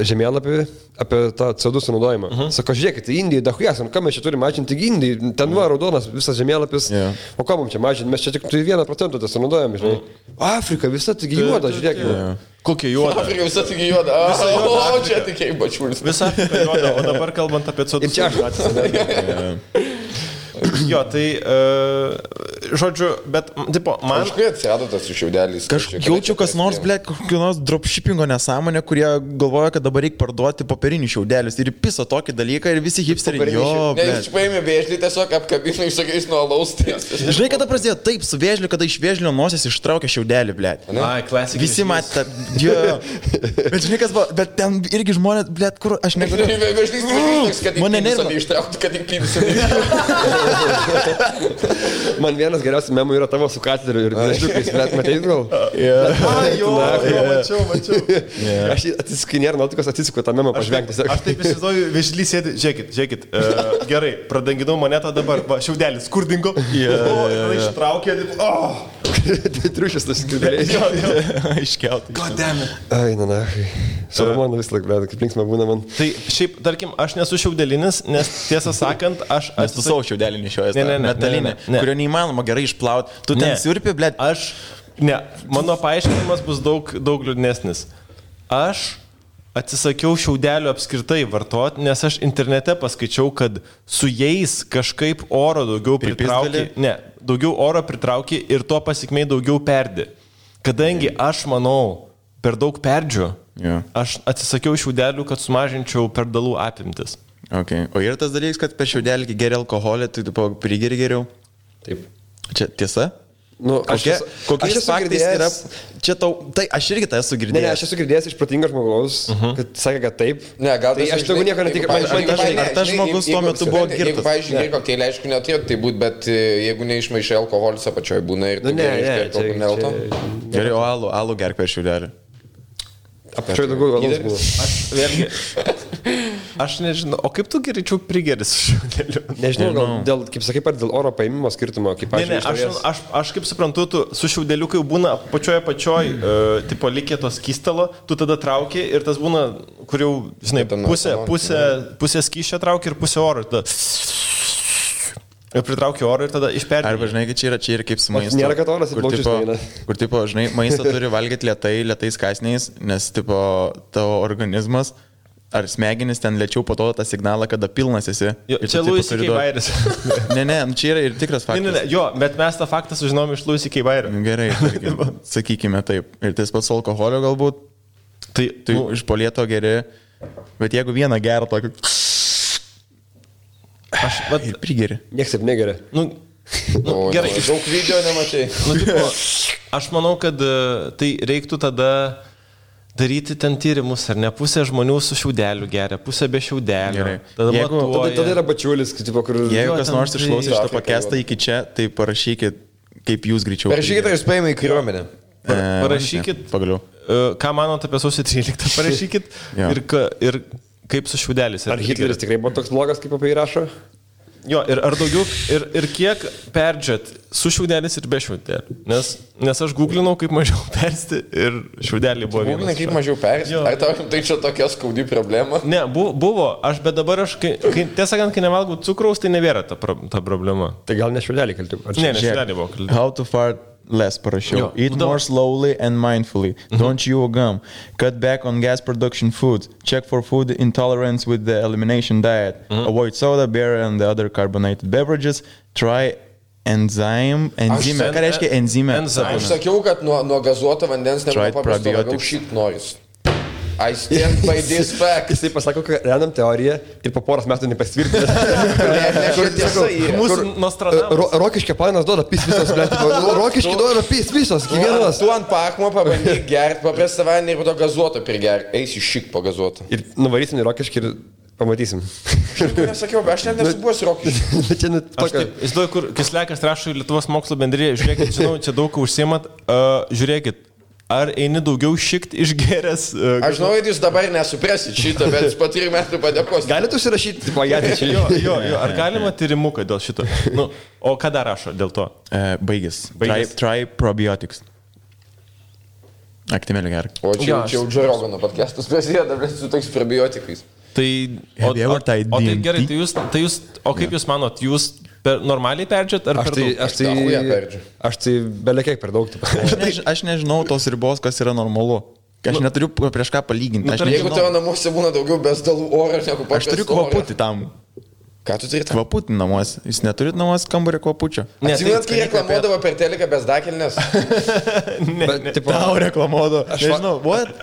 žemėlapį apie tą CO2 sunaudojimą. Sako, žiūrėkit, Indija, dahujas, ką mes čia turime mažinti Indijai, ten va, raudonas visas žemėlapis, o ką mums čia mažinti, mes čia tik 1% tai sunaudojame, žinai. Afrika visa tik juoda, žiūrėkit. Kokia juoda? Afrika visa tik juoda, o čia tik bačiulis. Visa Afrika juoda, o dabar kalbant apie CO2. Ir čia aš atsisakau. Jo, tai, žodžiu, bet, tipo, man... Kažkai atsirado tas su šiaudeliais. Jaučiu, kas nors, ble, kokio nors dropshippingo nesąmonė, kurie galvoja, kad dabar reikia parduoti popierinius šiaudelius. Ir piso tokį dalyką ir visi hipsteriai. Jo, ble. Ne, jūs paėmė vėžlį, tiesiog apkabino išsakiais nuo alaus. Žinai, kada prasidėjo taip su vėžliu, kada iš vėžlio nosies ištraukė šiaudelį, ble. Ai, klasika. Visi matė, jo. Bet žinai, kas buvo, bet ten irgi žmonės, ble, kur aš negaliu. Man vienas geriausių memų yra tavo su kateriu ir nežliukais, bet matei gal? Mačiau. Aš atsiskinėr nuotikos, atsisuku tą memą pažvengti. Aš taip įsivaizduoju, vėžlys sėdi, žiūrėkit, gerai, pradanginau monetą dabar, va, šiaudelis, kur dingo, ištraukė, Triušis tas skridėlės. Iškeltai. Goddammit. Ai, na. Salomonu vis laik, bet kaip linksma būna man. Tai šiaip, tarkim, aš nesu šiaudelinis, nes tiesą sakant, aš... Nes tu savo šiaudelį nešiojas, metalinę, kurio neįmanoma gerai išplauti. Tu ten siurpi, blėt. Mano paaiškinimas bus daug liūdnesnis. Aš atsisakiau šiaudelių apskritai vartoti, nes aš internete paskaičiau, kad su jais kažkaip oro daugiau pritraukia. Daugiau oro pritraukia ir tuo pasikmei daugiau perdi. Kadangi aš manau, per daug perdžiu, aš atsisakiau šiaudelių, kad sumažinčiau perdalų apimtis. Okay. O yra tas dalykas, kad per šiaudelį geri alkoholį, tai tu prigeri geriau? Taip. Čia tiesa? Nu, kokiais faktais yra... Čia tau... Tai aš irgi tai esu girdėjęs. Ne, aš esu girdėjęs iš protingo žmogaus, kad sakė, kad taip. Ne, gal tai aš daugiau nieko netikiu. Ar tas žmogus tuo metu buvo girtas? Jeigu, pavyzdžiui, kokteilį, aišku, neturėtų tai būti, bet jeigu neišmaišai alkoholis apačioje būna ir tai nelto. Gerai, o alų gerk per šiaudelį. Apačioje daugiau alaus buvo. Aš nežinau, o kaip tu geriau prigeri su šiaudeliu? Nežinau, gal dėl, kaip sakai, dėl oro paėmimo skirtumo, kaip aš kaip suprantu, tu su šiaudeliu, kai būna pačioj, tipo likė tos skystalo, tu tada trauki ir tas būna, kur jau, žinai, pusė skysčio trauki ir pusė oro. Ir pritraukia oro ir tada išperdi. Arba, žinai, čia yra kaip su maistu. Nėra, kad oras įplaučius neina. Kur, tipo, žinai, maistą turi valgyti lėtais kąsniais, nes, tipo, tavo organizmas ar smegenis ten lėčiau po to tą signalą, kada pilnas esi. Čia Louis C.K. Bairis. Ne, čia yra ir tikras faktas. Ne, jo, bet mes tą faktą sužinom iš Louis C.K. Bairio. Gerai, sakykime taip. Ir tas pats alkoholio galbūt, tai iš polieto geri, bet jeigu vieną gerą tokį... Ir prigeri. Niekas taip negeria. Gerai. Daug video nemačiai. Aš manau, kad tai reiktų tada daryti ten tyrimus, ar ne? Pusė žmonių su šiaudeliu geria, pusė be šiaudelių. Tada yra bačiulis, kur... Jeigu kas nors išklausė šitą pakestą iki čia, tai parašykit, kaip jūs greičiau. Parašykit, ar jūs paėmė į kariuomenę. Parašykit, pagaliau. Ką manot apie sausio 13, parašykit ir kaip su šiaudeliais. Ar Hitleris tikrai buvo toks blogas, kaip apie jį rašo? Jo, ir ar daugiau, ir kiek perdžiat su šiaudelis ir be šiaudelį. Nes aš googlinau, kaip mažiau persti ir šiaudelį buvo vienas. Googlinai, kaip mažiau persti? Ar tai čia tokia skaudi problema? Ne, buvo, bet dabar aš, tiesą sakant, kai nevalgau cukraus, tai nebėra ta problema. Tai gal ne šiaudelį kalti? Ne, šiaudelį buvo kalti. How to fart less parašiau. Eat more slowly and mindfully. Don't chew gum. Cut back on gas production foods. Check for food intolerance with the elimination diet. Avoid soda, beer and the other carbonated beverages. Try enzime. Ką reiškia enzime? Aš sakiau, kad nuo gazuoto vandens nepaprasto labiau šit noris. I stand by this fact. Jisai pasako, kad randam teoriją ir po poros metų nepasitvirtina. Mūsų Nostradamus. Rokiškio planas duoda pis visos, blėt. Rokiškį duoda pis visos, kiekvienas. Tu ant pakmo pabandyk gerti, paprastą vandenį ir po to gazuoto prigerti. Eisi šik po gazuoto. Ir nuvarysim į Rokiškį ir pamatysim. Nesakiau, bet aš net nesu buvęs Rokiškį. Aš taip, įsivaizduoju, kur Kislekas rašo į Lietuvos mokslo bendriją. Žiūrėkit, žinau, čia daug užsiimat. Žiūrėkit. Ar eini daugiau šikt išgeręs? Aš žinau, kad jūs dabar nesuprasit šitą, bet po 3 metų padėkos. Galite užsirašyti, pajatį čia. Jo, ar galima tyrimuką dėl šito? O ką dar rašo dėl to? Baigęs. Try probiotics. Aktimėlį gerk. O čia jau Joe Rogano podcastas prasideda, bet su toks probiotikais. Tai, tai gerai, tai jūs, o kaip jūs manot, jūs normaliai perdžiat ar per daug? Aš tai belekiek per daug. Aš nežinau tos ribos, kas yra normalu. Aš neturiu prieš ką palyginti. Jeigu tavo namuose būna daugiau besdalų oro, negu paprastas. Aš turiu kvaputį tam. Ką tu turi tam? Kvaputį namuose. Jūs neturit namuose kambarį kvapučio. Atsiminat, kai reklamuodavo per teleką besdakelnes? Tau reklamuodavo. Aš nežinau, what?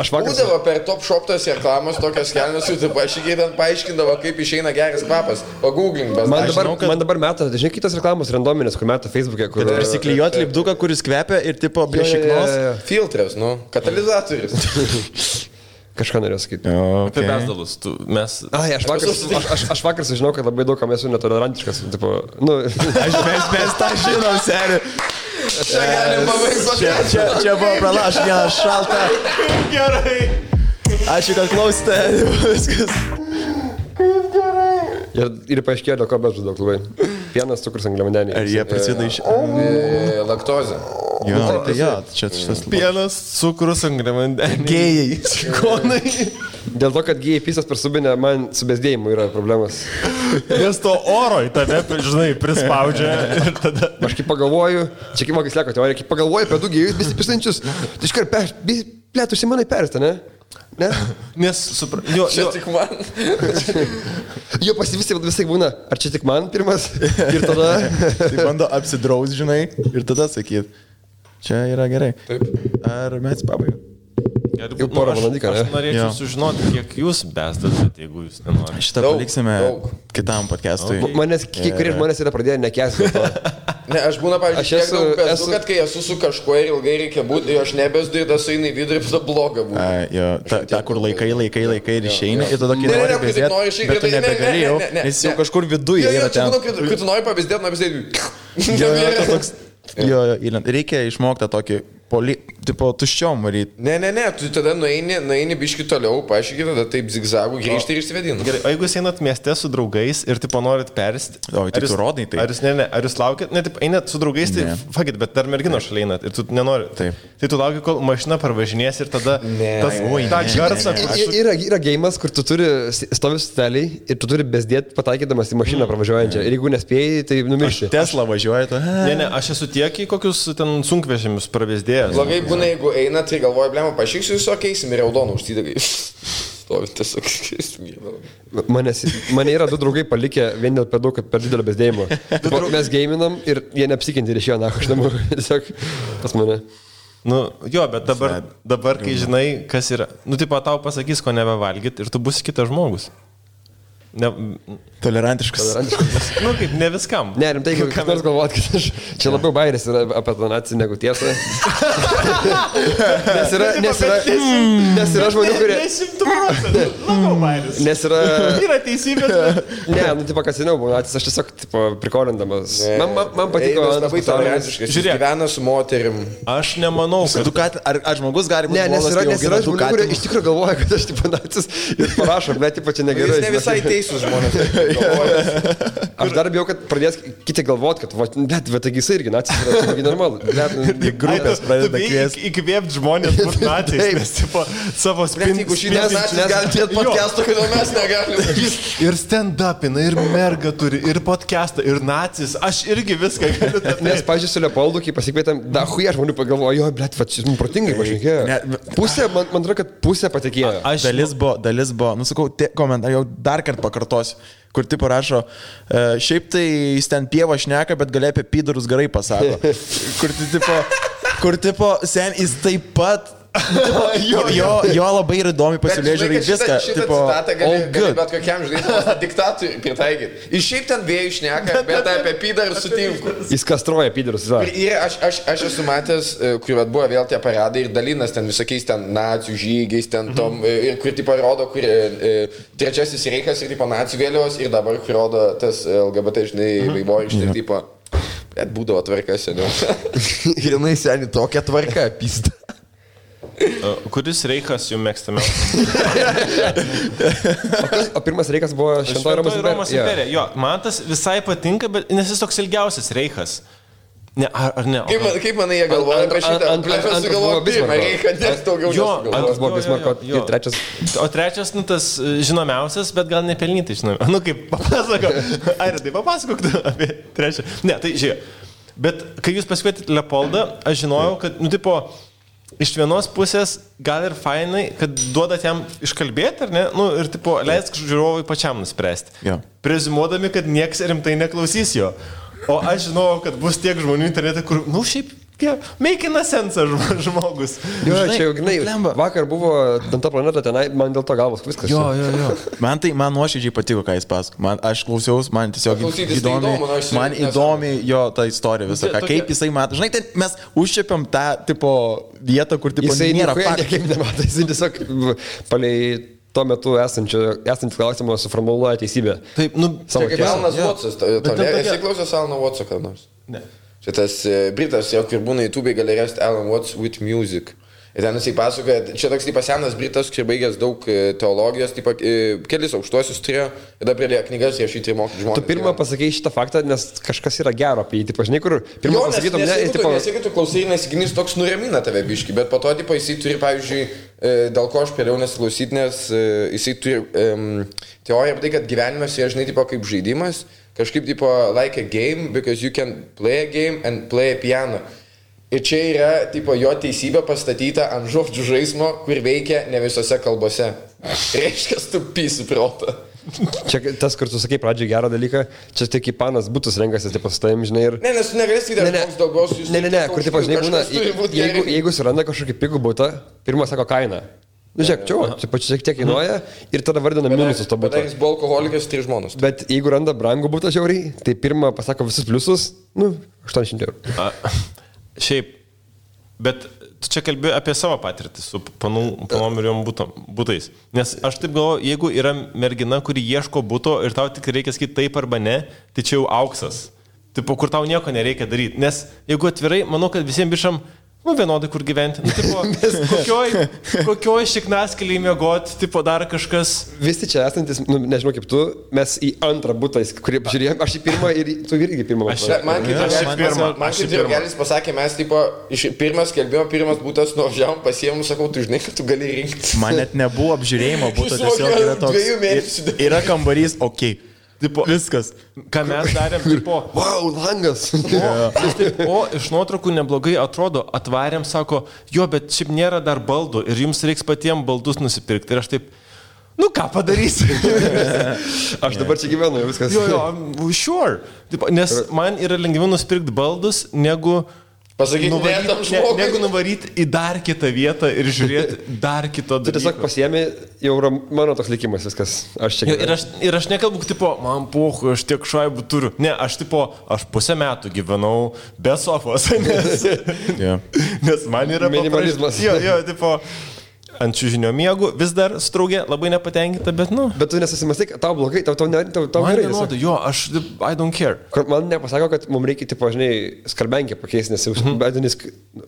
Aš būdavo per Top Shop tas reklamos tokios kelnes, tu paaiškindavo, kaip išeina geras kvapas. Pagooglink besdakelnes. Man dabar meta, žinai, kitos reklamos randominės, kur meta Facebook'e, kur... Prisiklijuot lipduką, kuris kvepia ir tipo prie šiknos. Filtras, katalizatorius. Kažką norėjau sakyti. Apie besdalus. Aš vakar sužinau, kad labai daug kam esu netolerantiškas. Tipo, mes tą žinom, seri. Čia buvo pralaš, vienas šalta. Gerai. Ačiū, kad klausėte. Viskas. Ir paaiškėjo, dėl ko bežu daug labai. Pienas, cukrus, angliavandeniai. Ar jie prasideda iš... Laktozė. Jo, tai jo, čia šitas... Pienas, cukrus, angliavandeniai. Gėjai. Šikonai. Dėl to, kad gėjai pisas per subinę, man su bezdėjimu yra problemas. Nes to oro į tave, žinai, prispaudžia ir tada... Aš kaip pagalvoju, čia kaip mokys leko teorija, kaip pagalvoju apie du gėjus besipisančius, tai iškart plėt užsimanai persta, ne? Ne? Nes, čia tik man. Jo visai būna, ar čia tik man pirmas ir tada... Tai bando apsidraus, žinai, ir tada sakyt, čia yra gerai. Taip. Ar mes pabaigą? Jau porą valandyką, ne? Aš norėčiau sužinoti, kiek jūs besdat, jeigu jūs nenorite. Šitą paliksime kitam podcastui. Manęs, kurie žmonės yra pradėję nekęsti. Ne, aš būna, pavyzdžiui, tiek daug besdu, kad kai esu su kažkuo ir ilgai reikia būti, aš nebesdu ir tas eina į vidurį, tada bloga būna. Jo, ta, kur laikai ir išeini, ir tada kai nori bezdėti, bet tu nebegali jau, nes jau kažkur viduje yra ten. Kai tu nori pavyzdėti, Jo, reikia išmokti tą tokį tipo tuščiom varyti. Ne, tu tada nueini biški toliau, paaiškiai, tada taip zigzagų grįžti ir išsivedini. Gerai, o jeigu jūs einat mieste su draugais ir tipo norit persti... O, tai tu rodai tai. Ar jūs laukit, ne, taip, einat su draugais, tai fakit, bet dar mergino šalia einat ir tu nenori. Taip. Tai tu lauki, kol mašina parvažinės ir tada tą garsą... Yra geimas, kur tu turi stovi steliai ir tu turi bezdėti pataikydamas į mašiną pravažiuojančią. Ir jeigu nespėjai, tai numirši. Tesla važiuoja, tu... Ne, aš esu tiek į kokius ten sunkvežimius pravezdėjęs. Blogai būna, jeigu eina, tai galvoju, blemo, pašyksiu jūs, keisim ir raudoną užsidagai. Stovi tiesiog keisim. Mane yra du draugai palikę vien dėl per daug, kad per didelio bezdėjimo. Mes geiminam ir jie neapsikinti ir išėjo nacho iš namų. Tiesiog pas mane. Nu, jo, bet dabar kai žinai, kas yra, nu, tipo, tau pasakys, ko nebevalgyt ir tu būsi kitas žmogus. Tolerantiškas. Nu, kaip, ne viskam. Ne, rimtai, kaip nors galvot, kad aš čia labiau bairis yra apie tą naciją negu tiesą. Nes yra žmonių, kurie... 100% labiau bairis. Nes yra... Yra teisybė. Ne, nu, tipo, kas seniau buvo nacis, aš tiesiog, tipo, prikolindamas. Man patiko... Labai tolerantiškas, jis gyvena su moterim. Aš nemanau, kad... Ar žmogus gali būti... Ne, nes yra žmonių, kurie iš tikrųjų galvoja, kad aš, tipo, nacis ir parašo, bet, tipo, čia negerai. Jis ne visai teisūs žmonės. Aš dar bijau, kad pradės kiti galvot, kad, bet taigi jisai irgi nacis yra, taigi normalu. Grupės pradeda kviesti. Įkvėpti žmonės būti nacis, nes, tipo, savo spinti. Jeigu šiandien nacis gali turėti podcast'ą, kodėl mes negalime. Ir stand-upina, ir merga turi, ir podcast'ą, ir nacis. Aš irgi viską galiu. Nes, pažiūrėjau, su Leopoldu, kai pasikvietėm, huja žmonių pagalvojo, jo, blet, šis mums protingai pašnekėjo. Pusė, man atrodo, kad pusė patikėjo. Dalis buvo, nusakau, komentarą jau dar kartą pakartosiu, kur tipo rašo, šiaip tai jis ten pievą šneka, bet gali apie pydurus gerai pasako. Kur tipo, sen, jis taip pat, jo labai ir įdomi pasižiūrėjai viską. Šitą citatą gali bet kokiam žaidimui diktatui pritaikyti. Iš šiaip ten vėjų šneka, bet apie pydurus sutinku. Jis kastruoja pydurus. Ir aš esu matęs, kur buvo vėl tie paradai ir dalinas ten visokiais ten nacijų žygiais, ten tom, kur tipo rodo, kur trečiasis reikas ir tipo nacijų vėliavos ir dabar kur rodo tas LGBT, žinai, vaivorykštė ir tipo, bet būdavo tvarka seniau. Ir jinai seniai tokia tvarka, pista. Kuris reikas jums mėgstamiausias? O pirmas reikas buvo Šventoji Romos imperija. Jo, man tas visai patinka, bet nes jis toks ilgiausias reikas. Ne, ar ne? Kaip manai jie galvoja apie šitą? Aš sugalvoju pirmą reiką, nes daugiau antras buvo Bismarko ir trečias. O trečias, tas žinomiausias, bet gal nepelnytai žinomiausias. Kaip papasako. Ar tai papasakok apie trečią. Ne, tai žiūrėjau. Bet kai jūs pasikvietėte Leopoldą, aš žinojau, kad, iš vienos pusės gal ir fainai, kad duodat jam iškalbėti, ar ne? Ir, leisk žiūrovui pačiam nuspręsti. Ja. Prezimuodami, kad nieks rimtai neklausys jo. O aš žinau, kad bus tiek žmonių internete, kur, šiaip, meikina sensą žmogus. Jo, čia jau, vakar buvo ta planeta tenai, man dėl to galvos viskas. Jo. Man nuoširdžiai patiko, ką jis pasako. Aš klausiausi, man tiesiog įdomi jo ta istorija visą, kaip jisai mato. Žinai, mes užčiapiam tą vietą, kur nėra faktų. Jisai nemato, jisai tiesiog palei tuo metu esantį klausimą suformuluoja teisybę. Taip, čia kaip Alanas Watsas. Esi klausęs Alano Watso kada nors? Ne. Čia tas Britas, kur būna YouTube gali rasti Alan Watts with Music. Ir ten jisai pasakoja, čia toks senas Britas, kur baigęs daug teologijos, kelis aukštuosius turėjo, ir dabar pradėjo knygas rašyti ir mokyti žmonės. Tu pirmą pasakei šitą faktą, nes kažkas yra gero apie jį, žinai, kur pirmą pasakytum, ne, nes jeigu tu klausai ir nesiginis, toks nuramina tave biški, bet po to, jisai turi, pavyzdžiui, dėl ko aš pėliau nesiklausyti, nes jisai turi teoriją apie tai, kad gyvenimas yra, žinai, kaip žaidimas, kažkaip, like a game, because you can play a game and play a piano. Ir čia yra, jo teisybė pastatyta ant žodžių žaismo, kur veikia ne visose kalbose. Reiškia, tu pysi protą. Čia tas, kur tu sakai pradžiai gerą dalyką, čia tik kaip panas būtus renkasi, su tavim, žinai, ir... Ne, nes tu negalėsi įdėti koks daugos jūs... Ne, kur, žinai, būna, jeigu suranda kažkokį pigų būtą, pirmą sako kainą. Žiūrėk, čia pačiu šiek tiek kainuoja ir tada vardina minusus to būto. Bet jis buvo alkoholikas 3 žmonos. Bet jeigu randa brangų būtą žiauriai, tai pirmą pasako visus pliusus, 800 €. Šiaip, bet tu čia kalbėjai apie savo patirtį su panom ir jom būtais. Nes aš taip galvoju, jeigu yra mergina, kuri ieško būto ir tau tik reikia sakyti taip arba ne, tai čia jau auksas. Tipo, kur tau nieko nereikia daryti. Nes jeigu atvirai, manau, kad visiems bišam vienodai kur gyventi. Kokioj šiknaskeliai mėgoti, dar kažkas. Visi čia esantis, nežinau kaip tu, mes į antrą butą, kurį apžiūrėjom, aš į pirmą ir tu irgi pirmą. Man kaip Gelis pasakė, mes pirmas skelbimo, pirmas būtas nuvažiavom, pasiėmų, sakau, tu žinai, kad tu gali rinkti. Man net nebuvo apžiūrėjimo būto, tiesiog yra toks. Yra kambarys, okei. Viskas. Ką mes darėm, wow, langas. Iš nuotraukų neblogai atrodo, atvarėm, sako, bet šiaip nėra dar baldų ir jums reiks patiems baldus nusipirkti. Ir aš taip, ką padarysi? Aš dabar čia gyvenu, viskas. Sure. Nes man yra lengviau nusipirkti baldus, negu... Pasakyti, negu nuvaryti į dar kitą vietą ir žiūrėti dar kito dalyko. Tu tiesiog pasiemi, jau mano toks likimas viskas. Aš čia ir aš nekalbu, man pohu, aš tiek šaibų turiu. Ne, aš pusę metų gyvenau be sofos, nes man yra minimalizmas. Ant čiužinio miegų vis dar straugė, labai nepatenkinta, bet Bet tu nesusimastai, tau blogai, tau gerai. Aš I don't care. Man nepasako, kad mums reikia, žinai, skarbenkę pakeisti, nes bedinis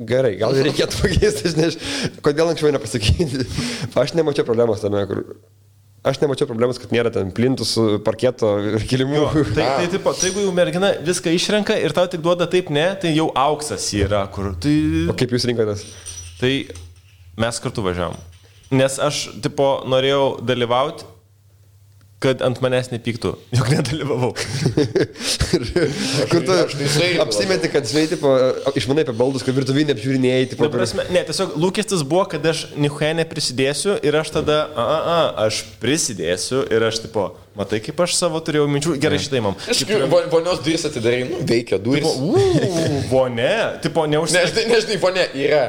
gerai, gal reikėtų pakeisti, žinai, kodėl anksčiau nepasakyti. Aš nemačiau problemos tame, kad nėra ten plintų su parketo ir kilimų. Jeigu jau mergina viską išrenka ir tau tik duoda taip ne, tai jau auksas yra. O kaip jūs rinkotės? Tai mes kartu važiavom. Nes aš, norėjau dalyvauti, kad ant manęs nepyktų. Juk nedalyvavau. Kur tu apsimeti, kad, žinai, išmanai apie baldus, kad virtuvinė apžiūrinėjai. Ne, tiesiog lūkestis buvo, kad aš nichuoje neprisidėsiu ir aš tada, aš prisidėsiu ir aš, matai, kaip aš savo turėjau minčių, gerai šitai mam. Vonios duris atidarai, veikia duris. Vonė, neužsirakina. Nežinai, vonė yra.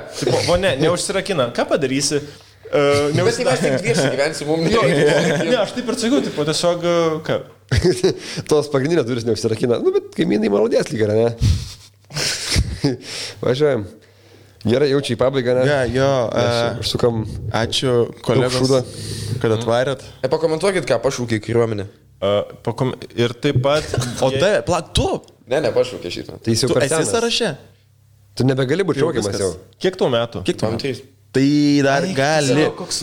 Vonė, neužsirakina. Ką padarysi? Bet tai mes tik dviesi gyvensi, mums nereikia. Ne, aš taip ir sakiau, tiesiog, ką? Tos pagrindinės duris neužsirakina. Bet kaimynai malodės lyg yra, ne? Važiuojam. Gerai, jaučiu į pabaigą, ne? Užsukam. Ačiū, kolegos, kad atvarėt. Pakomentuokit, ką pašūkė kariuomenė. Ir taip pat... O tu? Ne, pašūkė šitą. Tai jis jau esi sąraše? Tu nebegali būti šaukiamas jau. Kiek tau metų? Kiek tau 3. Tai dar gali.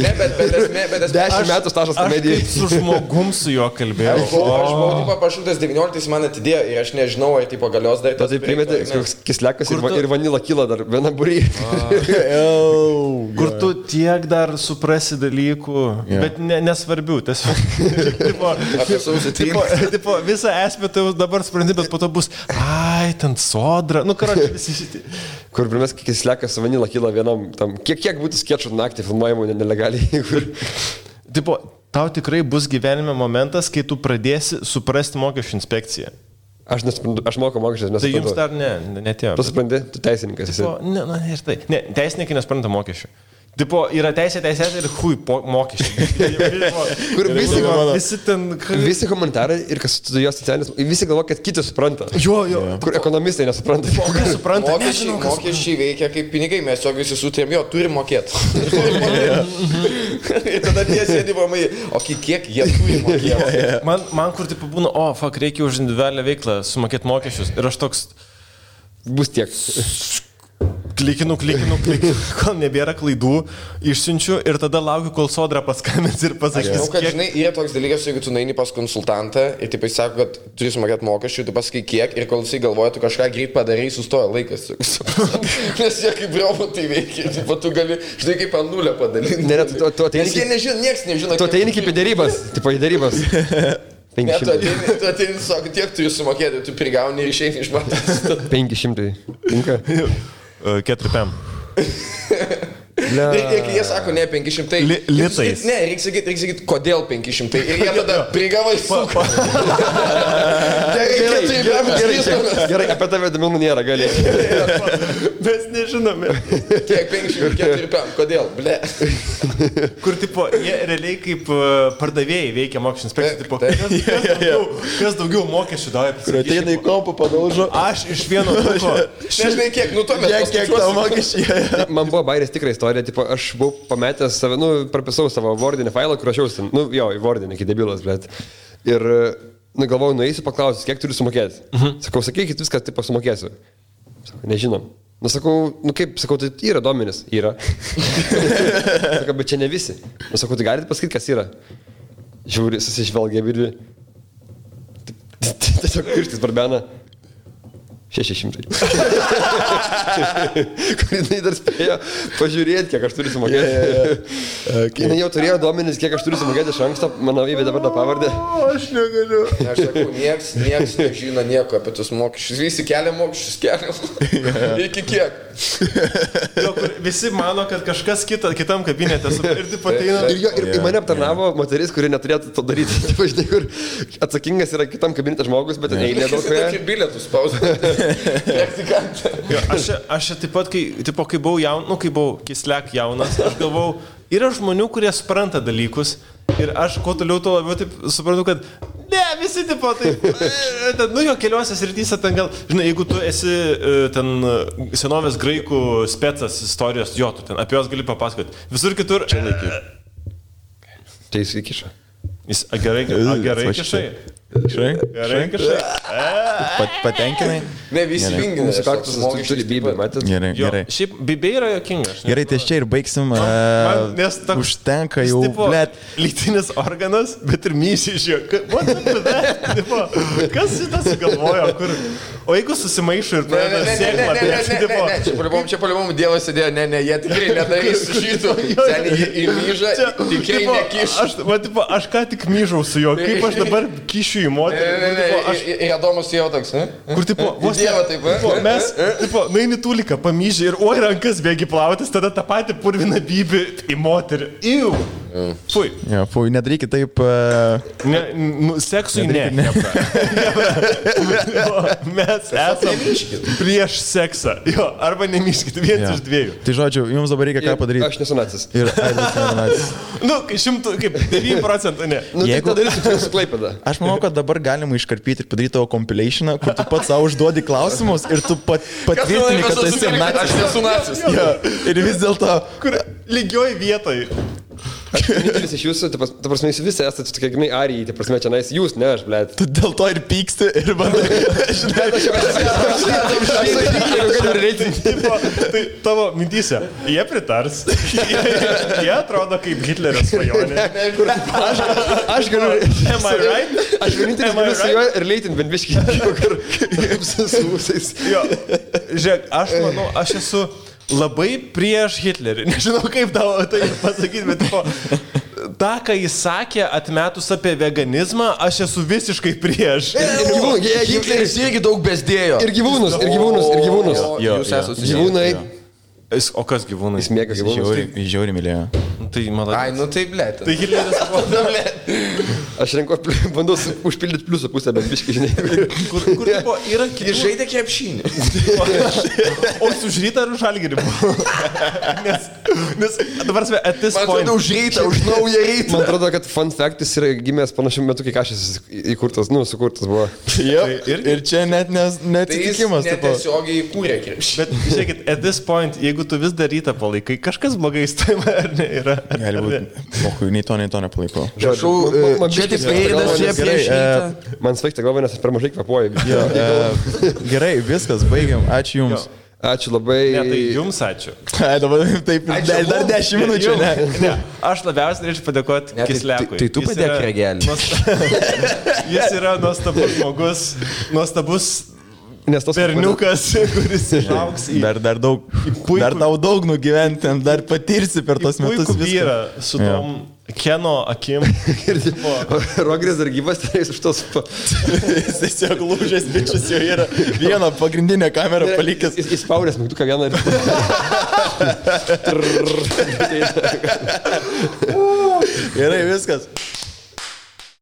Ne, bet 10 metų stažas komedijai. Aš su žmogum su juo kalbėjau. Aš buvau pašūtas 19, man atidėjo ir aš nežinau, ar tipo galios dar. Tai primeti, koks kislekas ir vanila kyla dar vieną būrį. Kur tu tiek dar suprasi dalykų, bet nesvarbių. Tipo, visą esmę tai dabar supranti, bet po to bus, ai, ten sodra. Nu, karoči, visi šitie. Kur primės kislekas su vanila kyla vienam tam. Kiek būtų skečų naktį filmuojamų nelegaliai. Tipo, tau tikrai bus gyvenime momentas, kai tu pradėsi suprasti mokesčių inspekciją. Aš nesuprantu, aš moku mokesčius, nesuprantu. Tai jums dar netėjo. Tu supranti, tu teisininkas esi. Ir tai. Ne, teisininkai nespranta mokesčių. Tipo, yra teisė ir mokesčiai. Kur visi ten... Visi komentarai ir kas studijuos socialinis, visi galvo, kad kiti supranta. Jo. Kur ekonomistai nesupranta. Mokesčiai veikia kaip pinigai, mes jo visi sutarėm, jo, turi mokėti. Ir tada tie sėdi vamai, o kiek jie turi mokėti. Man kur tipo būna, reikia už individualią veiklą sumokėti mokesčius. Ir aš toks... Bus tiek. Klikinu, kol nebėra klaidų, išsiunčiu ir tada laukiu, kol sodra paskambins ir pasakys. Aš žinau, kad žinai, yra toks dalykas, jeigu tu nueini pas konsultantą ir taip jis sako, kad turi sumokėti mokesčių, tu pasakai kiek ir kol jisai galvoja, tu kažką greit padarai, sustoja laikas. Nes jie kaip robotai veikia, tu gali, žinai, kaip ant nulę padalinti. Nes jie nežino, nieks nežino. Tu ateini kaip į dėrybas, tipo į dėrybas. Ne, tu ateini, sako, tiek turi sumokėti, tu prigauni ir išeini iš matas. 500. Tinka? 4 PM. Ir jie sako, ne, 500. Litais. Ne, reikia sakyti, kodėl 500. Ir jie tada prigavai suko. Gerai, apie tave duomenų nėra, gali. Mes nežinome. Kiek 504 PM, kodėl, ble. Kur, tipo, jie realiai kaip pardavėjai veikia mokesčių inspekcijų, tipo, kas daugiau mokesčių davė. Kur ateina į kompą, padaužo. Aš iš vieno truko. Nežinai, kiek, nu to mes kiek tavo mokesčiai. Man buvo bairės tikra istorija, tipo, aš buvau pametęs save, prapisau savo Wordinį failą, kur rašiausi, į Wordinį, iki debilas, bet. Ir, galvojau, nueisiu paklausti, kiek turiu sumokėti. Sakau, sakykit viską, tipo, sumokėsiu. Sakau, nežinom. Sakau, sakau, tai yra duomenys. Yra. Sakau, bet čia ne visi. Sakau, tai galite pasakyti, kas yra. Žiūri, susižvelgia ir tiesiog pirštis barbena. 600. Kur jinai dar spėjo pažiūrėti, kiek aš turiu sumokėti. Jinai jau turėjo duomenis, kiek aš turiu sumokėti iš anksto, mano įvedė dabar tą pavardę. Aš negaliu. Aš sakau, nieks nežino nieko apie tus mokesčius. Visi kelia mokesčius, kelia. Iki kiek? Visi mano, kad kažkas kitam kabinete ir taip ateina. Ir mane aptarnavo moteris, kuri neturėtų to daryti. Žinai, kur atsakingas yra kitam kabinete žmogus, bet eilė daug. Aš bilietus spausdinau. Aš taip pat, kai buvau kislek jaunas, aš galvau, yra žmonių, kurie supranta dalykus ir aš kuo toliau to labiau taip suprantu, kad ne, visi tipo taip, keliuose srityse ten gal, žinai, jeigu tu esi ten senovės graikų specas istorijos, tu ten apie jos gali papasakoti. Visur kitur... Čia laiky. Tai jis įkiša. Jis gerai kišai. Gerai kažkai. Patenkinai? Ne, visi vingina. Mūsų kaktusas turi bybę, matėt? Gerai. Šiaip bybė yra jokingas. Gerai, tai čia ir baigsim. Užtenka jau, blėt. Lytinis organas, bet ir mysi iš jo. Kas šitą sugalvojo? O jeigu susimaišo ir pradeda sėklą. Čia palivom Dievas sėdėjo, ne, jie tikrai nedarys šitų. Seniai į myžą, tikrai nekiš. Aš ką tik myžau su juo, kaip aš dabar kišiu į moterį. Ir Adomas jau toks, ne? Kur, tipo, vos Dievą taip, mes, tipo, naini tūliką, pamyžį ir rankas bėgi plautis, tada tą patį purviną bybį į moterį. Iu! Fui. Ja, fui, nedarykit taip... Seksui ne. Mes esame prieš seksą. Jo, arba nemyškit, viens iš dviejų. Tai žodžiu, jums dabar reikia ką padaryti. Aš nesu nacis. Ir nacis. Kaip 9% ne. Jeigu darysiu su Klaipėda. Aš manau, kad dabar galima iškarpyti ir padaryti tavo compilationą, kur tu pats savo užduodi klausimus ir tu patvirtini, kad esi nacis. Aš nesu nacis. Ja. Ir vis dėlto... Kur lygioj vietoj. Vienintelis iš jūsų, ta prasme, jūs visi esate tokie, žinai, arijai, ta prasme, čia nais, jūs, ne aš, blėt. Tu dėl to ir pyksti ir bandai. Tai tavo mintyse, jie pritars, jie atrodo kaip Hitlerio svajonė. Aš galiu... Am I right? Aš vienintelis galiu su juo ir leitin bent biškį, kaip su ūsais. Jo, žiūrėk, aš manau, aš esu labai prieš Hitlerį. Nežinau, kaip tau tai pasakyti, bet tą, ką jis sakė, atmetus apie veganizmą, aš esu visiškai prieš. Hitleris irgi daug bezdėjo. Ir gyvūnus. Jūs esate gyvūnai. O kas gyvūnai? Jis mėga gyvūnus. Jis žiauri mylėjo. Tai maladai. Ai, nu tai blėt. Tai Hitleris buvo, blėt. Aš bandau užpildyti pliusų pusę, bet biškai, žinai. Kur buvo, yra kiti. Jis žaidė krepšinį. O jis už rytą ar už Žalgirį buvo? Nes, dabar svei, at this point. Man atrodo, už rytą, už naują rytą. Man atrodo, kad fun fact jis yra gimęs panašiu metu, kai kažkas įkurtas, sukurtas buvo. Ir čia net neatsitikimas. Tai jis netiesiogiai įkūrė krepšinį. Bet, žiūrėkit, at this point, jeigu tu vis dar rytą palaikai, kažkas blogai įstojama ar ne yra. Gali būti. Mohu, nei to nepalaikau. Čia tik veidas, čia prieš rytą. Man svaigta galva, nes aš per mažai kvapuoju. Gerai, viskas, baigiam. Ačiū Jums. Ačiū labai. Ne, tai Jums ačiū. Dabar taip, dar 10 minučių. Ne, aš labiausiai norėčiau padėkoti Kisliakui. Tai tu padėk regelį. Jis yra nuostabus žmogus, nuostabus berniukas, kuris išaugs į... Dar daug nugyventi, dar patirsi per tos metus viską. Vyrą su tom Keno akim. Rogris dar gyvas, tai jis už tos... Jis tiesiog lūžęs bičias jau yra vieną pagrindinę kamerą palikęs. Jis spaudęs mygtuką vieną ir... Gerai, viskas.